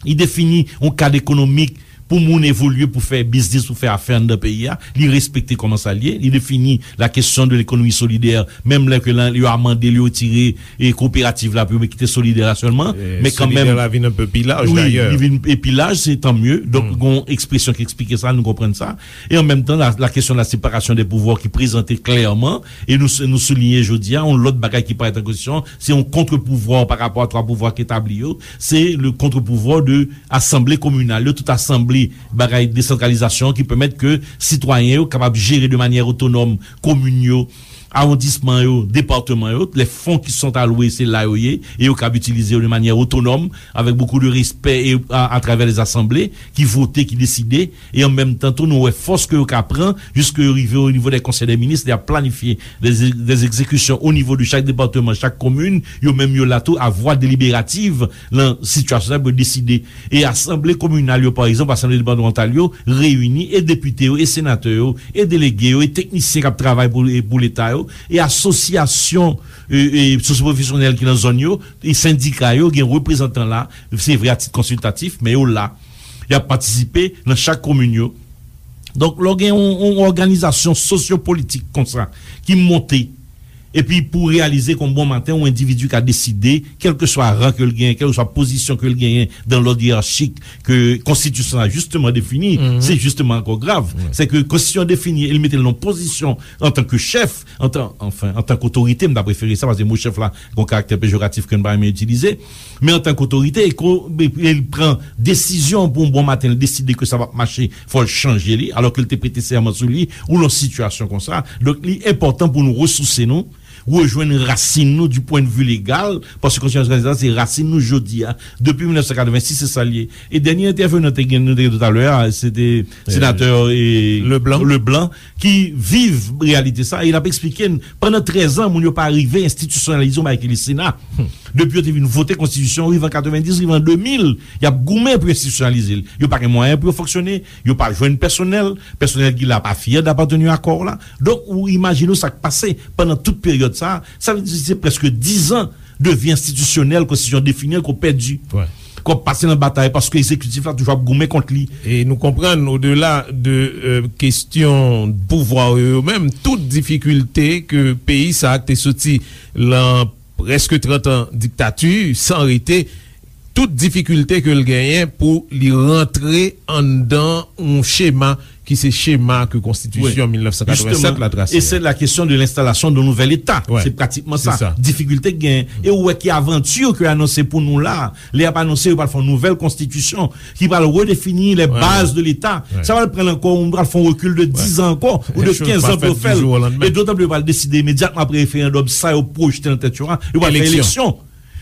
Li defini yon kad ekonomik pou moun evolye, pou fè biznis, pou fè afè anndan peyi a. Li respekte kòman sa l ye. Li defini la kesyon de lekonomi solidè, menm lè ke lan, yo amande l, yo retire, e, kooperativ la, pou yo kite solidè la sèlman. Men kanmenm, solidè la vin enpe pi laj, wi, dayè. Li vin pi laj, se tan mye. Donk, gon ekspresyon ki eksplike sa, nou konprann sa. E an menm tan, la, la kesyon de la separasyon de pouvwa ki prezante klèman, e nou, nou souliye jodi a, yon lòt bagay ki parèt an kesyon, se yon contre-pouvoir par rapport à trois pouvoirs ki etabli yo, se le contre-pouvoir de asanble kominal yo, tout asanble bagay desantralizasyon ki pèmèt ke sitwayen yo kapab jere de manyè otonòm komin yo, awondisman yo, depatman yo, lè fon ki sont alwe, se la yo ye, e yo kab itilize yo de manyè otonòm, avèk bokou de respè e a, atravè lè zasanble ki vote, ki deside, e an menm tan tou, nou wè fòs ke yo ka pran, jiske yo rive o nivo dè konsèy dè minis, y ap planifye dè, dè egzekisyon o nivo de chak depatman, chak komin, yo menm yo la tou a vwa deliberativ lan sitiyasyon sa pou yo deside. E asanble kominal yo, pa egzanp, asanble depatmantal yo, reyini, e depite yo, e senatè yo, e delege yo, e teknisyen k ap travay pou, e pou Leta yo, e asosyasyon, e, e sosyopwofesyonèl ki nan zòn yo, e sendika yo, gen reprezantan la, se vre a tit konsiltatif, men yo la. Y ap patisipe nan chak komin yo. Donk, lè w gen yon, yon òganizasyon sosyopolitik konsa ki monte, Epi pou reyalize ke yon bon maten, yon endividi ka deside, kèlkeswa ran ke l genyen, kèlkeswa pozisyon ke l genyen dan lòd yeyachik ke konstitisyon an jisteman defini, se jisteman ankò grav. Se ke konstitisyon an defini e l mete l nan pozisyon antanke chèf, antan, anfen, antanke otorite, m ta prefere sa, paske mo chèf la gen yon karaktè pejoratif ke n pa renmen itilize, men antanke otorite, e ko-, e, e l pran desizyon pou yon bon maten, l deside ke sa p ap mache, fò l chanje li, alò ke l te prete sèman sou li, ou nan sitiyasyon konsa. Donk, li enpòtan pou nou resouse nou, rejwenn rasin nou du point de vue legal, paske konstitisyon sa se rasin nou jodi a. Depi mil nèf san katrevensis, se sa l ye. E dènye entèvenan te gen, nou te gen talè a, se te senatè, e, Leblanc. Leblanc, ki viv reyalite sa, e l ap eksplike n, pandan trèz an, moun yo pa rive enstitisyonalize yon bagay ki le Sena. Depi yo te vin vote konstitisyon, rive an katrevendiz, rive an de mil, y ap goumen pou enstitisyonalize l. Yo pa gen mwayen pou yo fonksyone, yo pa jwenn pèsonèl, pèsonèl ki la pa fyè d apateni a kò w la. Donk, ou imajine w sa k pase pandan tout peryòd sa a. Sa vle di se prèske diz an de vi enstitisyonèl, konstitisyon defini an, ke w pèdi. Ke w ap pase nan batay, paske egzekitif la toujou ap goumen kont li. E nou konprann, odela de, e, kesyon pouvwa yo, yo menm, tout difikilte ke peyi sa a ki te soti lan prèske trant an diktati, san rete, tout difikilte ke l genyen pou li rantre anndan yon chema ki se chema ke konstitisyon mil nèf san katrevennsèt la trase. E se la kesyon de lenstalasyon de nouvèl Eta. Se pratikman sa. Difikilte k genyen. E ou wè ki avanti ke anonse pou nou la. Lè y ap anonse, yo pral fè yon nouvèl konstitisyon ki pral redefini les bases de l'État. Sa pral pran ankò, ou pral fè yon rekil de diz an ankò, ou de kenz an pou yo fè l. E dotan plis yo pral deside imedyatman apre referandòm, sa yo pwojte nan tèt yo a, yo pral fè eleksyon.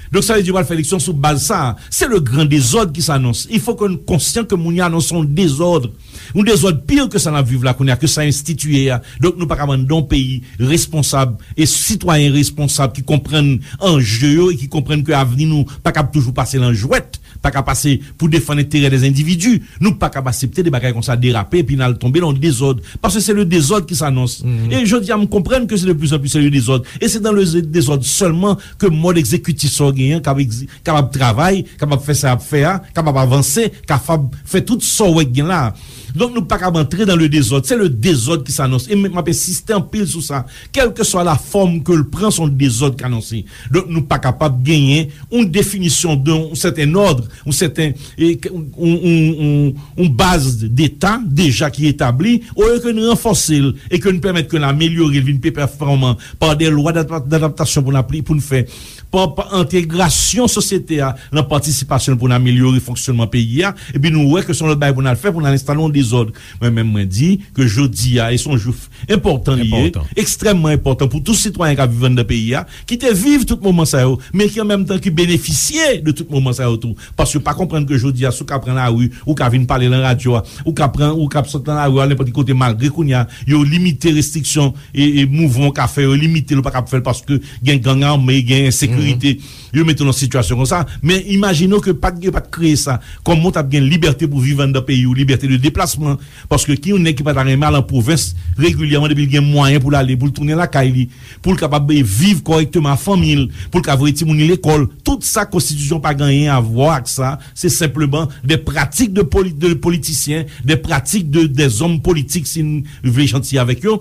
Donk, sa vle di yo pral fè eleksyon sou baz sa a. C'est le grand désordre qui s'annonce. Il faut que nou konsyan ke moun yo anonse yon dezòd. Yon dezòd pi ke sa n ap viv la kounye a, ke sa enstitiye a. Donk, nou pa ka anndan yon peyi responsab e sitwayen responsab ki konprann anje yo e ki konprann ke avni nou pa kab toujou pase lan jwèt, pa ka pase pou defann enterè dè endividi. Nou pa kab aksepte de bagay konsa derape epi n al tonbe lan yon dezòd. Paske se le dezòd ki s'annonce. E jodi a, m konprann ke se de plus en plus se le dezòd. E se dan le dezòd sèlman ke mòd egzekitif sa w genyen an kab egzi-, kapab travay, kapab fè sa y ap fè a, kapab avanse, kapab fè tout sa w wè k gen la a. Donk, nou pa kab antre dan le dezòd. Se le dezòd ki s'annonce. E m, m ap ensiste anpil sou sa. Kèlkeswa la fòm ke l pran, se yon dezòd k anonse. Donk, nou pa kapab genyen yon definisyon de yon sèten òd, yon sèten, e, yon, yon, yon, yon baz deta deja ki etabli, olye ke n ranfòse l e ke n pèmèt ke n amelyore l, vin pi pèfòman pa de lwa d'adap-, d'adaptasyon pou n apli-, pou n fè. Pa, pa entegrasyon sosyete a nan patisipasyon l pou n amelyore fonksyònman peyi a, epi nou wè ke se yon lòt bagay pou n al fè, pou n al enstale yon dezòd. Mwen menm, mwen di ke jodi a, e se yon jou enpòtan li ye, ekstrèmman enpòtan pou tout sitwayen k ap viv anndan peyi a, ki te viv tout moman sa yo, men ki an menm tan ki benefisye de tout moman sa yo tou. Paske yo pa konprann ke jodi a, si w ka pran lari, ou ka vin pale lan radyo a, ou ka pran, ou ka sot lan lari a, al nenpòt ki kote, malgre kounye a, yo limite restriksyon e, e mouvman w ka fè yo limite l, ou pa kab fè l paske gen gang ame, gen ensekirite. Yo mete w nan sitiyasyon konsa. Men imajine w ke pa t, yo pa t kreye sa kòman w t ap gen libète pou viv anndan peyi w, libète de deplasman. Paske ki yon nèg ki pa ta renmen al an pwovens regilyèman depi l gen mwayen pou l ale, pou l tounen lakay li, pou l kapab, e, viv kòrèkteman ak fanmi l, pou l ka voye timoun li lekòl. Tout sa konstitisyon pa gen anyen a vwa ak sa. Se senpleman de pratik de poli-, de politisyen, de pratik de, dè zòm politik, si n vle janti avèk yo,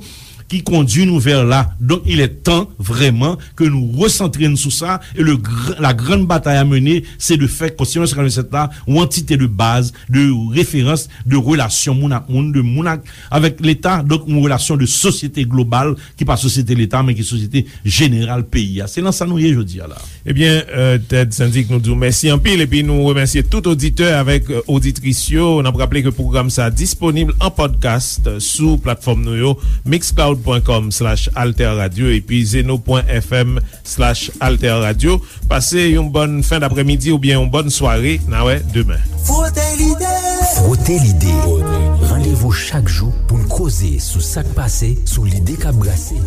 ki kondui nou vè la. Donk, il est temps, vraiment, que nous recentrions sur ça, et le gr-, la grande bataille à mener, c'est de faire Konstitisyon mil nèf san katrevennsèt la, yon antite de baz, de referans, de relasyon moun ak moun, de moun ak, avèk Leta, donk, yon relasyon de sosyete global, ki pa sosyete Leta, men ki sosyete jeneral peyi a. Se lan sa nou ye jodi a la. Ebyen, euh, Ted Syndic, nou di w mèsi anpil, epi nou remèsye tout oditè avèk, euh, oditris yo. N ap raple ke pwogram sa a disponib an podcast sou platfòm nou yo, mixcloud point com slash alter radio epi zeno point f m slash alter radio. Pase yon bòn fen daprèmidi oubyen yon bòn sware. N a wè demen. Frote lide. Frote lide. Randevou chak jou pou n koze sou sa k pase, sou lide k ap brase.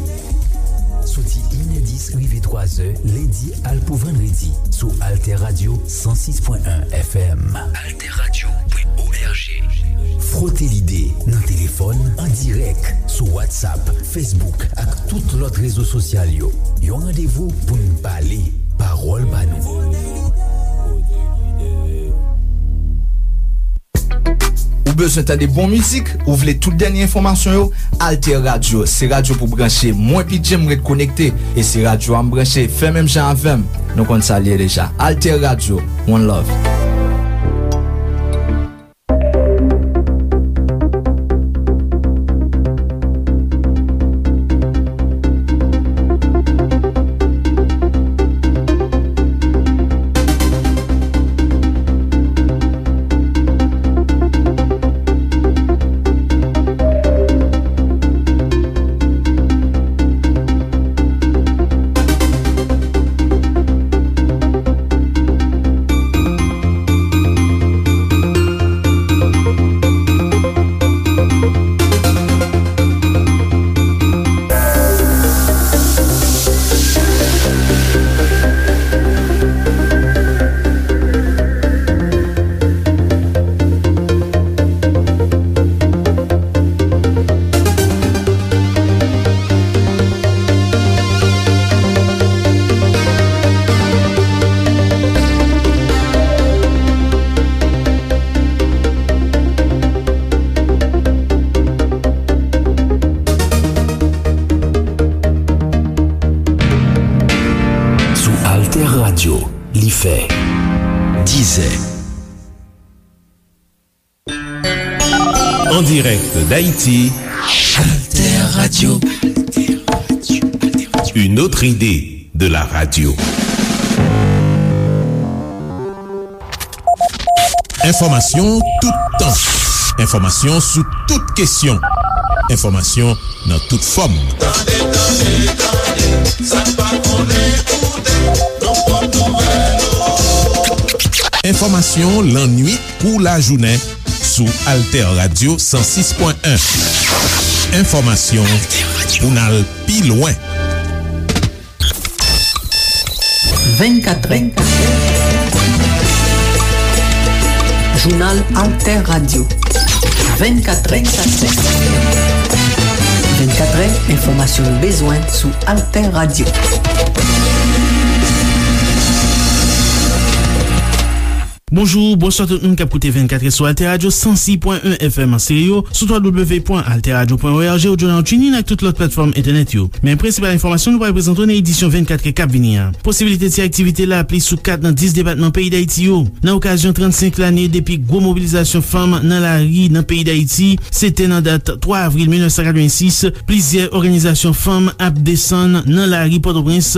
Soti inèdis rive twazè, lendi al pou vandredi, sou Alter Radio san sis pwen en F M. Alter Radio pwen O R G. Frote lide nan telefòn, an dirèk, sou WhatsApp, Facebook ak tout lòt rezo sosyal yo. Yon randevou pou n pale, pawòl pa nou. Ou Bezwen tande bon mizik? Ou vle tout dènye enfòmasyon yo? Alter Radio se radyo pou branche. Mwen P J m ret konekte, e se radyo a m branche. Fè menm jan avè m. Nou konn sa l ye deja. Alter Radio, one love. Sou Alter Radio, li fè dizè. En direct d'Haïti, Alter Radio. Une autre idée de la radio. Enfòmasyon toutan. Enfòmasyon sou tout kesyon. Enfòmasyon nan tout fòm. Tande, tande, tande, sa n pa konnen koute, nan pòt nouvèl ou. Enfòmasyon lannuit kou lajounen sou Alter Radio san sis pwen en. Enfòmasyon pou n al pi lwen. Vennkat, vennkat. Jounal Alter Radio. Vennkat, vennkat. Vennkat, enfòmasyon nou bezwen sou Alter Radio. Bonjou, bonswa tout moun k ap koute vennkat sou Alter Radio san sis pwen en F M an stereo, sou w w w pwen alter radio pwen o r g, ou jounal TuneIn ak tout lòt platfòm entènèt yo. Men prensipal enfòmasyon nou pral prezante w nan edisyon vennkat k ap vini an. Posibilite ti aktivite lapli sou kat nan dis depatman peyi Dayiti yo. Nan okazyon trannsenk lane depi gwo mobilizasyon fanm nan lari nan peyi Dayiti, se te nan dat twa avril mil nèf san katrevensis, plizyè òganizasyon fanm ap desann nan lari Pòtoprens